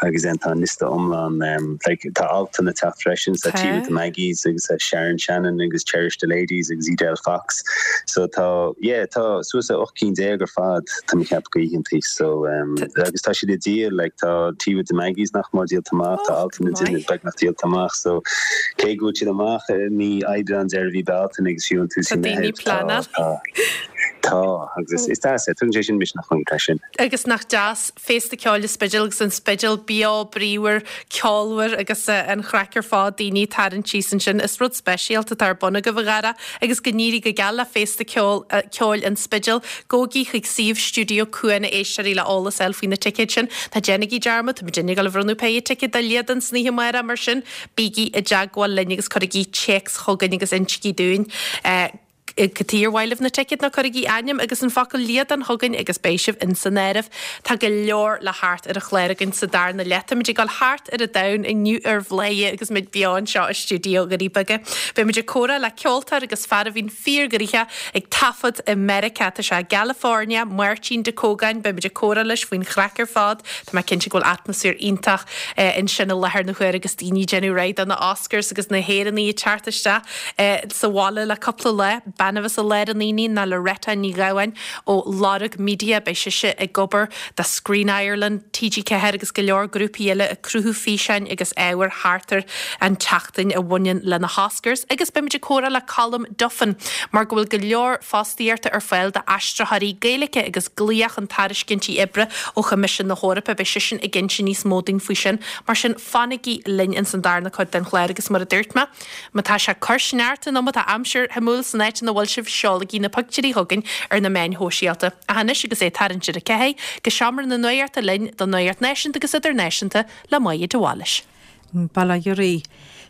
agus then tá an liosta iomlán like tá Altan ag teacht freisin so Tea with the Maggies agus tá Sharon Shannon agus Cherish the Ladies agus Edel Fox so tá yeah tá suas le 18 cinn ar fad tá mé ag ceapadh d'oícheantaí so agus tá siad ag díol like tá Tea with the Maggies nach mór díolta amach tá Altan ag déanamh beagnach díolta amach so cé go bhfuil siad amach i mí Aibreán deireadh mhí Bealtaine agus fiú an tús mhí Meitheamh tá tá. Tá, agus is deas é, tugann sé sin misneach dúinn freisin. Agus nach deas Féasta Ceoil an Spidéil agus an Spidéal beo bríomhar, ceolmhar agus an chraic ar fad, daoine ag tarraingt síos ansin. Is rud speisialta atá ar bun agaibh, a Dhara, agus go n-éirí go geal le Féasta Ceoil an Spidéil. Gabhaigí chuig suíomh Stiúideo Cuan a éisteoirí le eolas a fháil faoi na ticéid sin. Ná déanaigí dearmad, tá muidinne ag dul a bhronnadh péire ticéad do Liadán san oíche amárach, mar sin bígí i dteagmháil linn agus cuirigí téacs chugainn agus insígí dúinn cad chuige ar mhaith libh na ticéid nó cuirigí ainm agus an focal Liadán chugainn agus beidh sibh in san áireamh. Tá go leor le theacht ar an chlár againn sa darna leath. Táimid ag dul thart ar an domhan inniu ar Bhladhaire agus muid beo anseo i stiúideo Dhoirí Beaga. Beidh muid ag comhrá le ceoltóir agus fear a bhíonn fíorghnoitheach ag taifead i Meiriceá. Tá sé i gCalifornia, Máirtín De Cógáin, beidh muid ag comhrá leis faoin chraic ar fad. Tá mé cinnte go bhfuil atmaisféar iontach ansin i láthair na huaire agus daoine ag déanamh réidh do na Oscars agus na hÉireannaigh ag teacht isteach sa bhaile le cúpla lá. Bean a bheas i lár an aonaigh ná Loretta Ní Ghabháin ó Lorg Media. Beidh sise ag obair do Screen Ireland, TG4 agus go leor grúpaí eile ag cruthú físeáin agus ábhair thart ar an tseachtain a bhaineann le na hOscars. Agus beimid ag comhrá le Colm Duffin mar go bhfuil go leor fostaíochta ar fáil d'aistritheoirí Gaeilge agus glaoch chun tairiscintí oibre ó Choimisiún na hEorpa. Beidh seisean ag inse níos mó dúinn faoi sin. Mar sin, fanaigí linn ins an darna cuid den chlár agus mar a dúirt mé, má tá sé ag cur sneachta nó má tá aimsir shuimiúil san áit ina bhfuil sibh, seolaigí na pictiúirí chugainn ar na meáin shóisialta. Ach anois agus é ag tarraingt ar a ceathair, go seomra na nuachta linn don nuacht náisiúnta agus idirnáisiúnta le Máire de Bhailís. Bail ó Dhia oraibh.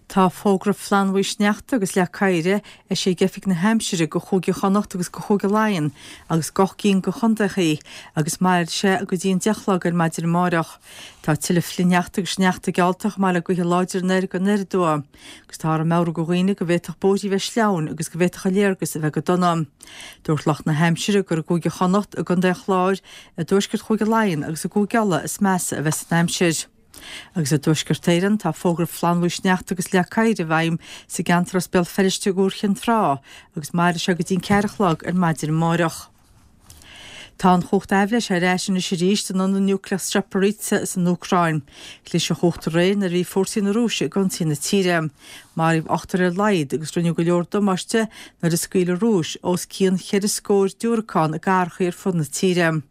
Tá fógra flannbhuí sneachta agus leac oighir eisithe ag Oifig na hAimsire go Chúige Chonnacht agus go Chúige Laighean agus d'ocht gcinn de chontaethaí agus mairfidh sé go dtí an 10 a chlog ar maidin amáireach. Tá tuilleadh flichshneachta agus sneachta geallta chomh maith le gaotha láidre anoir go anoir aduaidh agus táthar ag meabhrú go dhaoine go bhféadfadh bóithrí bheith sleamhain agus go bhféadfadh an léargas a bheith go dona. Dúirt lucht na haimsire gur i gCúige Chonnacht, i gContae an Chláir, i dtuaisceart Chúige Laighean agus i gCúige Uladh is measa a bheas an aimsir. Agus i dTuaisceart Éireann, tá fógra flannbhuí sneachta agus leac oighir i bhfeidhm sa gceantar as Béal Feirste go Iúr Chinn Trá agus mairfidh sé go dtí an ceathair a chlog ar maidin amáireach. Tá an chumhacht aibhléise ar ais anois arís in ionad núicléach Zaporizhzhia san Úcráin. Chlis an chumhacht aréir nuair a bhí fórsaí na Rúise ag ionsaí na tíre. Maraíodh ochtar ar a laghad agus rinneadh go leor damáiste nuair a scaoil an Rúis os cionn cheithre scór diúracán i gcathracha ar fud na tíre.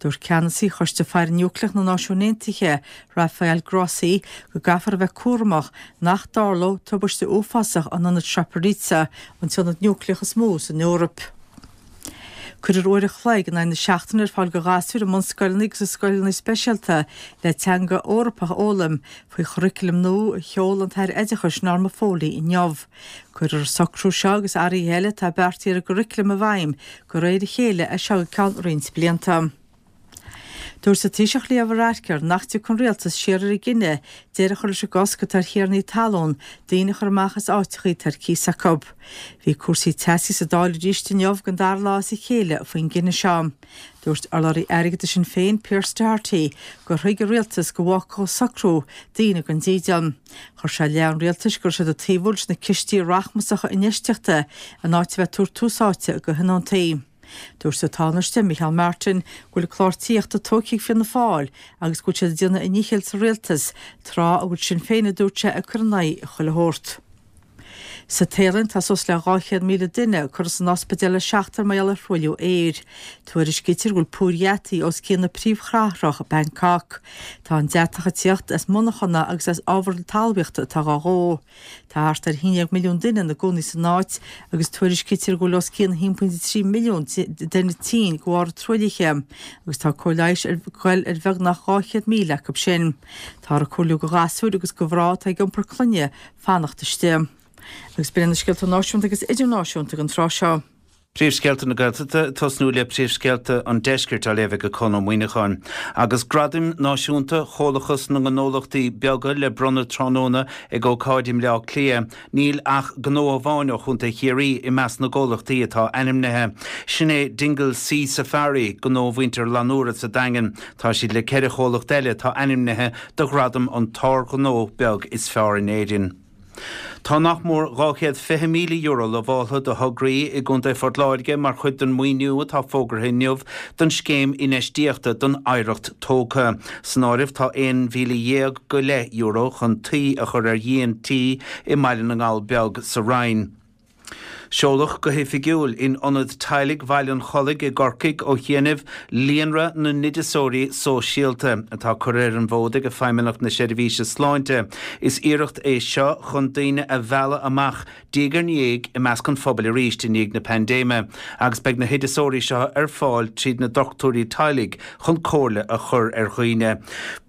Dúirt ceannasaí Choiste Faire Núicléach na Náisiún Aontaithe, Rafael Grossi, go gcaithfear a bheith cúramach nach dtarlódh tubaiste uafásach in ionad Zaporizhzhia, an t-ionad núicléach is mó san Eoraip. Cuirfear uair an chloig in aghaidh na seachtaine ar fáil do ghasúir i mbunscoileanna agus i scoileanna speisialta le teanga Eorpach a fhoghlaim faoi churaclam nua a sheol an tAire Oideachais Norma Foley inniu. Cuirfear an socrú seo agus athruithe eile atá beartaithe ar an gcuraclam i bhfeidhm de réir a chéile as seo go ceann roinnt blianta. Dúirt an Taoiseach Leo Varadkar nach dtiocfaidh an rialtas siar ar a gcinneadh deireadh a chur leis an gcosc atá ar thiarnaí talún daoine a chur amach as áiteachaí atá ar cíos acu. Bhí cúrsaí teasaí sa Dáil arís inniu don dara lá as a chéile faoin gcinneadh seo. Dúirt urlabhraí airgeadais Shinn Féin, Pearse Doherty, gur thuig an rialtas go bhfágfadh an socrú daoine gan dídean. Chuir sé i leith an rialtais go raibh siad ag taobhú leis na cistí rachmasacha infheistíochta in áit a bheith ag tabhairt tús áite do thionóntaí. Dúirt an Tánaiste, Micheál Martin, go bhfuil an clár tithíochta tógtha ag Fianna Fáil agus go bhfuil siad ag déanamh a ndíchill sa rialtas, tráth a bhfuil Sinn Féin, a dúirt sé, ag cur in aghaidh chuile shórt. Sa Téalainn, tá suas le 200,000 duine curtha san ospidéal le seachtain mar gheall ar thruailliú aeir. Tuairiscítear go bhfuil púir dheataigh os cionn na príomhchathrach, Bangkok. Tá an deatach ag tíocht as monarchana agus as ábhar talmhaíochta atá dhá dhó. Tá thart ar 11 milliún duine ina gcónaí san áit agus tuairiscítear go bhfuil os cionn 1.3 milliún duine tinn de bharr an truaillithe agus tá cóir leighis ag goil ar bheagnach 200,000 acu sin. Táthar ag comhairliú do ghasúir agus do mhná atá ag iompar clainne fanacht istigh. Agus b'in iad na scéalta náisiúnta agus idirnáisiúnta don tráth seo. Príomhscéalta na Gaeltachta, ag tosnú le príomhscéalta an Deiscirt á léamh ag Conn Ó Muíneacháin. Agus Gradaim Náisiúnta Chomhlachas na nGnólachtaí Beaga le bronnadh tráthnóna ag ócáid i mBleá Cliath, níl ach gnó amháin ó Chontae Chiarraí i measc na gcomhlachtaí atá ainmnithe. Sin é Dingle Sea Safari, gnó mhuintir Fhlannúra sa Daingean. Tá siad le ceithre chomhlacht eile atá ainmnithe do ghradam an tSár-Ghnó Beag is Fearr in Éirinn. Tá nach mór €220,000 lamháltha do thograí i gContae Phort Láirge mar chuid den mhaoiniú atá fógartha inniu don Scéim Infheistíochta don Oidhreacht Tógtha. San áireamh tá €11,000 go leith chun tuí a chur ar dhíon tí i mBaile na nGall Beag sa Rinn. Seoladh go hoifigiúil in Ionad Teaghlaigh Bhaile an Chollaigh i gCorcaigh ó chianaibh Líonra na nOideasóirí Sóisialta, atá curtha ar an bhfód ag Feidhmeannacht na Seirbhíse Sláinte. Is iarracht é seo chun daoine a mhealladh amach diaidh ar ndiaidh i measc an phobail arís i ndiaidh na paindéime agus beidh na hoideasóirí seo ar fáil tríd na dochtúirí teaghlaigh chun comhairle a chur ar dhaoine.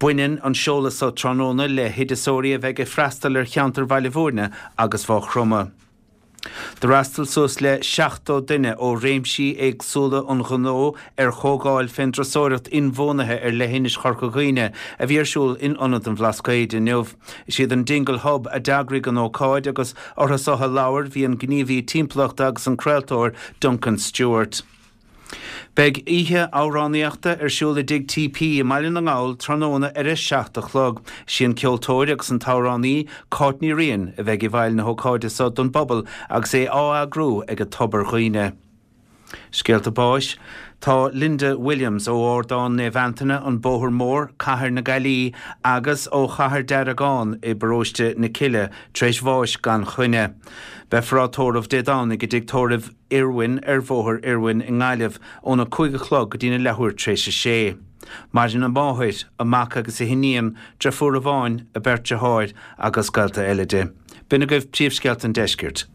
Baineann an seoladh seo tráthnóna le hoideasóirí a bheidh ag freastal ar cheantar Bhaile Bhúirne agus Mhaigh Chromtha. D'fhreastail suas le 70 duine ó réimsí éagsúla an ghnó ar chomhdháil fén dturasóireacht inbhuanaithe ar leithinis Chorca Dhuibhne a bhí ar siúl in Ionad an Bhlascaoid inniu. Is iad an Dingle Hub a d'eagraigh an ócáid agus orthu so a labhair bhí an gníomhaí timpeallachta agus an craoltóir Duncan Stewart. Beidh oíche amhránaíochta ar siúl i dTigh TP i mBaile na nGall tráthnóna ar a 7 a chlog. Is í an ceoltóir agus an t-amhránaí Cáit Ní Riain a bheidh i bhfeighil na hócáide so don bpobal agus é á eagrú ag Tobar Dhuibhne. Scéalta báis Tá Linda Williams ó Ardán Naomh Antaine, An Bóthar Mór, Cathair na Gaillimhe agus ó Chathair Deargán i bparóiste na Cille tar éis bháis gan choinne. Beifear á tórramh Dé Domhnaigh i dtigh tórraimh Irwin ar Bhóthar Irwin i nGaillimh óna 5 a chlog go dtína leathuair tar éis a sé. Maireann a máthair, a mac agus a hiníon, deirfiúr amháin, a beirt deartháir agus gaolta eile di. B'in agaibh príomhscéalta an deiscirt.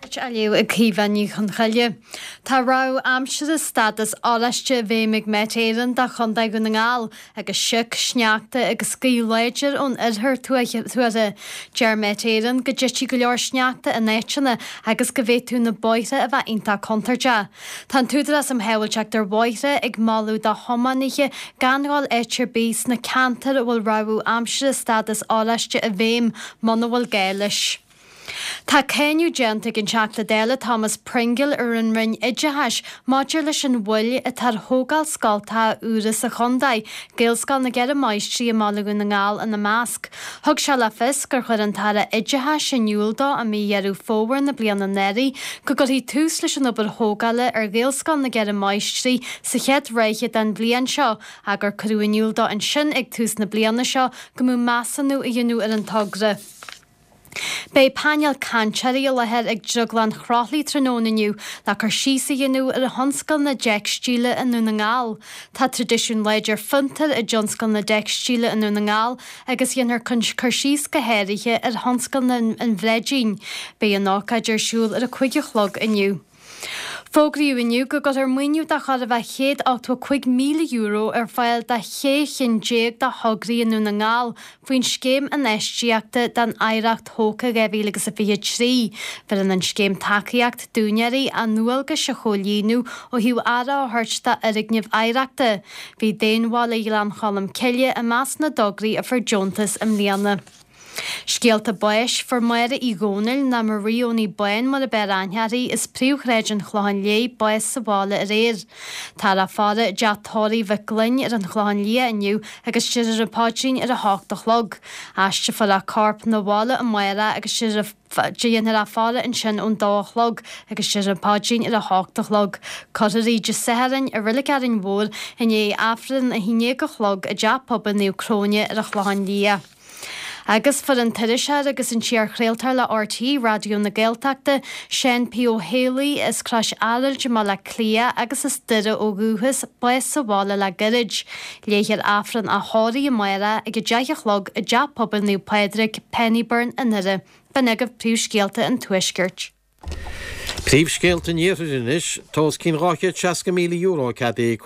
Á léamh ag Caoimhe Ní Chonchoille. Tá rabhadh aimsire stádas oráiste i bhfeidhm ag Met Éireann do Chontae Dhún na nGall agus sioc, sneachta agus gaoth láidir ón oirthear tuartha. Deir Met Éireann go dtitfidh go leor sneachta in áiteanna agus go bhféadfadh na bóithre a bheith iontach contúirteach. Tá an tÚdarás um Shábháilteacht ar Bhóithre ag moladh do thiománaithe gan dhul áit ar bith sna ceantair a bhfuil rabhadh aimsire stádas oráiste i bhfeidhm muna bhfuil gá leis. Tá cáineadh déanta ag an Teachta Dála Thomas Pringle ar an Roinn Oideachais maidir leis an mhoill atá ar thógáil scoltacha úra sa chontae, Gaelscoil na gCeithre Máistrí i mBaile Dhún na nGall ina measc. Thug sé le fios gur chuir an tAire Oideachais in iúl dó i mí Dheireadh Fómhair na bliana anuraidh go gcuirfí tús leis an obair thógála ar Ghaelscoil na gCeithre Máistrí sa chéad ráithe den bhliain seo ach gur cuireadh in iúl dó ansin ag tús na bliana seo go mbeadh measúnú a dhéanamh ar an togra. Beidh painéal cainteoirí i láthair ag Drioglann Chroithlí tráthnóna inniu le cur síos a dhéanamh ar thionscal na dteicstíle i nDún na nGall. Tá traidisiún láidir fiontair i dtionscal na dteicstíle i nDún na nGall agus dhéanfar cur síos go háirithe ar thionscal an bhreidín. Beidh an ócáid ar siúl ar a 5 a chlog inniu. Fógraíodh inniu go gcuirfear maoiniú de chóir a bheith €185,000 ar fáil do shé chinn déag de thograí i nDún na nGall faoin Scéim Infheistíochta don Oidhreacht Thógtha 2023. Bheireann an scéim tacaíocht d'úinéirí a ndualgais a chomhlíonadh ó thaobh aire a thabhairt d'fhoirgnimh oidhreachta. Bhí Daonbhaile Ghleann Cholm Cille i measc na dtograí a fuair deontas i mbliana. Scéalta báis, Fuair Máire Uí Dhomhnaill, nó Marie Owenie Bán mar ab fhearr aithne uirthi, as Príomhshráid an Chlocháin Léith, bás sa bhaile aréir. Táthar á faire i dteach tórraimh Mhic Gloinn ar an Chlochán Liath inniu agus déarfar an paidrín ar a hocht a chlog. Aistreofar a corp 'na bhaile amárach agus déanfar a faire ansin ón dó a chlog agus déarfar an paidrín ar a hocht a chlog. Cuirfear í Dé Sathairn i Reilig Árainn Mhór i ndiaidh Aifreann 11 a chlog i dTeach Pobail Naomh Cróine ar an Chlochán Liath. Agus fuair an t-iriseoir agus an t-iarchraoltóir le RTÉ Raidió na Gaeltachta, Seán P. Ó Héalaí, as Crois Araild i mBaile Átha Cliath agus as Doire ó dhúchas, bás sa bhaile le gairid. Léifear Aifreann a thórraimh amárach ag 10 a chlog i dTeach Pobail Naomh Pádraig, Pennybyrn i nDoire. B'in agaibh príomhscéalta an Tuaiscirt. Príomhscéalta an Iarthair anois, Tá os cionn €260,000 ceadaithe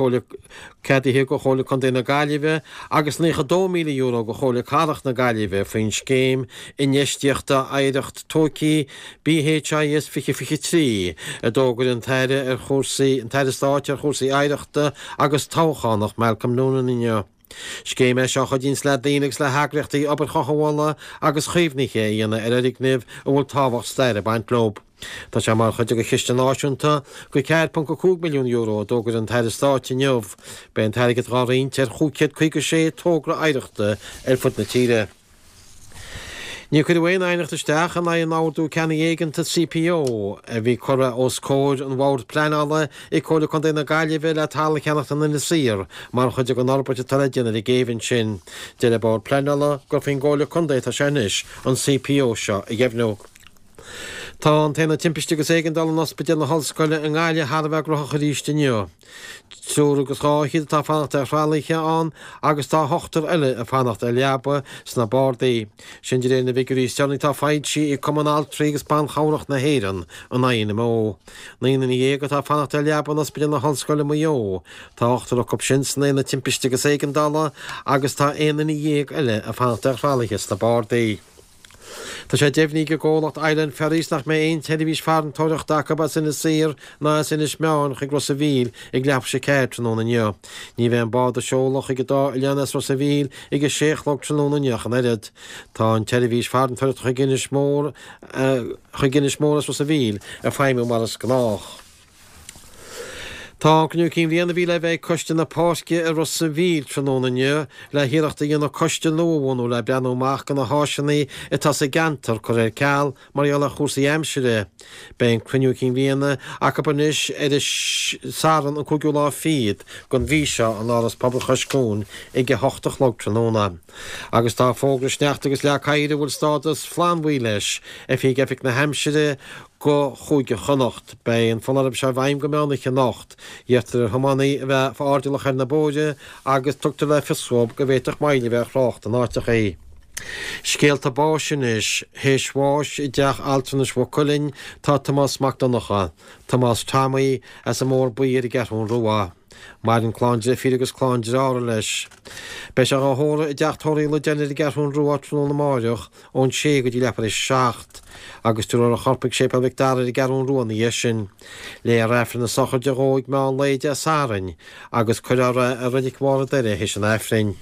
ceadaithe go Chomhairle Contae na Gaillimhe agus €92,000 go Chomhairle Cathrach na Gaillimhe faoin Scéim Infheistíochta Oidhreacht Tógtha BHIS 2023 a d'fhógair an tAire ar chúrsaí an tAire Stáit ar chúrsaí Oidhreachta agus Toghchánach Malcolm Noonan inniu. Scéim é seo a chuidíonns le daoine agus le heagraíochtaí obair chothabhála agus chaomhnaithe a dhéanamh ar fhoirgnimh a bhfuil tábhacht staire ag baint leo. Tá sé mar chuid de chiste náisiúnta de €4.5 milliún a d'fhógair an tAire Stáit inniu. Beidh an t-airgead dhá roinnt ar 556 togra oidhreachta ar fud na tíre. Níor cuireadh aon aighneacht isteach in aghaidh an Ordú Ceannaigh Éigeantaigh CPO a bhí curtha os comhair an Bhoird Pleanála ag Comhairle Contae na Gaillimhe le talamh a cheannacht in Inis Oírr mar chuid den fhorbairt atá le déanamh ar an gcéibh ansin. Deir an Bord Pleanála gur faoin gComhairle Contae atá sé anois an CPO seo a dheimhniú. Tá an tAonad Timpiste agus Éigeandála in Ospidéal na hOllscoile i nGaillimh thar a bheith gnóthach arís inniu. Triúr agus 200 atá ag fanacht ar thralaithe ann agus tá ochtar eile ag fanacht ar leaba sna bardaí. Sin de réir na bhfigiúirí is deireanaí atá foilsithe ag Cumann Altraí agus Ban Chabhrach na hÉireann, an INMO. 19 duine atá ag fanacht ar leaba in Ospidéal na hOllscoile Maigh Eo. Tá ochtar acu sin san Aonad Timpiste agus Éigeandála agus tá 11 duine eile ag fanacht ar thralaithe sna bardaí. Tá sé deimhnithe ag an gcomhlacht Island Ferries nach mbeidh aon tseirbhís farantóireachta acu as Inis Oírr ná as Inis Meáin chuig Ros a' Mhíl ag leathuair tar éis a 4 tráthnóna inniu. Ní bheidh an bád ag seoladh chuig an dá oileán as Ros a' Mhíl ag a sé a chlog tráthnóna inniu ach an oiread. Tá an tseirbhís farantóireachta chuig Inis Mór chuig Inis Mór as Ros a' Mhíl ag feidhmiú mar is gnách. Tá an Cruinniú Cinn Bhliana a bhí le bheith ag Coiste na Páirce i Ros a' Mhíl tráthnóna inniu le hiarracht a dhéanamh coiste nua a bhunú le breathnú amach do na háiseanna atá sa gceantar curtha ar ceal mar gheall ar chúrsaí aimsire. Beidh an Cruinniú Cinn Bhliana acu anois ar an Satharn an cúigiú lá fichead den mhí seo in Áras Pobail Chois Cuain ag 8 a chlog tráthnóna. Agus tá fógra sneachta agus leac oighir a bhfuil stádas flannbhuí leis eisithe ag Oifig na hAimsire go Chúige Chonnacht. Beidh an foláireamh seo i bhfeidhm go meán oíche anocht. Iarrtar ar thiománaithe a bheith airdeallach ar na bóithre agus tugtar le fios dóibh go bhféadfadh moill a bheith ar thrácht in áiteachaí. Scéalta báis anois. Théis bháis i dteach altranais Mhaigh Cuilinn tá Tomás Mac Donncha, Tomás Tommy, as an mBóthar Buí ar an gCeathrún Rua. Maireann clann deirfíre agus clann dearthára leis. Beidh sé dhá thórramh i dteach tórraimh Uí Loideáin ar an gCeathrún Rua tráthnóna amáireach ón sé go dtí leathuair tar éis a 7, agus tabharfar a chorp ag Séipéal Mhic Dara ar an gCeathrún Rua ina dhiaidh sin. Léifear Aifreann na sochraide dhó ag meán lae Dé Sathairn agus cuirfear é i Reilig Bharr an Doire théis an Aifrinn.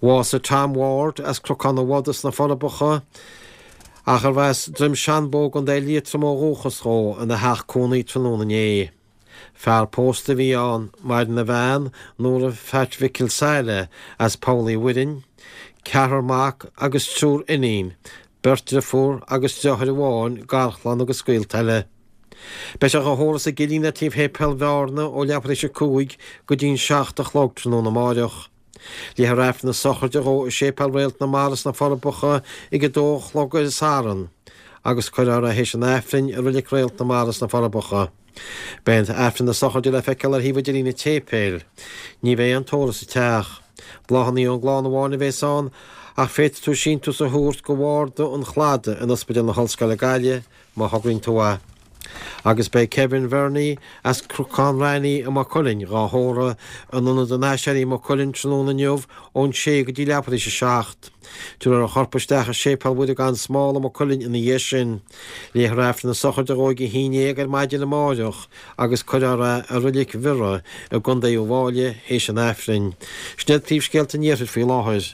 Bhásaigh Tom Ward as Cnocán an Bhodaigh sna Forbacha, ach arbh as Droim Seanbhó i gContae Liatroma ó dhúchas dhó, ina theach cónaí tráthnóna inné. Fear pósta a bhí ann, maireann a bhean, Nóra Pheait Mhicil Saile, as Poll Uí Mhuirinn, ceathrar mac agus triúr iníon, beirt driofúr agus deartháir amháin, garchlann agus gaolta eile. Beidh sé dhá thórramh sa gCillín le taobh Shéipéal Bhearna ó leathuair tar éis a 5 go dtí'n 7 a chlog tráthnóna amáireach. Léifear Aifreann na sochraide dhó i Séipéal Réalt na Mara sna Forbacha ag a dó a chlog ar an Satharn agus cuirfear é théis an Aifrinn i Reilig Réalt na Mara sna Forbacha. Beidh an tAifreann na sochraide le feiceáil ar thaobh idirlín an tséipéil. Ní bheidh aon tórramh sa teach. Bláthanna ón gclann amháin a bheas ann ach féadfaidh tú síntiús a thabhairt go Bharda an Chladaigh in Ospidéal na hOllscoile Gaillimh má thograíonn tú é. Agus beidh Kevin Verney as Cnocán Raithní i Maigh Cuilinn dhá thórramh in Ionad an Aiséirí i Maigh Cuilinn tráthnóna inniu ón 6 go dtí leathuair tar éis a 7. Tabharfar a chorp isteach i Séipéal Mhuire gan Smál i Maigh Cuilinn ina dhiaidh sin. Léifear Aifreann na sochraide dhó ag 11 ar maidin amáireach agus cuirfear é i Reilig Bhiorra i gContae Uíbh Fháilí théis an Aifrinn. Sin iad príomhscéalta an Iarthair faoi láthair.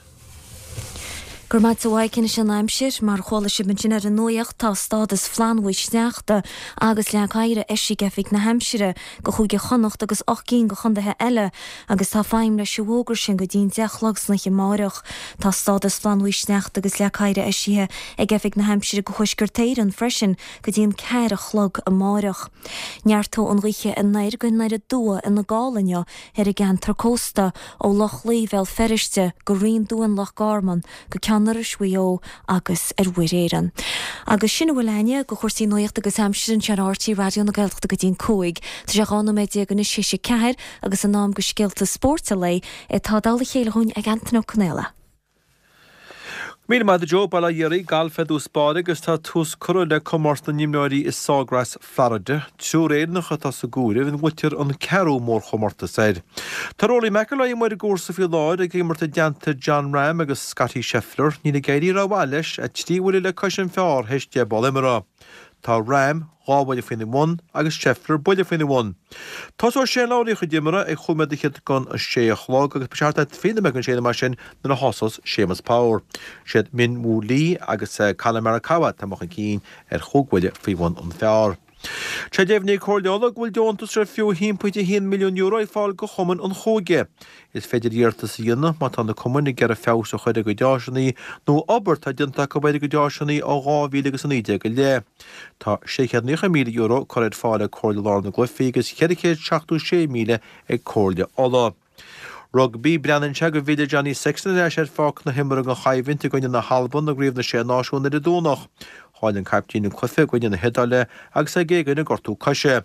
Go raibh maith agat a Mhaidhc anois an aimsir, mar a chuala sibh ansin ar an nuacht, tá stádas flannbhuí sneachta agus leac oighir eisithe ag Oifig na hAimsire go Chúige Chonnacht agus 8 gcinn go chondaetha eile agus tá feidhm leis an bhfógra sin go dtí an 10 a chlog san oíche amáireach. Tá stádas flannbhuí sneachta agus leac oighir eisithe ag Oifig na hAimsire go Thuaisceart Éireann freisin go dtí an 4 a chlog amáireach. Neartóidh an ghaoth anoir go anoir aduaidh ina gála inniu ar an gceantar cósta, ó Loch Lao Bhéal Feirste go Rinn Duáin Loch Garman go Ceann Iorrais Mhaigh Eo agus ar Mhuir Éireann. Agus sin a bhfuil againne de chúrsaí nuachta agus aimsire anseo ar RTÉ Raidió na Gaeltachta go dtí an 5. Tá sé 12 nóiméad anois théis a 4 agus in am do scéalta spóirt an lae atá i dtoll a chéile dhúinn ag Antain Ó Conaola. Míle maith agat a Joe, Bail ó Dhia oraibh, Galf ar dtús báire agus tá tús curtha le comórtas na n-imreoirí i Sawgrass, Florida. Triúr Éireannach atá sa gcomhaireamh ina nglaoitear an ceathrú mórchomórtas air. Tá Rory McIlroy amuigh ar an gcúrsa faoi láthair ag imirt i dteannta Jon Rahm agus Scottie Scheffler. Níl ag éirí rómhaith leis, 3 bhuille le cois an phar théis 10 bpoll imeartha. Tá Rahm 2 bhuille faoina bhun agus Scheffler buille faoina bhun. Tosóidh Shane Lowry a chuid imeartha ag chúig nóiméad fhichead don 6 a chlog agus beidh sé thart ar 20 nóiméad don 6 nó mar sin nuair a thosós Séamus Power. Siad Min Woo Lee agus Collin Morikawa atá amuigh chun cinn ar chúig bhuille faoi bhun an phar. Tá sé deimhnithe ag Comhairle Uladh go bhfuil deontas ar fiú €1.1 milliún ag fáil do chumainn an chúige. Is féidir iarratas a dhéanamh má tá na cumainn ag iarraidh feabhas a chur ar a gcuid áiseanna nó obair atá déanta acu ar a gcuid áiseanna ó 2019 i leith. Tá €690,000 curtha ar fáil ag Comhairle Lár na gCluichí agus €476,000 ag Comhairle Uladh. Rugbaí, Breathnaíonn sé go bhfillfidh Johnny Sexton ar ais ar pháirc na himeartha don choimhlint i gcoinne na hAlban i gCraobh na Sé Náisiún ar an Domhnach. Chaill an caiptín an cluiche i gcoinne na hIodáile agus é ag éagaoineadh gortú coise.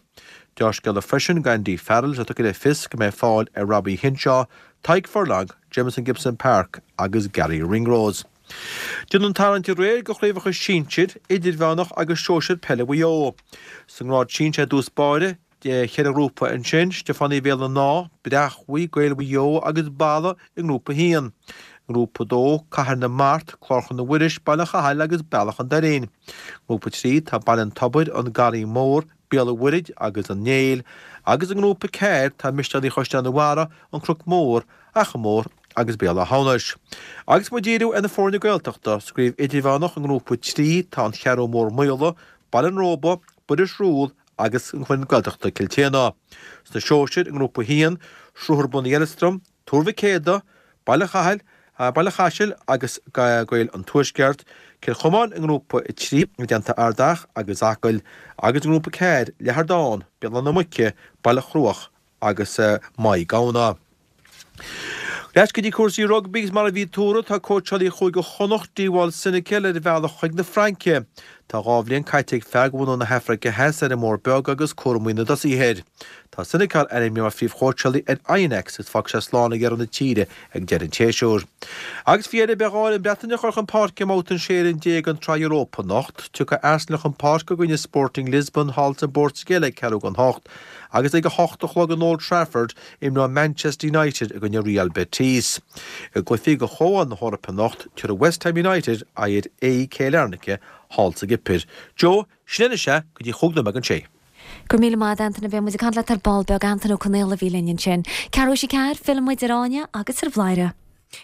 Deá-scéala freisin d'Andy Farrell is é tugtha le fios go mbeidh fáil ar Robbie Henshaw, Tadhg Furlong, Jamison Gibson-Park agus Garry Ringrose. Déanadh an tarraingt aréir do chraobhacha sinsir, idirmheánach agus sóisir peile Mhaigh Eo. Sa ngrád sinsir i dtús báire, cheithre ghrúpa ansin, Stiofánaigh Bhéal an Átha, Breachmhaigh, Gaeil Mhaigh Eo agus Balla i ngrúpa 1. I ngrúpa 2, Cathair na Mart, Clár Chnoc Mhuiris, Baile Chathail agus Bealach an Doirín. I ngrúpa 3 tá Baile an Tobair, An Garraí Mór, Béal an Mhuirthead agus An Néill, agus i ngrúpa 4 tá Misneoirí Chaisleán an Bharraigh, An Cnoc Mór, Achadh Mór agus Béal Átha hAmhnais. Agus muid ag díriú ar na foirne Gaeltachta, sa gcraobh idirmheánach i ngrúpa 3 tá An Cheathrú Mór Maola, Baile an Róba, Buiris Rúil agus an foireann Gaeltachta Cill tSéadhna. Sna sóisir i ngrúpa 1, Sruthar Bun Uí Eileastraim, Tuar Mhic Éadaigh, Baile Chathail, Baile Chaisil agus Gaeil an Tuaisceart, Cill Chomáin i ngrúpa 3 i dteannta Ard Each agus Acaill agus i ngrúpa 4, Leathardán, Béal Átha na Muice, Baile Chruaich agus Maigh Gabhna. Ar ais go dtí cúrsaí rugbaí agus mar a bhí tuartha, tá cóitseálaí Chúige Chonnacht, Dewald Senekal, ar a bhealach chuig na Fraince. Tá 2 bhliain caite ag fear de bhunadh na hAfraice Theas ar an mBord Beag agus cúramaí na dtosaithe air. Tá Senekal ainmnithe mar phríomhchóitseálaí ar Oyonnax agus fágfaidh sé slán ag deireadh na tíre ag deireadh an tséasúir. Agus faoi dheireadh, beidh dhá fhoireann Breataine a chur chun páirce i mbabhta an 16 fhoireann den tSraith Europa anocht. Tiocfaidh Arsenal chun páirce i gcoinne Sporting Lisbon thall sa bPortaingéil ag ceathrú don hocht agus ag a hocht a chlog in Old Trafford imreoidh Manchester United i gcoinne Real Betis. I gcluichí do Chomhdháil na hEorpa anocht, tabharfaidh West Ham United aghaidh ar AEK Larnaca thall sa gCipir. Joe, sin é anois é, go dtí chúig nóiméad don sé. Go raibh míle maith agat Antaine, beidh muid ag caint leat ar ball beag, Antaine Ó Conaola a bhí linn ansin. Ceathrú théis a ceathair, filleann muid ar Áine agus ar Bhladhaire.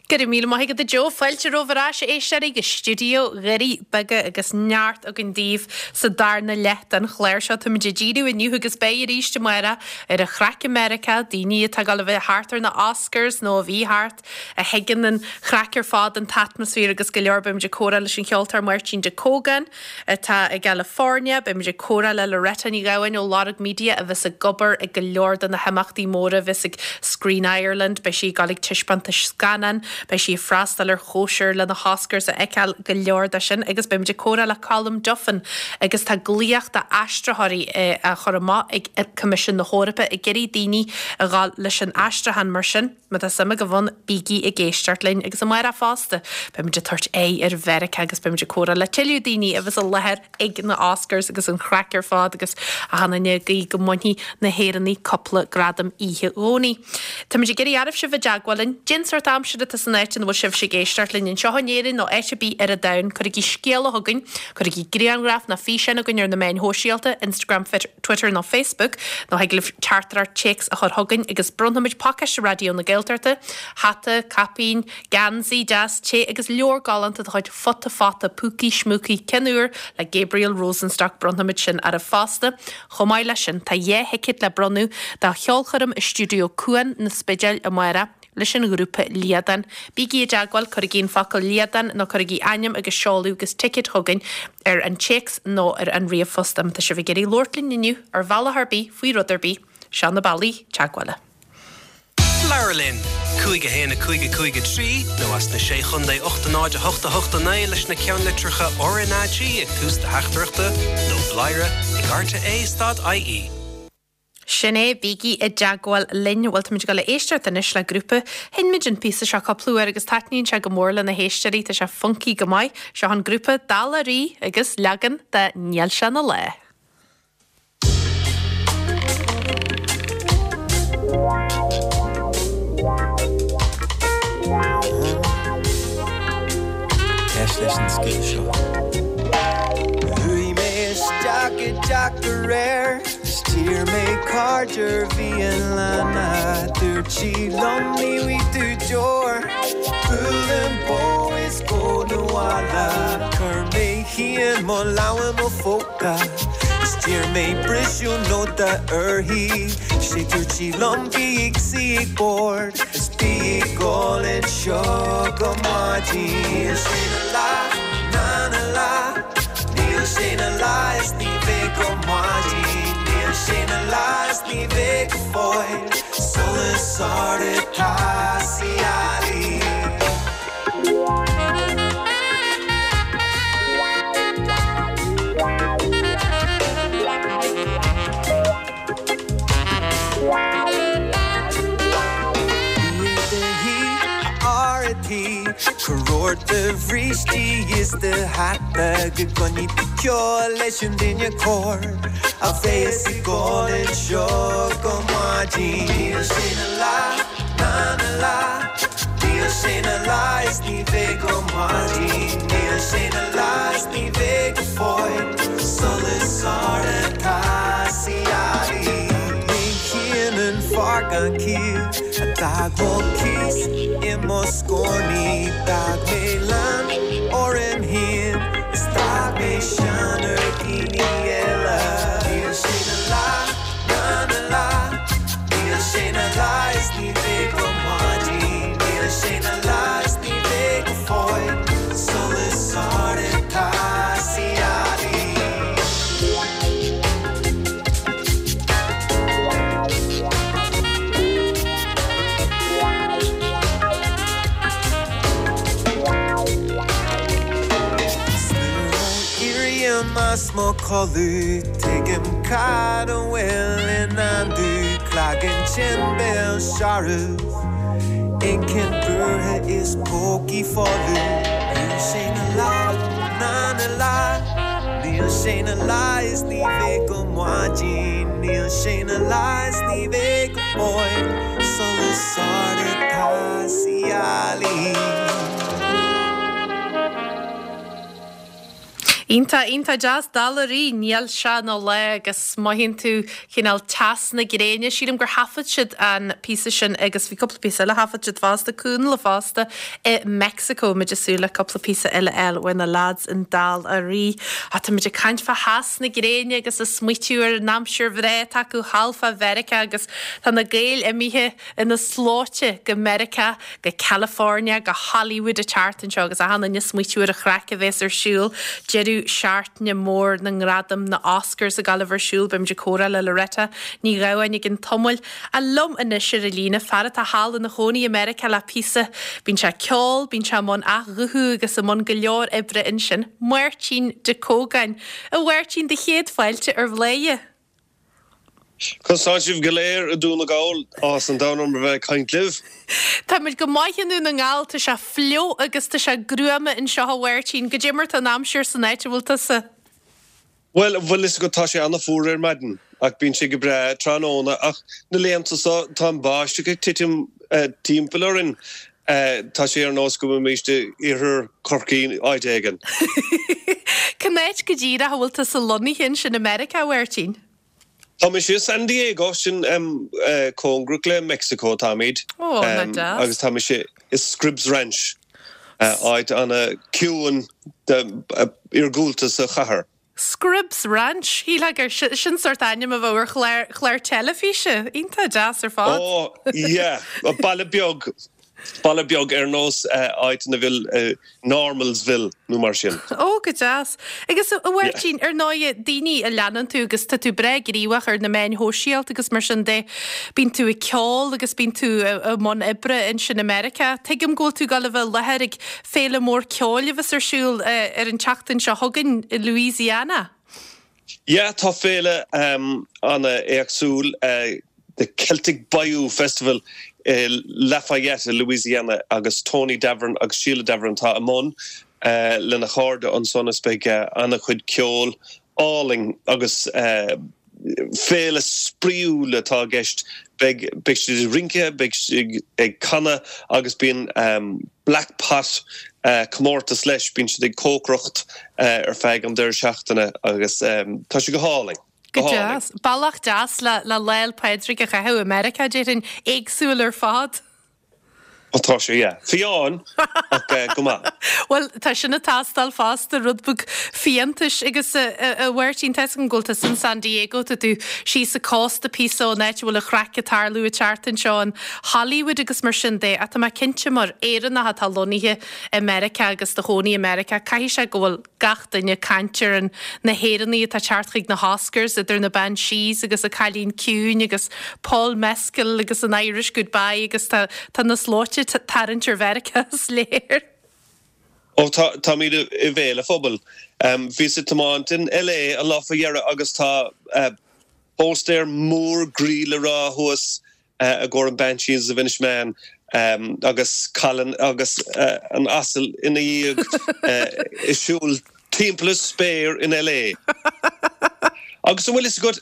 Go raibh míle maith agat a Joe. Fáilte romhaibh ar ais, a éisteoirí, go stiúideo Dhoirí Beaga agus neart againn daoibh sa darna leath den chlár seo. Táimid ag díriú inniu agus beidh arís amárach ar an chraic i Meiriceá, daoine atá ag dul a bheith thart ar na Oscars nó a bhí thart, a thuigeann an chraic ar fad, an t-atmaisféar agus go leor. Beimid ag comhrá leis an cheoltóir Máirtín De Cógáin atá i gCalifornia. Beimid ag comhrá le Loretta Ní Ghabháin ó Lorg Media a bheas ag obair ag go leor de na himeachtaí móra a bheas ag Screen Ireland. Beidh sí ag dul ag taispeántais scannán, beidh sí ag freastal ar chóisir le na hOscars a fheiceáil, go leor de sin. Agus beimid ag comhrá le Colm Duffin agus tá glaoch d'aistritheoirí á chur amach ag Coimisiún na hEorpa ag iarraidh daoine a dhul leis an aistriúchán mar sin. Má tá suim agaibh ann, bígí ag éisteacht linn agus amárach fosta, beimid ag tabhairt aghaidh ar Mheiriceá agus beimid ag comhrá le tuilleadh daoine a bheas i láthair ag na Oscars agus an chraic ar fad agus achan duine ag guí go mbainfidh na hÉireannaigh cúpla gradam oíche Dhomhnaigh. Táimid ag iarraidh oraibh sibh i dteagmháil linn. Cén sórt aimsire atá san áit ina bhfuil sibhse ag éisteacht linn anseo in Éirinn nó áit ar bith ar an domhan? Cuirigí scéala chugainn, cuirigí grianghraf nó físeán chugainn ar na meáin shóisialta, Instagram, Twitter nó Facebook, nó thig libh teachtaireacht téacs a chur chugainn agus bronnfaimid pacáiste Raidió na Gaeltachta, hata, caipín, geansaí deas te agus leabhar galánta de chuid Futa Fata Púcaí Schmúcaí Cinn Úr le Gabriel Rosenstock, bronnfaimid sin oraibh fosta. Chomh maith leis sin, tá 2 thicéad le bronnadh do cheolchoirm i Stiúideo Cuan na Spidéil amárach. leis an ghrúpa Liadán. Bígí i dteagmháil, cuirigí an focal Liadán nó cuirigí ainm agus seoladh agus ticéad chugainn ar an téacs nó ar an ríomhphost. Má tá sibh ag iarraidh labhairt linn inniu ar bhealach ar bith, faoi rud ar bith, seo na bealaí teagmhála. Labhair linn! 5 1 5 5 3 nó as na Sé Chontae 8 0 8 8 9 leis na ceannlitreacha RnaG ag tús do theachtaireachta nó bladhaire ag rte stad ie. Sin é, bígí i dteagmháil linn. Bhuel, táimid ag dul a éisteacht anois le grúpa. Sheinn muid an píosa seo cúpla uair agus taitníonn sé go mór le na héisteoirí, tá sé funky go maith. Seo an grúpa Dála Rí agus leagan de Níl sé ina lá. Éist leis an scéal seo. Chuaigh mé isteach i dteach aréir. 'S d'iarr mé cairde ar bhialanna Dúirt sí liom ní bhfaighidh tú deoir Buail an bó is gabh 'na bhaile Chuir mé féin mo lámh i mo phóca 'S d'iarr mé briseadh nóta uirthi 'Sé dúirt sí liom bí ag suí ag bord 'S bí ag ól anseo go maidin Níl sé 'na lá ná 'na lá Níl sé 'na lá is ní bheidh go maidin Níl sé 'na lá is ní bheidh go fóill Solas ard atá sa ghealaigh. tabhairt do bhrístí is do hata go gcoinní tú ceol leis an duine cóir a bheas ag gol anseo go maidin. Níl sé 'na lá ná 'na lá, níl sé 'na lá is ní bheidh go maidin, níl sé 'na lá is ní bheidh go fóill, solas ard atá sa ghealaí. Ní hionann fear gan ciall a d'fhág mo chíos i mo scornaí, d'fhág mé lán orm féin is d'fhág mé sean ar dhaoine eile. Níl sé 'na lá ná 'na lá, níl sé 'na lá is ní bheidh go maidin, níl sé 'na lá is ní bheidh go fóill, solas ard atá sa ghealaí. 'S nuair a éirím as mo chodladh tuigim cad a bhfuil i ndán domh cloigeann tinn béal searbh inchinn buartha is pócaí folamh Níl sé 'na lá ná 'na lá Níl sé 'na lá is ní bheidh go maidin Níl sé 'na lá is ní bheidh go fóill Solas ard atá sa ghealaí. Iontach, iontach deas, Dál Araí, níl sé 'na lá agus mothaíonn tú cineál teas na gréine. Sílim gur thaifead siad an píosa sin agus bhí cúpla píosa eile a thaifead siad fosta, Cúnla fosta i Meicsiceo. Muid ag súil le cúpla píosa eile a fháil ó na lads in Dál Araí. Á, tá muid ag caint fá theas na gréine agus ag smaoitiú ar an aimsir bhreá atá acu thall fá Mheiriceá agus tá na Gaeil imithe ina slóite go Meiriceá, go California, go Hollywood an tseachtain seo agus achan duine ag smaoitiú ar an chraic a bhéas ar siúl, deireadh seachtaine mór na ngradam, na Oscars ag gabháil a bheith ar siúl. Beimid ag comhrá le Loretta Ní Ghabháin i gcionn tamaill. Ach liom anois ar an líne, fear atá thall ina chónaí i Meiriceá le píosa. Bíonn sé ag ceol, bíonn sé i mbun athghuthú agus i mbun go leor oibre ansin, Máirtín De Cógáin. A Mháirtín, do chéad fáilte ar Bhladhaire. Conas tá sibh go léir i Dún na nGall? Áthas an domhain orm a bheith ag caint libh. Táimid go maith i nDún na nGall, tá sé fliuch agus tá sé gruama anseo a Mháirtín. Goidé mar tá an aimsir san áit a bhfuil tusa? Bhuel, bhfuil fhios agat tá sé an-fhuar ar maidin ach bíonn sé go breá tráthnóna ach na laethanta seo tá an báisteach ag titim timpeall orainn. Tá sé ar nós go bhfuilimid i iarthar Chorcaí áit éigin. Cén áit go díreach a bhfuil tusa lonnaithe ansin i Meiriceá, a Mháirtín? Tá mise i San Diego, sin cóngarach le Meicsiceo atáimid. Ó, nach deas. Agus tá mise i Scripps Ranch, áit ana-chiúin iargúlta sa chathair. Scripps Ranch, shílfeá gur sin sórt ainm a bheadh ar chlár, chlár teilifíse. Iontach deas ar fad. Ó, yeah, baile beag, baile beag ar nós áit ina bhfuil Normalsville nó mar sin. Ó, go deas. Agus a Mháirtín, ar ndóighe, daoine a leanann tú agus tá tú breá gníomhach ar na meáin shóisialta agus mar sin de, bíonn tú ag ceol agus bíonn tú i mbun oibre ansin i Meiriceá. Tuigim go bhfuil tú ag dul a bheith i láthair ag Féile mór ceoil a bheas ar siúl ar an tseachtain seo chugainn i Louisiana. Yeah, tá féile an-éagsúil, The Celtic Bayou Festival i Lafayette i Louisiana agus Tony Davoren agus Sheila Davoren atá i mbun lena chairde ansan is beidh an-chuid ceoil álainn agus féile spraíúil atá i gceist. Beidh beidh siad ag rince, beidh siad ag canadh agus bíonn Black Pot comórtas leis, bíonn siad ag cócaireacht ar feadh an deireadh seachtaine agus tá sé go hálainn. Go deas. Bealach deas le le Lá 'le Pádraig a chaitheamh i Meiriceá, déarfainn, éagsúil ar fad. Ó tá sé, yeah. Fiáin, ach go maith. Bhuel, tá sin ag teastáil fosta, rud beag fiántais. Agus a Mháirtín, tá 'fhios agam go bhfuil tusa in San Diego, tá tú síos an cósta píosa ón áit a bhfuil an chraic ag tarlú an tseachtain seo in Hollywood agus mar sin de. Ach tá mé cinnte mar Éireannach atá lonnaithe i Meiriceá agus do chónaí i Meiriceá, caithfidh sé go bhfuil gach duine ag caint ar an na hÉireannaigh atá ag teacht chuig na hOscars, idir na Banshees agus an Cailín Ciúin agus Paul Mescal agus an Irish Goodbye agus tá tá na slóite ag tarraingt ar Mheiriceá is léir. Ó tá táimid i mbéal an phobail. Bhíos ag tiomáint in LA an lá faoi dheireadh agus tá póstaer mór groí le rá thuas i gcomhair an Banshees of Inishmaan. Agus Colin agus an asal ina dhiaidh ag siúl timpeall an spéir in LA. Agus an bhfuil fhios agat,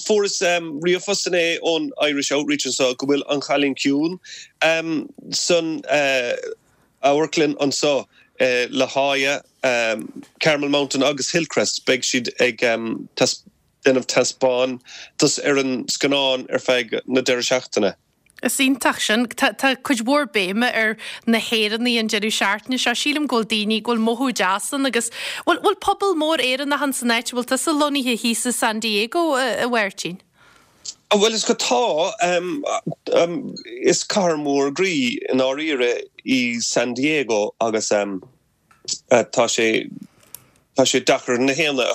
fuaireas ríomhphost inné ón Irish Outreach anseo go bhfuil An Cailín Ciúin san amharclann anseo i La Jolla, Carmel Mountain agus Hillcrest. Beidh siad ag déanamh taispeántas ar an scannán ar feadh na deireadh seachtaine. Is iontach sin. Tá tá cuid mhór béime ar na hÉireannaigh an deireadh seachtaine seo. Sílim go bhfuil daoine, go bhfuil mothú deas ann agus bhfuil bhfuil pobal mór Éireannach ann san áit a bhfuil tusa lonnaithe thíos i San Diego, a Mháirtín? Bhuel is go tá. Is cathair mhór groí i ndáiríre í San Diego agus tá sé tá sé deacair na haíonna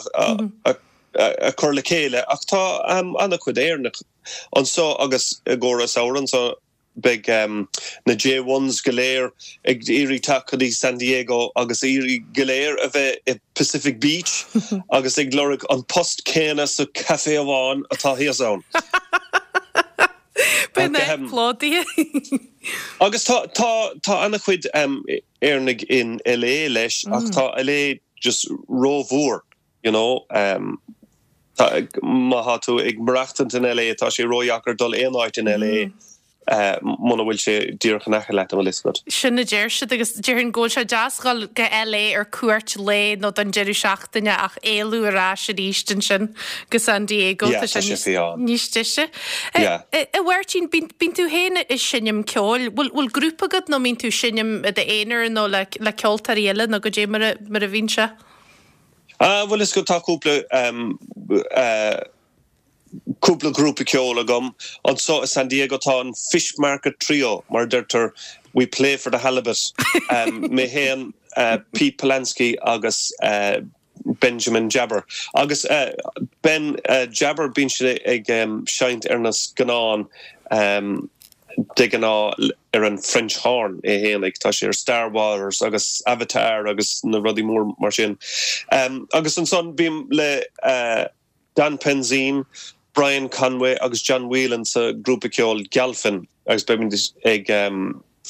a a chur le chéile ach tá an-chuid Éireannach Anseo agus i gcomhair an samhradh anseo beidh na J-ones go léir ag iarraidh teacht go dtí San Diego agus iarraidh go léir a bheith i Pacific Beach agus ag lorg an post céanna sa café amháin atá thíos ann. Beidh an áit plódaithe. Agus tá tá tá an-chuid Éireannaigh in LA leis ach tá LA just rómhór. You know, tá, má thá tú ag maireachtaint in LA, tá sé ródheacair dul aon áit in LA muna bhfuil sé díreach in aice leat, an bhfuil fhios agat. Sin a deir siad agus déarfainn go bhfuil sé deas dhul go LA ar cuairt lae nó don deireadh seachtaine ach éalú ar ais arís ansin go San Diego, Yeah, tá tá sé sé níos, fiáin. níos deise. Yeah. A Mháirtín, bíonn, bíonn tú féin ag seinm ceoil, bhfuil, bhfuil grúpa agat nó mbíonn tú ag seinm i d'aonar nó le, le ceoltóirí eile nó goidé mar a, mar a bhíonn sé? Ah, bhuel is go tá cúpla cúpla grúpa ceoil agam. Anseo i San Diego tá an Fish Market Trio, mar a deirtear, we play for the halibut. Mé féin, Pete Polanski agus Benjamin Jabber. Agus Ben Jabber, bíonn sé ag seinnt ar na scannáin. de ghnáth ar an French horn é fhéinig. Tá sé ar Star Wars agus Avatar agus na rudaí mór mar sin. Agus ansan bím le Don Penzien, Brian Conway agus John Whelan sa grúpa ceoil Gealfinn agus beimid ag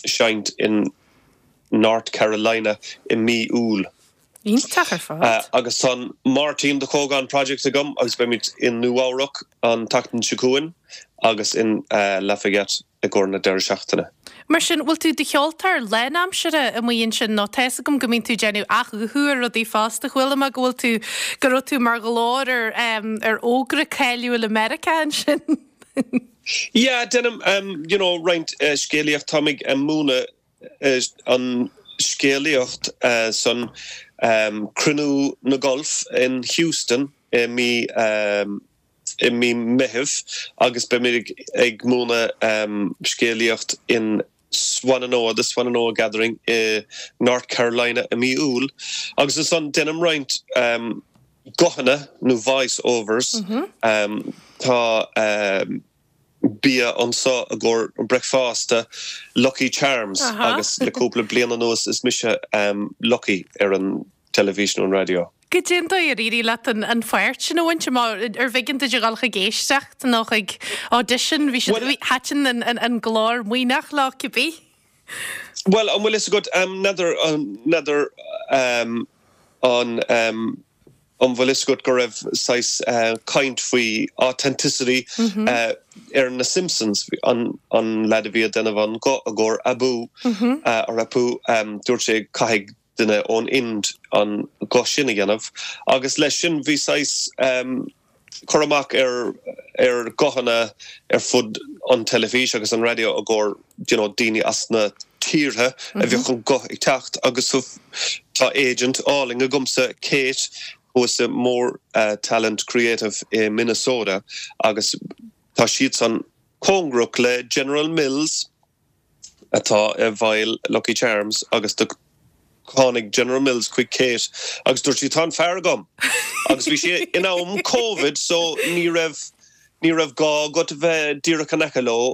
seinnt in North Carolina i mí Iúil. Iontach ar fad. Agus tá an Máirtín de Cógán Project agam agus beimid i Nua-Eabhrac an tseachtain seo chugainn agus in Lafayette i gcomhair na deireadh seachtaine. Mar sin, bhfuil tú i do cheoltóir lánaimseartha amuigh ansin nó tá fhios agam go mbíonn tú ag déanamh athghuthú ar rudaí fosta. Chuala mé go bhfuil tú, go raibh tú mar ghlór ar ar fhógra cáiliúil i Meiriceá ansin. Yeah, déanaim you know roinnt scéalaíocht. Táim ag múineadh an scéalaíocht san Cruinniú na Golf in Houston i mí i mí Meithimh agus beimid ag múineadh scéalaíocht in Swannanoa, the Swannanoa Gathering i North Carolina i mí Iúil agus ansan déanaim roinnt guthanna nó voice overs. Tá. bia anseo i gcomhair bricfeasta, Lucky Charms, agus le cúpla bliain anuas is mise Lucky ar an teilifís nó an raidió. Goidé an dóigh ar éirigh leat an pháirt sin a bhaint amach? Ar bh'éigean duit a dhul chuig éisteacht nó chuig audition? Bhí siad, thaitin an glór maoithneach leo cibé. Bhuel, an bhfuil fhios agat, n'fheadar, n'fheadar an, an bhfuil fhios agat go raibh saghas caint faoi authenticity ar na Simpsons, an an leaid a bhí ag déanamh an guth i gcomhair Abu, or Apu, dúirt sé caithfidh duine ón Ind an guth sin a dhéanamh agus leis sin bhí saghas cur amach ar ar ghuthanna ar fud an teilifís agus an raidió i gcomhair you know daoine as na tíortha a bheadh an guth ag teacht agus tá agent álainn agamsa Kate thuas i More Talent Creative i Minnesota agus tá siadsan cóngarach le General Mills atá i bhfeighil Lucky Charms agus do tháinig General Mills chuig Kate agus dúirt sí tá an fear agam! Agus bhí sé in am Covid so ní raibh ní raibh gá agat a bheith díreach in aice leo.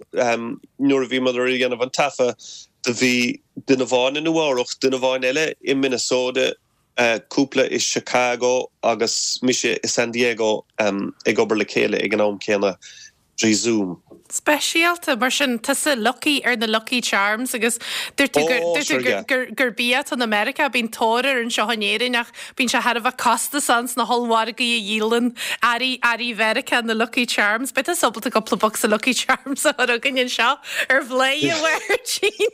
Nuair a bhíomar ag déanamh an taifeadh do bhí duine amháin i Nua Eabhrach, duine amháin eile i Minnesota, cúpla i Chicago agus mise i San Diego ag obair le chéile ag an am céanna trí Zoom. Speisialta, mar sin, tusa lucky ar na lucky charms agus dúirt tú gur, dúirt tú gur, gur, gur bia atá i Meiriceá, bíonn tóir air anseo in Éirinn ach bíonn sé thar a bheith costasach ins na hollmhargaí a dhíolann earraí, earraí Mheiriceá, na lucky charms. Beidh tusa ábalta cúpla bocsa lucky charms a chur chugainn anseo ar Bhladhaire Mháirtín.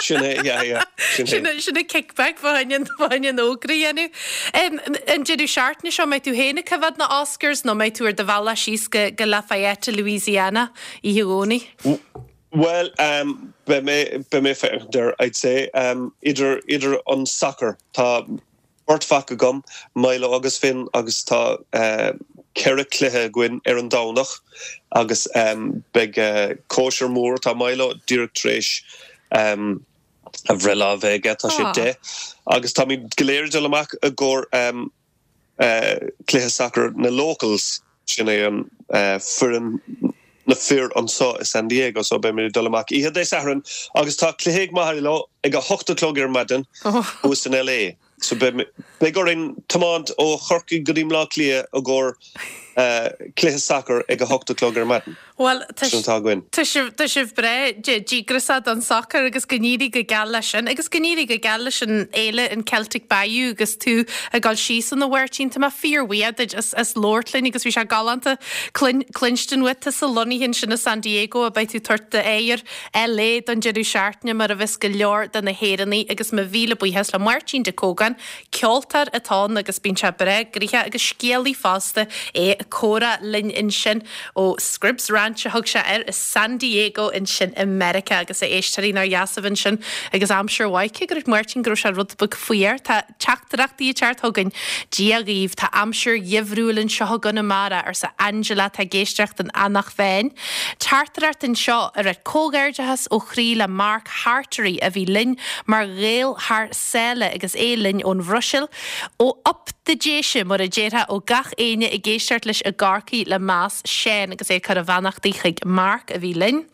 Sin é, yeah, yeah, sin é. Sin é, sin é kickback fá choinne an, fá choinne an fhógra a dhéanamh. An deireadh seachtaine seo, mbeidh tú féin ag coimhéad na Oscars nó mbeidh tú ar do bhealach síos go go Lafayette, Louisiana, oíche Dhomhnaigh? Bhuel, beidh mé, beidh mé ag féachaint air, I'd say. Idir, idir an sacar, tá beirt mhac agam, Milo agus Finn, agus tá ceithre chluiche againn ar an Domhnach agus beidh cóisir mhór, tá Milo díreach tar éis a bhreithlá a bheith aige, tá sé 10, agus táimid go léir ag dul amach i gcomhair cluiche sacair na locals, sin é an foireann na fir anseo i San Diego, so beimid ag dul amach oíche Dé Sathairn agus tá cluiche ag Milo ag a hocht a chlog ar maidin thuas in LA. So beidh orainn tiomáint ó Chorcaigh go dtí mBleá Cliath i gcomhair cluiche sacair ag a hocht a chlog ar maidin. Bhuel, tá Sin atá againn. tá sibh, tá sibh breá díograiseach don sacar agus go n-éirí go geal leis sin. Agus go n-éirí go geal leis an fhéile, an Celtic Bayou agus tú ag dul síos ann a Mháirtín. Tá mé fíorbhuíoch duit as, as labhairt linn agus bhí sé galánta cluinstin uait. Tusa lonnaithe ansin i San Diego a beidh tú ag tabhairt d'aghaidh ar LA don deireadh seachtaine mar a bheas go leor de na hÉireannaigh agus mo mhíle buíochas le Máirtín de Cógáin, ceoltóir atá ann agus bíonn sé breá gnoitheach agus scéalaí fosta, é ag comhrá linn ansin ó Scribs Ranch a thug sé air i San Diego ansin i Meiriceá agus a éisteoirí nár dheas a bheith ansin agus aimsir mhaith cé go raibh Máirtín go raibh sé rud beag fuar tá Teachtaireachtaí ag teacht chugainn. Dia dhaoibh, tá aimsir gheimhriúil anseo i gConamara, arsa Angela atá ag éisteacht in Eanach Mheáin. Teachtaireacht anseo ag ráit comhghairdeachas ó chroí le Mark Hartery a bhí linn mar Ghael thar sáile agus é linn ón Bhruiséil. Ó Op de Déise, mar a déarfá, ó gach éinne ag éisteacht leis i gCorcaigh le meas, Seán agus é ag cur a bheannachtaí chuig Mark a bhí linn.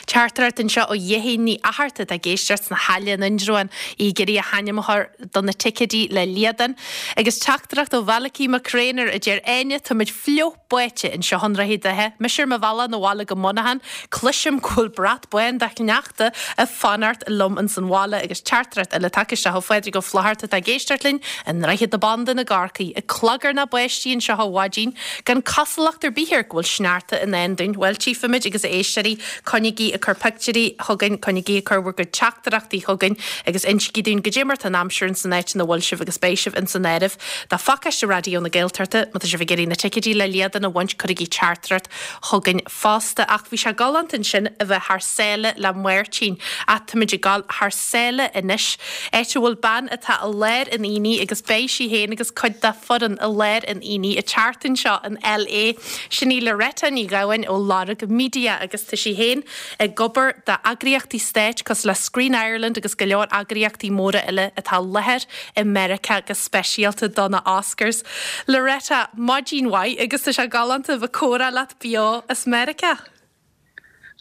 Teachtaireacht anseo ó Dhéithín Ní Fhatharta atá ag éisteacht sna hAille in Indreabhán, í ag iarraidh a hainm a chur do na ticéidí le Liadán. Agus teachtaireacht ó Mhalachy Mac Réanáir a deir Áine, táimid fliuch báite anseo i nDroichead Átha. Mise ar mo bhealach 'na bhaile go Muineachán, cloisim go bhfuil brat bán de shneachta ag fanacht liom ins an bhaile. Agus teachtaireacht eile tagtha isteach ó Phádraig Ó Flaithearta atá ag éisteacht linn i nDroichead na Bandan i gCorcaigh. Ag clagarnach báistí anseo ó mhaidin. Gan cosúlacht ar bith air go bhfuil sneachta i ndán dúinn. Bhuel, tchífimid agus a éisteoirí, coinnígí ag cur pictiúirí chugainn, coinnígí ag cur bhur gcuid teachtaireachtaí chugainn agus insígí dúinn goidé mar tá an aimsir ins an áit ina bhfuil sibh agus beidh sibh ins an áireamh do phacáiste Raidió na Gaeltachta. Má tá sibh ag iarraidh na ticéidí le Liadán a bhaint, cuirigí teachtaireacht chugainn fosta. Ach bhí sé galánta ansin a bheith thar sáile le Máirtín. Ach táimid ag dul thar sáile anois, áit a bhfuil bean atá i lár an aonaigh agus beidh sí féin agus cuid dá foireann i lár an aonaigh an tseachtain seo in LA. Sin í Loretta Ní Ghabháin ó Lorg Media agus tá sí féin ag obair d'eagraíochtaí stáit cosúil le Screen Ireland agus go leor eagraíochtaí móra eile atá i láthair i Meiriceá go speisialta do na Oscars. Loretta, maidin mhaith agus tá sé galánta a bheith ag comhrá leat beo as Meiriceá.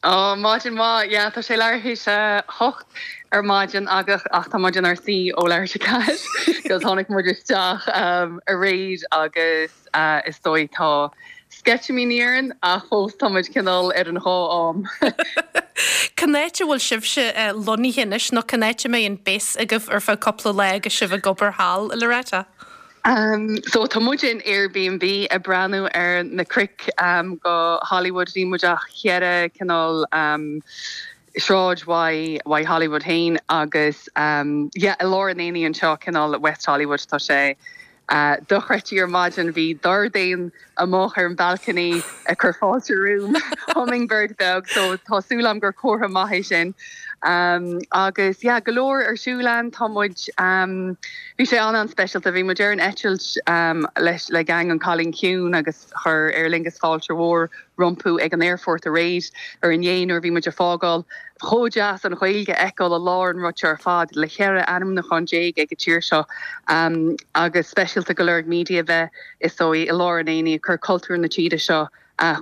Ó, maidin mhaith. Yeah, tá sé leathuair théis a hocht ar maidin ach tá muid inár suí ó leathuair théis a ceathair 'cause tháinig muid isteach aréir agus is dóigh tá sceitimíní orainn ach fós tá muid cineál ar an dhá am. Cén áit a bhfuil sibhse lonnaithe anois nó cén áit a mbeidh an base agaibh ar feadh cúpla lá agus sibh ag obair thall, Loretta? So tá muid in Airbnb ag breathnú ar na cnoic go Hollywood. Níl muid ach cheithre cineál sráid uaidh uaidh Hollywood féin agus yeah i lár an aonaigh anseo cineál West Hollywood tá sé dochreidte ar maidin bhí dordéan amuigh ar an balcony ag cur fáilte romham, hummingbird beag, so tá súil agam gur comhartha maith é sin. Agus yeah, go leor ar siúl ann, tá muid, bhí sé an-an-speisialta, bhí muid ar an eitilt leis le gang an Cailín Ciúin agus chuir Aer Lingus fáilte mhór rompu ag an aerfort aréir ar inné nuair a bhí muid ag fágáil. Chomh deas an Ghaeilge a fheiceáil i lár an rud seo ar fad le 14 ainmniúchán ag an tír seo agus speisialta go Lorg Media bheith is dóigh, i lár an aonaigh, ag cur cultúr na tíre seo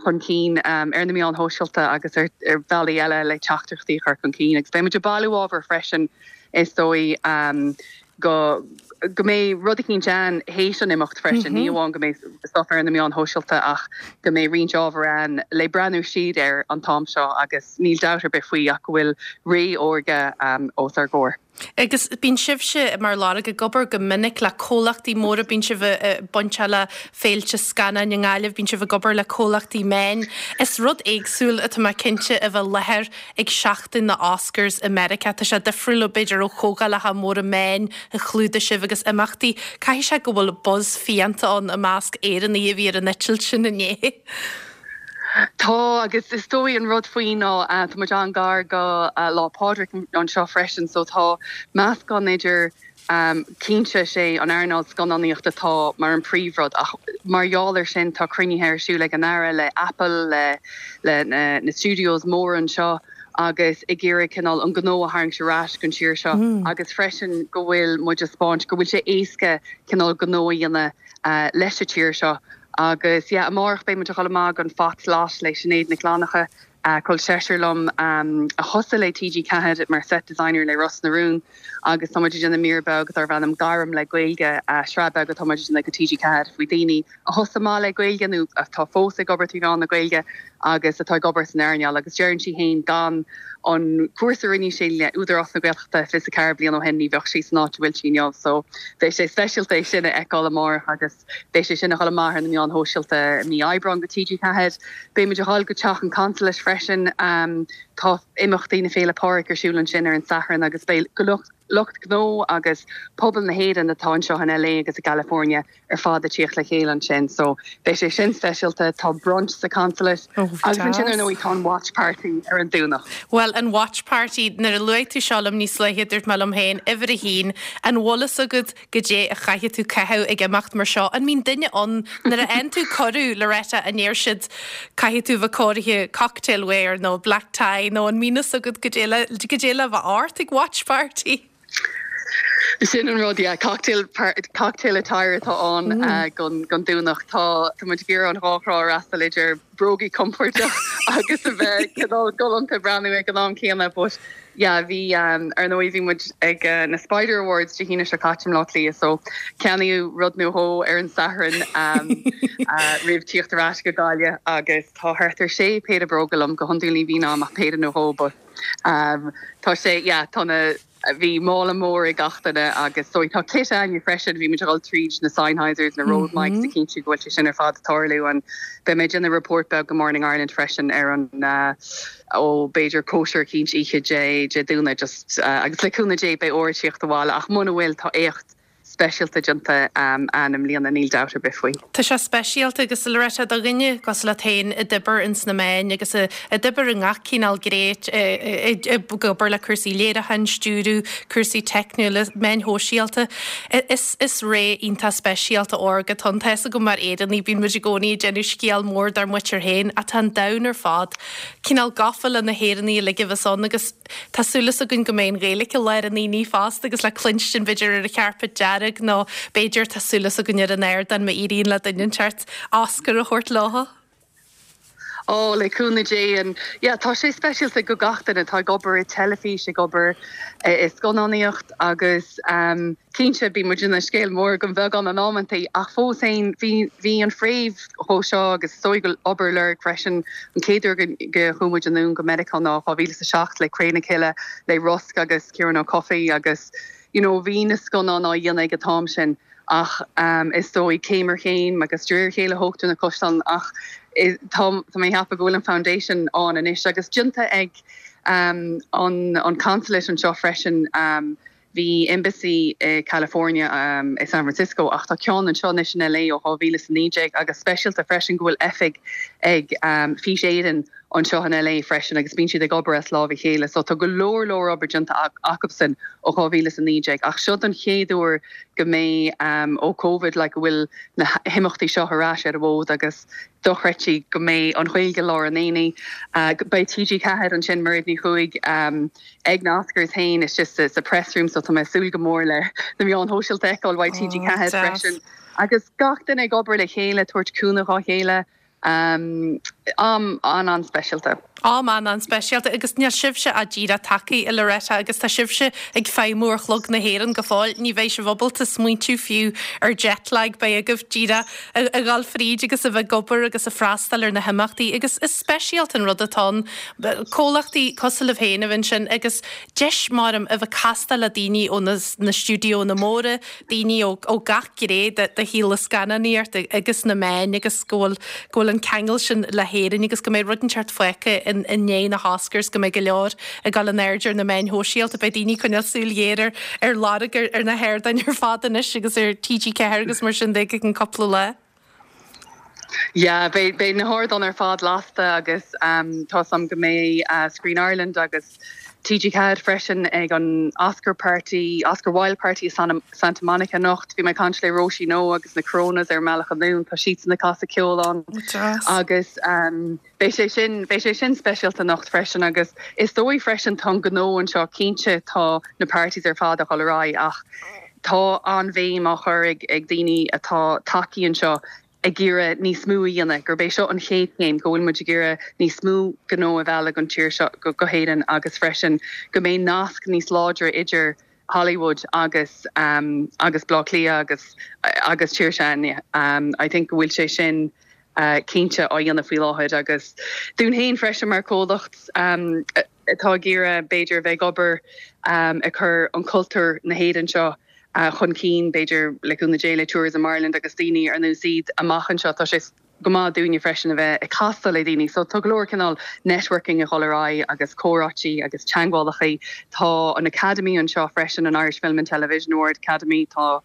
chun cinn ar na meáin shóisialta agus ar bhealaí eile le teachtaireachtaí a chur chun cinn. Agus beidh muid ag bailiú ábhair freisin, is dóigh, go go mbeidh rud eicínt ann théis an imeacht freisin, ní amháin go mbeidh stuff ar na meáin shóisialta ach go mbeidh roinnt ábhar ann le breathnú siar air an t-am seo agus níl dabht ar bith faoi ach go bhfuil ré órga os ár gcomhair. Agus bíonn sibhse mar Lorg ag obair go minic le comhlachtaí móra, bíonn sibh bainteach le féilte scannáin i nGaillimh, bíonn sibh ag obair le comhlachtaí meáin. Is rud éagsúil atá mé cinnte a bheith i láthair ag seachtain na Oscars i Meiriceá. Tá sé difriúil b'fhéidir ó chomhdhálacha móra meáin a chlúdaigh sibh agus imeachtaí. Caithfidh sé go bhfuil buzz fiánta ann i measc Éireannaigh a bhí ar an eitilt sin inné. Tá, agus is dóigh an rud faoi ná tá muid an-gar go Lá Pádraig anseo freisin so tá meascán idir, cinnte is é an earnáil scannánaíochta atá mar an príomhrud ach mar gheall ar sin tá cruinnithe ar siúl ag an Aire le Apple, le le na studios móra anseo agus ag iarraidh cineál an gnó a tharraingt ar ais gon tír seo agus freisin go bhfuil muid ag 'spáint go bhfuil sé éasca cineál gnó a dhéanamh leis an tír seo. Agus yeah, amárach beidh muid ag dul amach gon Fox Lot le Sinéad Nic Fhlannchadha, col seisear liom a thosaigh le TG4 mar set designer le Ros na Rún agus tá muid ag déanamh mír beag darb ainm Gairm le Gaeilge, sraith beag atá muid ag déanamh go TG4 faoi daoine a thosaigh amach le Gaeilge nó atá fós ag obair trí mheán na Gaeilge agus atá ag obair san earnáil agus deireann sí féin gan an cúrsa a rinne sí le Údarás na Gaeltachta 24 bliain ó shin ní bheadh sí san áit a bhfuil sí inniu so beidh sé speisialta é sin a fheiceáil amárach agus Beidh sé sin ag dul amach ar na meáin shóisialta i mí Aibreáin go TG4. Beidh muid ag dul go Teach an Consulate freisin. Tá imeachtaí na Féile Pádraig ar siúl ansin ar an Satharn agus beidh lucht gnó agus pobal na hÉireann atá anseo in LA agus i gCalifornia ar fad ag tíocht le chéile ansin. So beidh sé sin speisialta. Tá brunch sa Consulate agus ansin ar ndóigh tá an watch party ar an Domhnach. Bhuel, an watch party, nuair a luaigh tú seo liom níos luaithe dúirt mé liom féin, uimhir a haon, an bhfuil fhios agat goidé a chaithfidh tú caitheamh ag imeacht mar seo. An mbíonn duine ann nuair a fhaigheann tú cuireadh, Loretta, an ndeir siad caithfidh tú bheith cóirithe cocktail wear nó black tie nó an mbíonn fhios agat goidé le goidé le bheith ort ag watch party? Sin an rud, yeah, cocktail cocktail attire atá ann gon gon Domhnach. Tá tá muid ag iarraidh an dhá thrá a fhreastal idir brógaí compordach agus a bheith cineál galánta breathnú ag an am céanna but Yeah, bhí, ar ndóigh bhí muid ag na Spider Awards Dé hAoine seo caite i mBleá Cliath so ceannaíodh rud nó dhó ar an Satharn roimh tíocht ar ais go Gaillimh agus tá thart ar sé péire bróga liom, go hiondúil ní bhíonn a'm ach péire nó dhó but tá sé, yeah, tá na, bhí mála mór ag gach duine agus so tá kit a'inne freisin, bhí muid ag dul tríd na Sennheisers, na Rode mics a chinntiú go bhfuil sé sin ar fad ag tarlú and beidh mé ag déanamh report beag go Morning Ireland freisin ar an ó b'fhéidir cóisir eicínt oíche Dé Dé Domhnaigh just agus le cúnamh Dé beidh ór ag tíocht abhaile ach muna bhfuil tá éacht speisialta déanta a'inn i mbliana níl dabht ar bith faoi. Tá sé speisialta agus Loretta do dhuine cosúil leat féin a d'oibir ins na meáin agus a d'oibir i ngach cineál gné ag obair le cúrsaí léiriúcháin, stiúradh, cúrsaí teicniúla, meáin shóisialta. Is is ré iontach speisialta órga atá ann. Tá fhios agam mar Éireannaigh bíonn muid i gcónaí ag déanamh scéal mór dár muintir féin ach tá an domhan ar fad cineál gafa le na hÉireannaigh uilig a bheas ann agus tá súil againn go mbeidh an Ghaeilge i lár an aonaigh fosta agus le cluinstin b'fhéidir ar an charpet dearg nó b'fhéidir tá súil againn ar an ardán má éiríonn le duine inteacht Oscar a thabhairt leo. Ó, le cúnamh Dé and yeah tá sé speisialta go gach duine atá ag obair i teilifís, ag obair i scannánaíocht agus ehm Cinnte, bíonn muid ina scéal mór den bheagán in amantaí, ach fós féin, bhí, bhí an fréamh dhó seo agus is dóigh go obair Lorg freisin, an chéad uair go, go chuaigh muid anonn go Meiriceá ná 2007 le Cré na Cille, le Rosc agus Ciarán Ó Cofaigh agus you know bhí na scannáin á dhéanamh ag an t-am sin ach is dóigh céim ar chéim agus de réir a chéile thógtar na caisleáin ach tá, tá mé ag ceapadh go bhfuil an foundation ann anois agus déanta ag an, an consulate anseo freisin. Bhí embassy i California, i San Francisco, ach tá ceann anseo anois in LA ó 2019 agus speisialta freisin go bhfuil oifig ag Fís Éireann anseo in LA freisin agus bíonn siad ag obair as lámh a chéile. So tá go leor leor obair déanta acubsan ó 2019 ach seo don chéad uair go mbeidh ó Covid like go bhfuil na himeachtaí seo ar ais ar an bhfód agus dochreidte go mbeidh an Ghaeilge i lár an aonaigh. Beidh TG4 ansin, Mairéad Ní Chuaig, ag na Oscars féin istigh sa press room so tá mé ag súil go mór le na meáin shóisialta a fheiceáil uaidh TG4 freisin. Agus gach duine ag obair le chéile, tabhairt cúnamh dhá chéile. Am an-an-speisialta. Am an-an-speisialta agus níl sibhse ach díreach tagtha, a Loretta, agus tá sibhse ag feidhmiú ar chlog na hÉireann go fóill. Ní bheidh sibh ábalta smaointiú fiú ar jet lag, beidh agaibh díreach a dhul fríd agus a bheith ag obair agus ag freastal ar na himeachtaí agus is speisialta an rud atá ann comhlachtaí cosúil libh féin a bheith ansin agus deis maram a bheith ag castáil le daoine ó na stiúideonna móra, daoine ó gach gné de shaol na scannánaíochta agus na meáin agus go bhfuil go bhfuil an ceangal sin le hÉirinn agus go mbeidh rud inteacht fágtha i ndiaidh na hOscars, go mbeidh go leor ag dul in airde ar na meáin shóisialta. Beidh daoine ag coinneáil súil ghéar ar ar Lorg ar ar na hardáin ar fad anois agus ar TG4 agus mar sin de go ceann cúpla lá. Yeah, beidh beidh na hardáin ar fad lasta agus tá 's agam go mbeidh Screen Ireland agus TG4 freisin ag an Oscar Party, Oscar Wilde Party i Santa Monica anocht. Bhí mé ag caint le Róisín Ó agus na Coronas ar an mbealach anonn, tá siadsan ag casadh ceoil ann agus beidh sé sin, beidh sé sin speisialta anocht freisin agus is dóigh freisin tá an gnó anseo, cinnte tá na parties ar fad ag dul ar aghaidh ach tá an-bhéim á chur ag daoine atá tagtha anseo ag iarraidh níos mó a dhéanamh, gurb é seo an chéad chéim, go bhfuil muid ag iarraidh níos mó gnó a mhealladh don tír seo, go hÉirinn agus freisin go mbeidh nasc níos láidre idir Hollywood agus agus Baile Átha Cliath agus agus tír s'againne. I think go bhfuil sé sin cinnte á dhéanamh faoi láthair agus dúinn féin freisin mar chomhlacht atá ag iarraidh b'fhéidir a bheith ag obair ag cur an cultúr na hÉireann seo chun cinn, b'fhéidir, le cúnamh Dé, le Tourism Ireland agus daoine ar nós iad amach anseo. Tá sé go maith dúinne freisin a bheith ag castáil le daoine. So tá go leor cineál networking ag dul ar aghaidh agus comhráití agus teagmhálacha. Tá an Academy anseo freisin, an Irish Film and Television Award Academy. Tá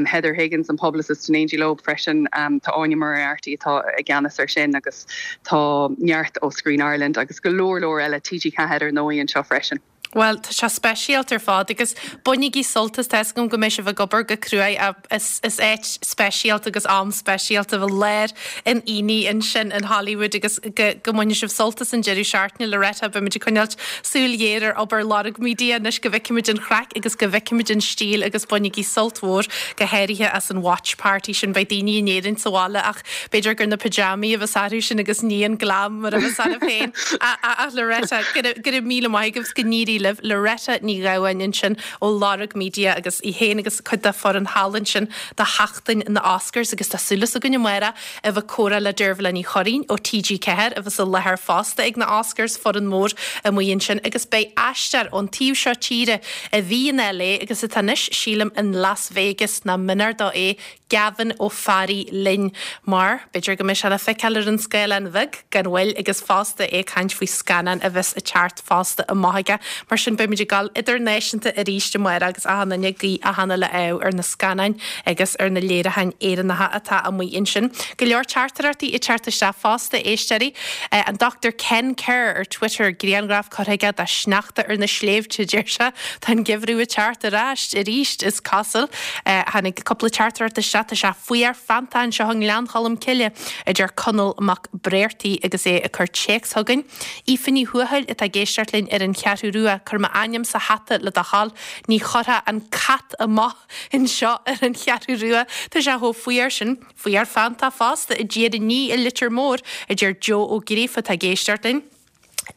Heather Higgins, an publicist in éindí leo freisin. Tá Áine Moriarty atá i gceannas ar sin agus tá neart ó Screen Ireland agus go leor leor eile, TG4 ar ndóigh anseo freisin. Bhuel, tá sé speisialta ar fad agus bainigí sult as, tá 'fhios agam go mbeidh sibh ag obair go cruaidh ach is is áit speisialta agus am speisialta a bheith lár an aonaigh ansin in Hollywood agus go go mbainfidh sibh sult as an deireadh seachtaine. Loretta, beimid ag coinneáilt súil ghéar ar obair Lorg Media anois go bhfeicfimid an chraic agus go bhfeicfimid an stíl agus bainigí sult mhór go háirithe as an watch party sin. Beidh daoine in Éirinn sa bhaile ach B'fhéidir gur na pyjamaí a bheas orthu sin agus ní an glam mar a bheas oraibh féin. Ach Loretta, go raibh míle maith agaibh, go n-éirí libh. Loretta Ní Ghabháin ansin ó Lorg Media agus í féin agus cuid dá foireann thall ansin do sheachtain na Oscars agus tá súil againn amárach a bheith ag comhrá le Deirbhile Ní Churraoin ó TG4 a bheas i láthair fosta ag na Oscars, foireann mór amuigh ansin agus beidh aisteoir ón taobh seo tíre a bhí in LA agus atá anois sílim in Las Vegas nach mionar dó é Gavin Ó Fearraigh linn mar b'fhéidir go mbeidh sé le feiceáil ar an scáileán bheag gan mhoill agus fosta é ag caint faoi scannán a bheas ag teacht fosta amach aige. Mar sin beimid ag dul idirnáisiúnta arís amárach agus achan duine ag guí achan uile ádh ar na scannáin agus ar na léiriúcháin Éireannacha atá amuigh ansin. Go leor teachtaireachtaí ag teacht isteach fosta, éisteoirí. An Dr Ken Kerr ar Twitter, grianghraf curtha aige de shneachta ar na sléibhte, deir sé. Tá an geimhreadh ag teacht ar ais arís, is cosúil. Tháinig cúpla teachtaireacht isteach, tá sé fuar feanntach anseo i nGleann Cholm Cille, a deir Conall Mac Bréartaigh agus é ag cur téacs chugainn. Aoife Ní Thuathail atá ag éisteacht linn ar an Cheathrú Rua, cuir m'ainm sa hata le do thoil, ní chuirfeá an cat amach anseo ar an Cheathrú Rua, tá sé chomh fuar sin. Fuar feanntach fosta i dTír an Fhia i Leitir Móir, a deir Joe Ó Gríofa atá ag éisteacht linn.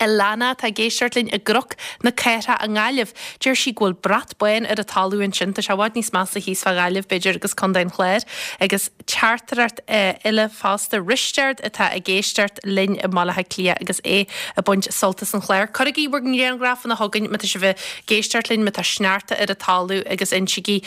Alana atá ag éisteacht linn i gCnoc na Cathrach i nGaillimh. Deir sí go bhfuil brat bán ar an talamh ansin. Tá sé i bhfad níos measa thíos fá Ghaillimh, b'fhéidir, agus Contae an Chláir. Agus teachtaireacht eile fosta, Risteard atá ag éisteacht linn i mBaile Átha Cliath agus é ag baint sult as an chlár. Cuirigí bhur ngrianghrafanna chugainn má tá sibh ag éisteacht linn, má tá sneachta ar an talamh agus insígí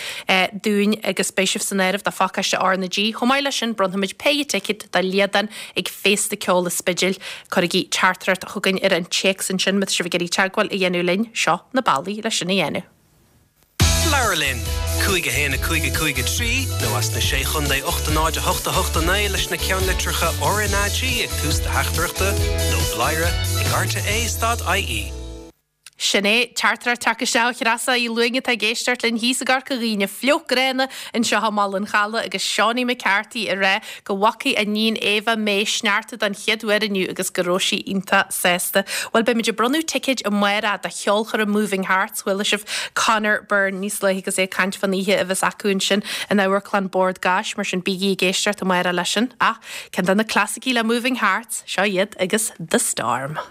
dúinn agus beidh sibh san áireamh do phacáiste R na G. Chomh maith leis sin, bronnfaimid péire ticéad do Liadán ag Féasta Ceoil an Spidéil. Cuirigí teachtaireacht chugainn ar an téacs ansin má tá sibh ag iarraidh teagmháil a dhéanamh linn, seo na bealaí leis sin a dhéanamh. Labhair linn! 5 1 5 5 3 nó as na Sé Chontae 8 0 8 8 9 leis na ceannlitreacha RnaG ag tús do theachtaireachta nó bladhaire ag rte stad ie. Sin é, teachtaireacht ag teacht isteach ó Threasa Uí Luing atá ag éisteacht linn thíos i gCorca Dhuibhne, fliuch gránna anseo i mBaile an Chalaidh agus Seánie McCarthy ag rá go bhfacaidh a níon Éabha May sneachta don chéad uair inniu agus go raibh sí iontach sásta. Bhuel, beimid ag bronnadh ticéid amárach do cheolchoirm Moving Hearts, chuala sibh Conor Byrne níos luaithe agus é ag caint fán oíche a bheas acu ansin in Amharclann Bord Gáis, mar sin bígí ag éisteacht amárach leis sin. Ach ceann de na clasaicí le Moving Hearts, seo iad agus The Storm.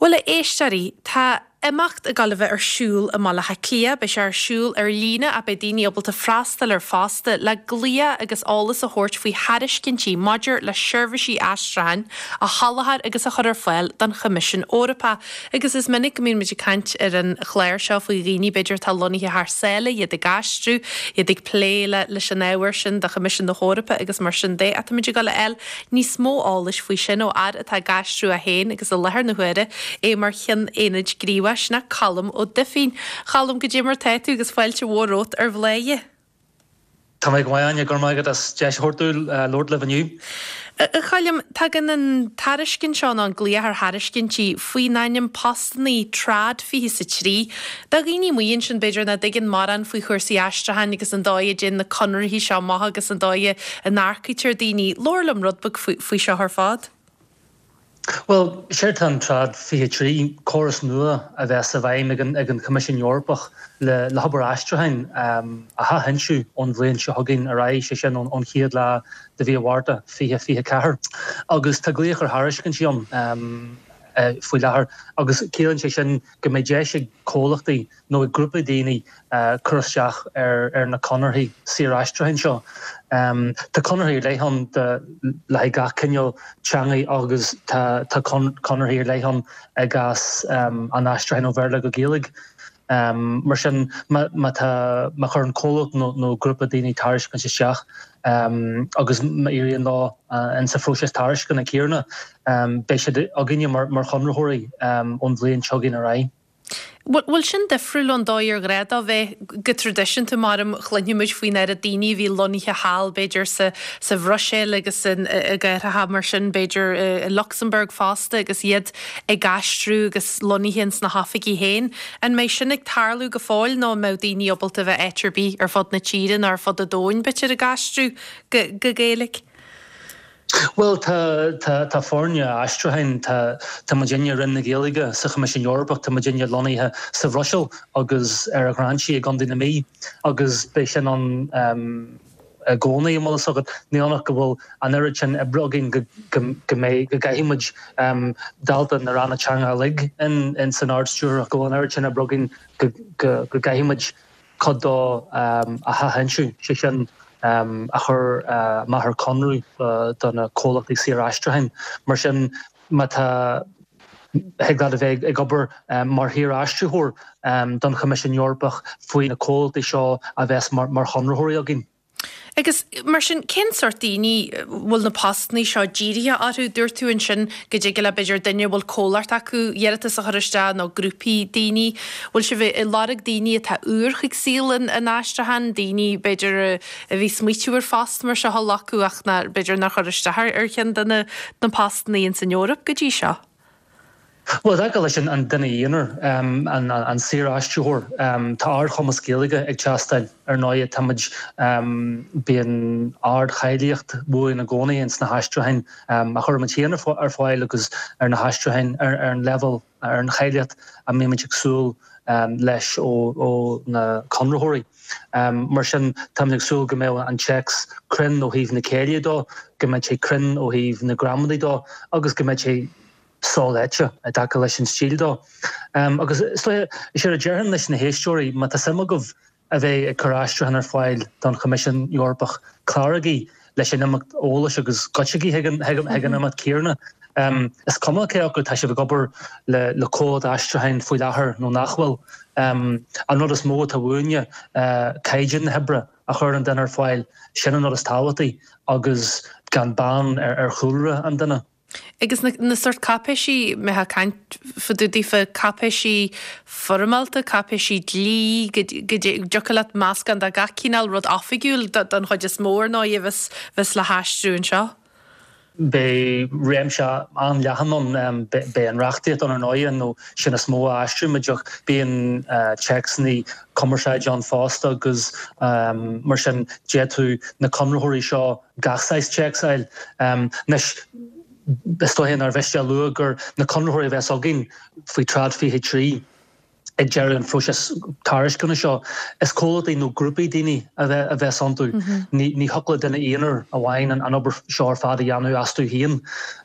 Bhuel, a éisteoirí, tá. imeacht ag dul a bheith ar siúl i mBaile Átha Cliath. Beidh sé ar siúl ar líne ach beidh daoine ábalta freastal air fosta le glaoch agus eolas a thabhairt faoi thairiscintí maidir le seirbhísí aistriúcháin a sholáthar agus a chur ar fáil don Choimisiún Eorpach. Agus is minic go mbíonn muid ag caint ar an chlár seo faoi dhaoine b'fhéidir atá lonnaithe thar sáile, iad ag aistriú, iad ag plé le leis an ábhar sin do Choimisiún na hEorpa agus mar sin de. Ach táimid ag dul a fháil níos mó eolais faoi sin ó fhear atá ag aistriú é féin agus i láthair na huaire é mar Cheann Aonaid Ghníomhaigh, sin é Colm Ó Duifín. Cholm, goidé mar tá tú agus fáilte mhór romhat ar Bhladhaire. Tá mé go maith, Áine, go raibh maith agat as deis a thabhairt dúinn labhairt libh inniu. A Choilm, tagann an tairiscint seo, nó an glaoch ar thairiscintí, faoin ainm Postannaí Trad 23. Do dhaoine amuigh ansin, b'fhéidir, nach dtuigeann mórán faoi chúrsaí aistriúcháin agus an dóigh a dtéann na conarthaí seo amach agus an dóigh a n-earcaítear daoine, labhair liom rud beag faoi seo ar fad. Bhuel, séard atá in Trad 23, córas nua a bheas i bhfeidhm ag an Choimisiún Eorpach le hobair aistriúcháin a athfhoinsiú ón bhliain seo chugainn ar aghaidh, sé sin ón chéad lá de mhí an Mhárta 2024. Agus tá glaoch ar thairiscintí ann faoi láthair agus ciallaíonn sé sin go mbeidh deis ag comhlachtaí nó ag grúpaí daoine cur isteach ar na conarthaí saoraistriúcháin seo. Tá conarthaí ar leith ann le haghaidh gach cineál teangaí agus tá conarthaí ar leith ann i gcás an aistriúcháin ó Bhéarla go Gaeilge. Mar sin, má tá, má chuireann comhlacht nó grúpa daoine tairiscint isteach agus má éiríonn leo insa phróiseas tairisceana céanna, beidh siad againne mar chonraitheoirí ón bhliain seo chugainn ar aghaidh. Bhfuil sin difriúil ón dóigh ar ghnách dó bheith go traidisiúnta mar a chluinfidh muid faoin oiread daoine a bhí lonnaithe thall b'fhéidir sa sa Bhruiséil agus in i gcathracha mar sin b'fhéidir i Lucsamburg fosta agus iad ag aistriú agus lonnaithe ins na hoifigí féin. An mbeidh sin ag tarlú go fóill nó an mbeidh daoine ábalta a bheith áit ar bith ar fud na tíre nó ar fud an domhain b'fhéidir ag aistriú go go Gaeilge? Bhuel, tá, tá, tá foirne aistriúcháin, tá, tá muidinne i Roinn na Gaeilge sa Choimisiún Eorpach, tá muidinne lonnaithe sa Bhruiséil agus ar an Ghráinsí i gContae na Mí agus beidh sin ann i gcónaí, an bhfuil fhios agat. Ní ionadh go bhfuil an oiread sin oibre againn go, go, go mbeidh, go gcaithfidh muid, dálta na ranna teanga uilig in, in san Ard-Stiúrthóireacht, go bhfuil an oiread sin oibre againn go, go, go gcaithfidh muid cuid dó a athfhoinsiú, sé sin a chur amach ar conradh do na comhlachtaí saoraistriúcháin. Mar sin, má tá, thig leat a bheith ag obair mar shaoraistritheoir don Choimisiún Eorpach faoi na comhlachtaí seo a bheas mar chonraitheoirí againn. Agus mar sin, cén sórt daoine a bhfuil na postannaí seo dírithe orthu? Dúirt tú ansin go dtig le b'fhéidir duine a bhfuil comhlacht acu iarratas a chur isteach nó grúpaí daoine. Bhfuil sibh ag lorg daoine atá úr chuig saol an aistriúcháin, daoine b'fhéidir a bhí smaoitiú ar phost mar seo a ghlacadh ach nár, b'fhéidir nár chuir isteach ar cheann de na postannaí ins an Eoraip go dtí seo? Bhuel, i dtaca leis an duine aonair, an saoraistritheoir, tá ardchumas Gaeilge ag teastáil. Ar ndóigh, táimid, bíonn ardcháilíocht uainn i gcónaí ins na haistriúcháin a chuirimid féin ar fáil agus ar na haistriúcháin ar an leibhéal, ar an cháilíocht a mbímid ag súil leis ó na conraitheoirí. Mar sin, táimid ag súil go mbeadh an téacs cruinn ó thaobh na céille dó, go mbeidh sé cruinn ó thaobh na gramadaí dó agus go mbeidh sé soléite i dtaca leis an stíl dó. Agus is dóiche, is éard a déarfainn leis na héisteoirí, má tá suim agaibh a bheith ag cur aistriúchán ar fáil don Choimisiún Eorpach, cláraigí leis an imeacht eolais agus goitsigí chuig an imeacht céanna. Is cuma cé acu tá sibh ag obair le comhlacht aistriúcháin faoi láthair nó nach bhfuil. An rud is mó atá uainne, caighdeán na hoibre a chuireann an duine ar fáil, sin an rud is tábhachtaí agus gan beann ar chúlra an duine. Agus na, na sórt cáipéisí, mbeifeá ag caint fá dtaobh daofa, cáipéisí foirmeálta, cáipéisí dlí, go, go dtiocfadh leat meascán de gach cineál rud oifigiúil don chuid is mó ar ndóigh a bheas, bheas le haistriú anseo. Beidh réimse an-leathan ann, beidh an reachtaíocht ann ar ndóighe, nó sin is mó a aistrímid ach bíonn téacsanna cumarsáide ann fosta agus mar sin d'fhéadfadh na conraitheoirí seo gach saghas téacs a fháil. Anois, is dóiche nár mhiste a lua gur na conraitheoirí a bheas againn faoi Trad 23 ag deireadh an phróisis tairisceana seo, is comhlachtaí nó grúpaí daoine a bheas iontu. Ní thiocfadh le duine aonair amháin an obair seo ar fad a dhéanamh astu féin.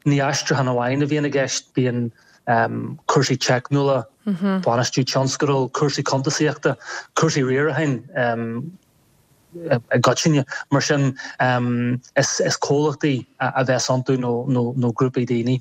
Ní aistriúchán amháin a bhíonn i gceist, bíonn. Cúrsaí teicniúla, bainistiú tionscadal, cúrsaí cuntasaíochta, cúrsaí riaracháin i gcoitinne. Mar sin, is comhlachtaí a bheas iontu nó grúpaí daoine.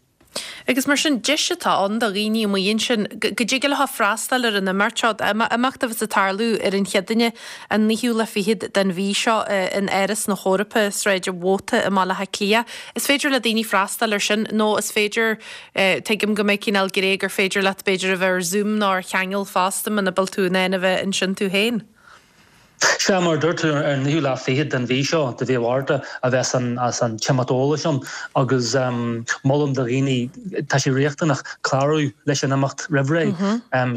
Agus mar sin, deis atá ann do dhaoine amuigh ansin go dtig leo freastal ar an imeacht seo, imeacht a bheas ag tarlú ar an Chéadaoine an naoú lá fichead den mhí seo in Áras na hEorpa, Sráid an Mhóta i mBaile Átha Cliath. Is féidir le daoine freastal air sin nó is féidir, tuigim go mbeidh cineál gné gur féidir leat b'fhéidir a bheith ar Zoom nó ar cheangal fosta muna bhfuil tú in ann a bheith ansin tú féin. Sea, mar a dúirt tú, ar an naoú lá fichead den mhí seo, de mhí Mhárta, a bheas an t-imeacht eolais ann agus molaim do dhaoine, tá sé riachtanach clárú leis an imeacht roimh ré,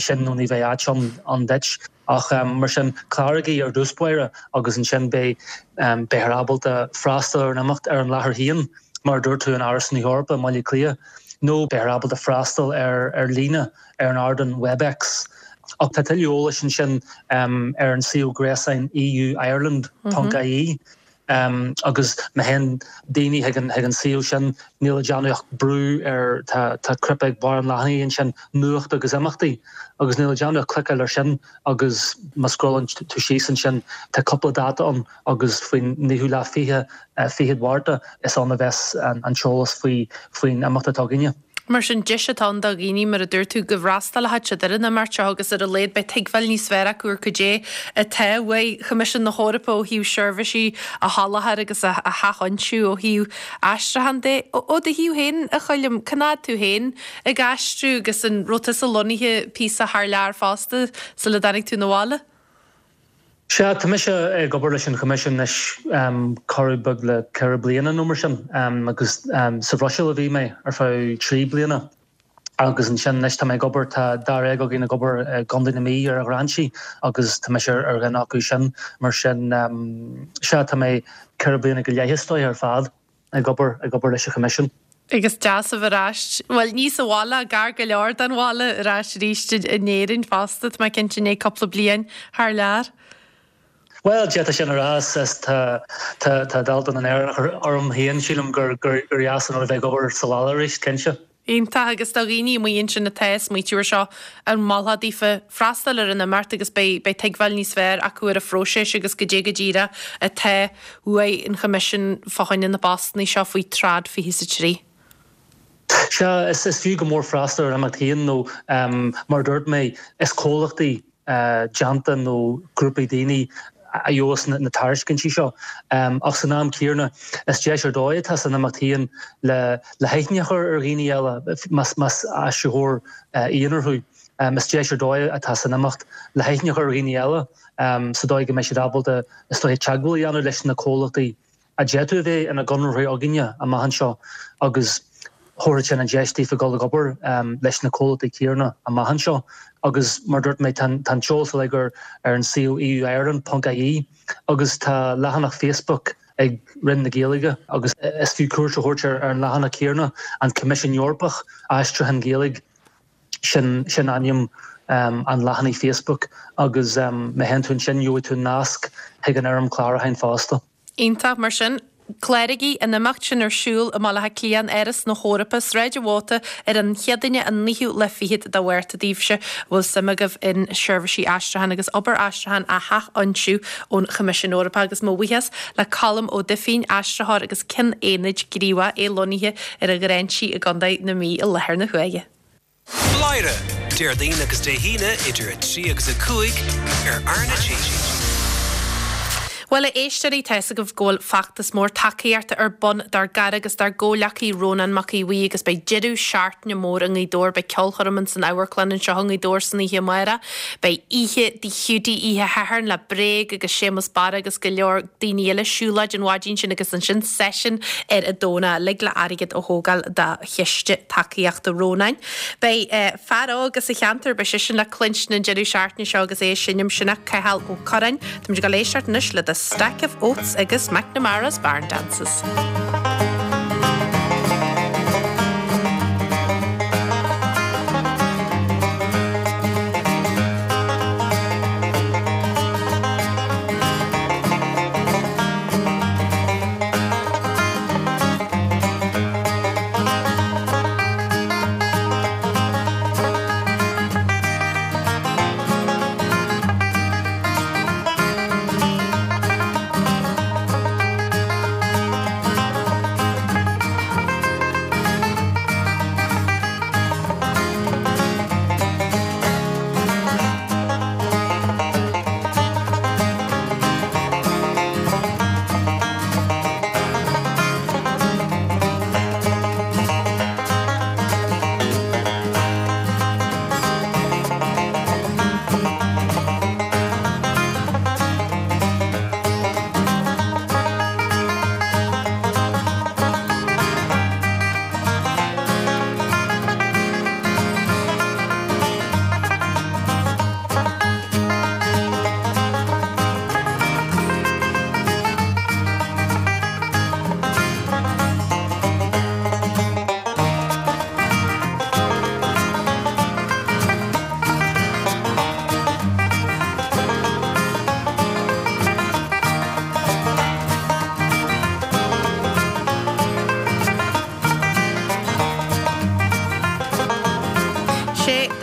sin nó ní bheidh áit ann duit. Ach mar sin, cláraigí ar dtús báire agus ansin beidh, beifear ábalta freastal ar an imeacht ar an láthair féin, mar a dúirt tú, in Áras na hEorpa i mBaile Átha Cliath, nó beifear ábalta freastal ar ar líne ar an ardán Webex. Ach tá tuilleadh eolais ansin ar an suíomh gréasáin euireland.ie agus má théann daoine chuig an chuig an suíomh sin, níl le déanamh ach brú ar, tá tá cnaipe ag barr an leathanaigh ansin, Nuacht agus Imeachtaí, agus níl le déanamh ach cliceáil air sin agus má scrollann tú síos ansin, tá cúpla dáta ann agus faoin naoú lá fiche, fichead Mhárta, is ann a bheas an t-eolas faoi faoin imeacht atá againne. Mar sin, deis atá ann do dhaoine, mar a dúirt tú, go bhfreastalóidh siad ar an imeacht seo agus ar a laghad beidh tuigbheáil níos fearr acu ar cad é atá uaidh Choimisiún na hEorpa ó thaobh seirbhísí a sholáthar agus a sheachfhoinsiú ó thaobh aistriúcháin de. Ó do thaobh féin, a Choilm, cá fhad tú féin ag aistriú agus an raibh tusa lonnaithe píosa thar lear fosta sula dtáinig tú 'na bhaile? Sea, tá mise ag obair leis an Choimisiún anois corradh beag le 4 bliana nó mar sin agus sa Bhruiséil a bhí mé ar feadh 3 bliana agus ansin anois tá mé ag obair, tá dáréag againn ag obair i gContae na Mí ar ghráinsí agus tá mise ar dhuine acu sin mar sin sea, tá mé 4 bliana go leith is dóiche ar fad. ag obair, ag obair leis an Choimisiún. Agus deas a bheith ar ais, bhuel, ní sa bhaile, gar go leor don bhaile, ar ais arís in Éirinn fosta, tá mé cinnte, i ndiaidh cúpla bliain thar lear. Bhuel, d'fhéadfá sin a rá, is tá, tá, tá dalta na nÉireannach orm féin, sílim gur, gur, gur dheas an rud a bheith ag obair sa bhaile arís, cinnte. Iontach, agus do dhaoine amuigh ansin atá ag smaoitiú ar seo, an molfá daofa freastal ar an imeacht agus beidh beidh tuigbheáil níos fearr acu ar an phróiseas agus goidé go díreach atá uaidh an Choimisiún fá choinne na bpostanna seo faoi Trad 23. Sea, is is fiú go mór freastal ar an imeacht féin nó mar a dúirt mé, is comhlachtaí déanta nó grúpaí daoine a gheobhas na tairiscintí seo. Ach san am céanna, is deis ar dóigh atá san imeacht féin le haithne a chur ar dhaoine eile, más aistritheoir aonair thú. Is deis ar dóigh atá san imeacht le haithne a chur ar dhaoine eile sa dóigh go mbeidh siad ábalta, is dóiche, teagmháil a dhéanamh leis na comhlachtaí a d'fhéadfadh a bheith ina gconraitheoirí againne amach anseo agus thabharfadh sin an deis daofa dul ag obair leis na comhlachtaí céanna amach anseo agus mar a dúirt mé tá an t-eolas uilig ar an suíomh euireland.ie agus tá leathanach Facebook ag Roinn na Gaeilge agus is fiú cuairt a thabhairt ar an leathanach céanna, An Coimisiún Eorpach, Aistriúchán Gaeilge. Sin sin ainm an leathanaigh Facebook agus má théann tú ansin gheobhaidh tú nasc chuig an fhoirm clárúcháin fosta. Iontach, mar sin, cláraigí, an imeacht sin ar siúl i mBaile Átha Cliath, in Áras na hEorpa, Sráid an Mhóta, ar an Chéadaoine an naoú lá fichead de Mhárta daoibhse a bhfuil suim agaibh in seirbhísí aistriúcháin agus obair aistriúcháin a sheachfhoinsiú ón Choimisiún Eorpach agus mo bhuíochas le Colm Ó Duifín, aistritheoir agus Ceann Aonaid gníomhach, é lonnaithe ar an Ghráinsí i gContae na Mí i láthair na huaire. Bladhaire, Déardaoin agus Dé hAoine idir 3 agus 5 ar R na G. Bhuel, a éisteoirí, tá fhios agaibh go bhfuil feachtas mór tacaíochta ar bun dár gcara agus dár gcomhghleacaí Rónán Mac Aodha Bhuí agus beidh deireadh seachtaine mór i nGaoth Dobhair. Beidh ceolchoirm ins an amharclann anseo i nGaoth Dobhair san oíche amárach. Beidh oíche Dí Hiúdaí oíche Shathairn le Bréag agus Séamus Barra agus go leor daoine eile, siúlóid an mhaidin sin agus ansin seisiún ar an Domhnach, uilig le airgead a thógáil do chiste tacaíochta Rónáin. Beidh fear óg as an cheantar, beidh seisean le cluinstin an deireadh seachtaine seo agus é ag seinm, sin é Cathal Ó Curráin. Táimid ag dul éisteacht anois le The Stack of Oats agus McNamara's Barn Dances.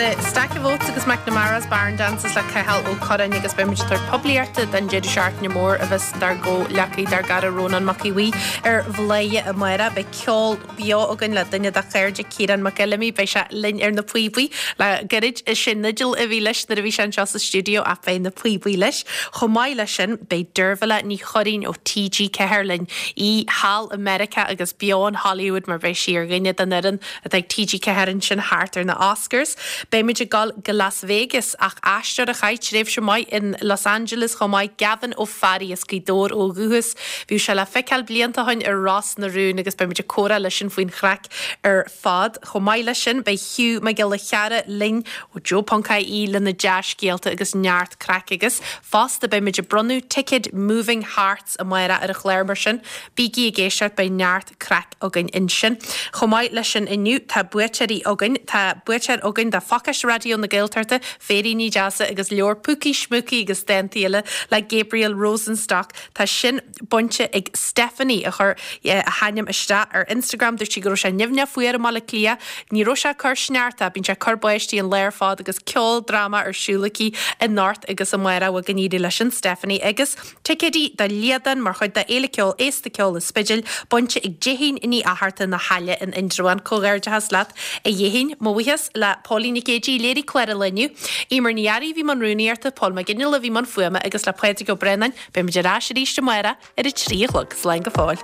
The Stack of Oats agus McNamara's Barn Dances le Cathal Ó Curráin agus beidh muid ag tabhairt poiblíochta don deireadh seachtaine mór a bheas dár gcomhghleacaí, dár gcara Rónán Mac Aodha Bhuí ar Bhladhaire amárach. Beidh ceol beo againn le duine dá chairde, Ciarán Mac Fheilimí. Beidh sé linn ar na píobaí le gairid. Is é Nigel a bhí leis nuair a bhí sé anseo sa stiúideo ach beidh na píobaí leis. Chomh maith leis sin, beidh Deirbhile Ní Churraoin ó TG4 linn, í thall i Meiriceá agus beo in Hollywood mar beidh sí ar dhuine den fhoireann atá ag TG4 ansin thart ar na Oscars. Beimid ag dul go Las Vegas ach aisteoir a chaith tréimhse maith in Los Angeles chomh maith, Gavin Ó Fearraigh as Gaoth Dobhair ó dhúchas. Bhíodh sé le feiceáil blianta ó shin ar Ros na Rún agus beimid ag comhrá leisean faoin chraic ar fad. Chomh maith leis sin beidh Hugh Mac Giolla Chearra linn ó Joe.ie lena dea-scéalta agus neart craic agus fosta beimid ag bronnadh ticéid Moving Hearts amárach ar an chlár mar sin bígí ag éisteacht beidh neart craic againn ansin. Chomh maith leis sin inniu tá buaiteoirí againn. Tá buaiteoir againn do phacáiste Raidió na Gaeltachta, féiríní deasa agus leabhar Púcaí Smúcaí agus dántaí eile le Gabriel Rosenstock. Tá sin bainte ag Stephanie a chuir a hainm isteach ar Instagram. Dúirt sí go raibh sé nimhneach fuar i mBaile Átha Cliath. Ní raibh sé ag cur sneachta, bíonn sé ag cur báistí an lá ar fad agus ceoldráma ar siúl aici anocht agus amárach. Bhuel go n-éirí leis sin Stephanie agus. Ticéidí do Liadán mar chuid de Fhéile Ceoil Aosta Ceol an Spidéil bainte ag Déithín Ní Fhatharta na hAille in Indreabhán. Comhghairdeachas leat a Dhéithín. Mo bhuíochas le Póilín Nic Géidigh a léirigh clár an lae inniu, Emer Ní Fhearraigh a bhí i mbun rúnaíochta, Pól Mac Fhionnghaile a bhí i mbun fuaime agus le Pádraig Ó Braonáin. Beimid ar ais arís amárach ar a 3 a chlog. Slán go fóill.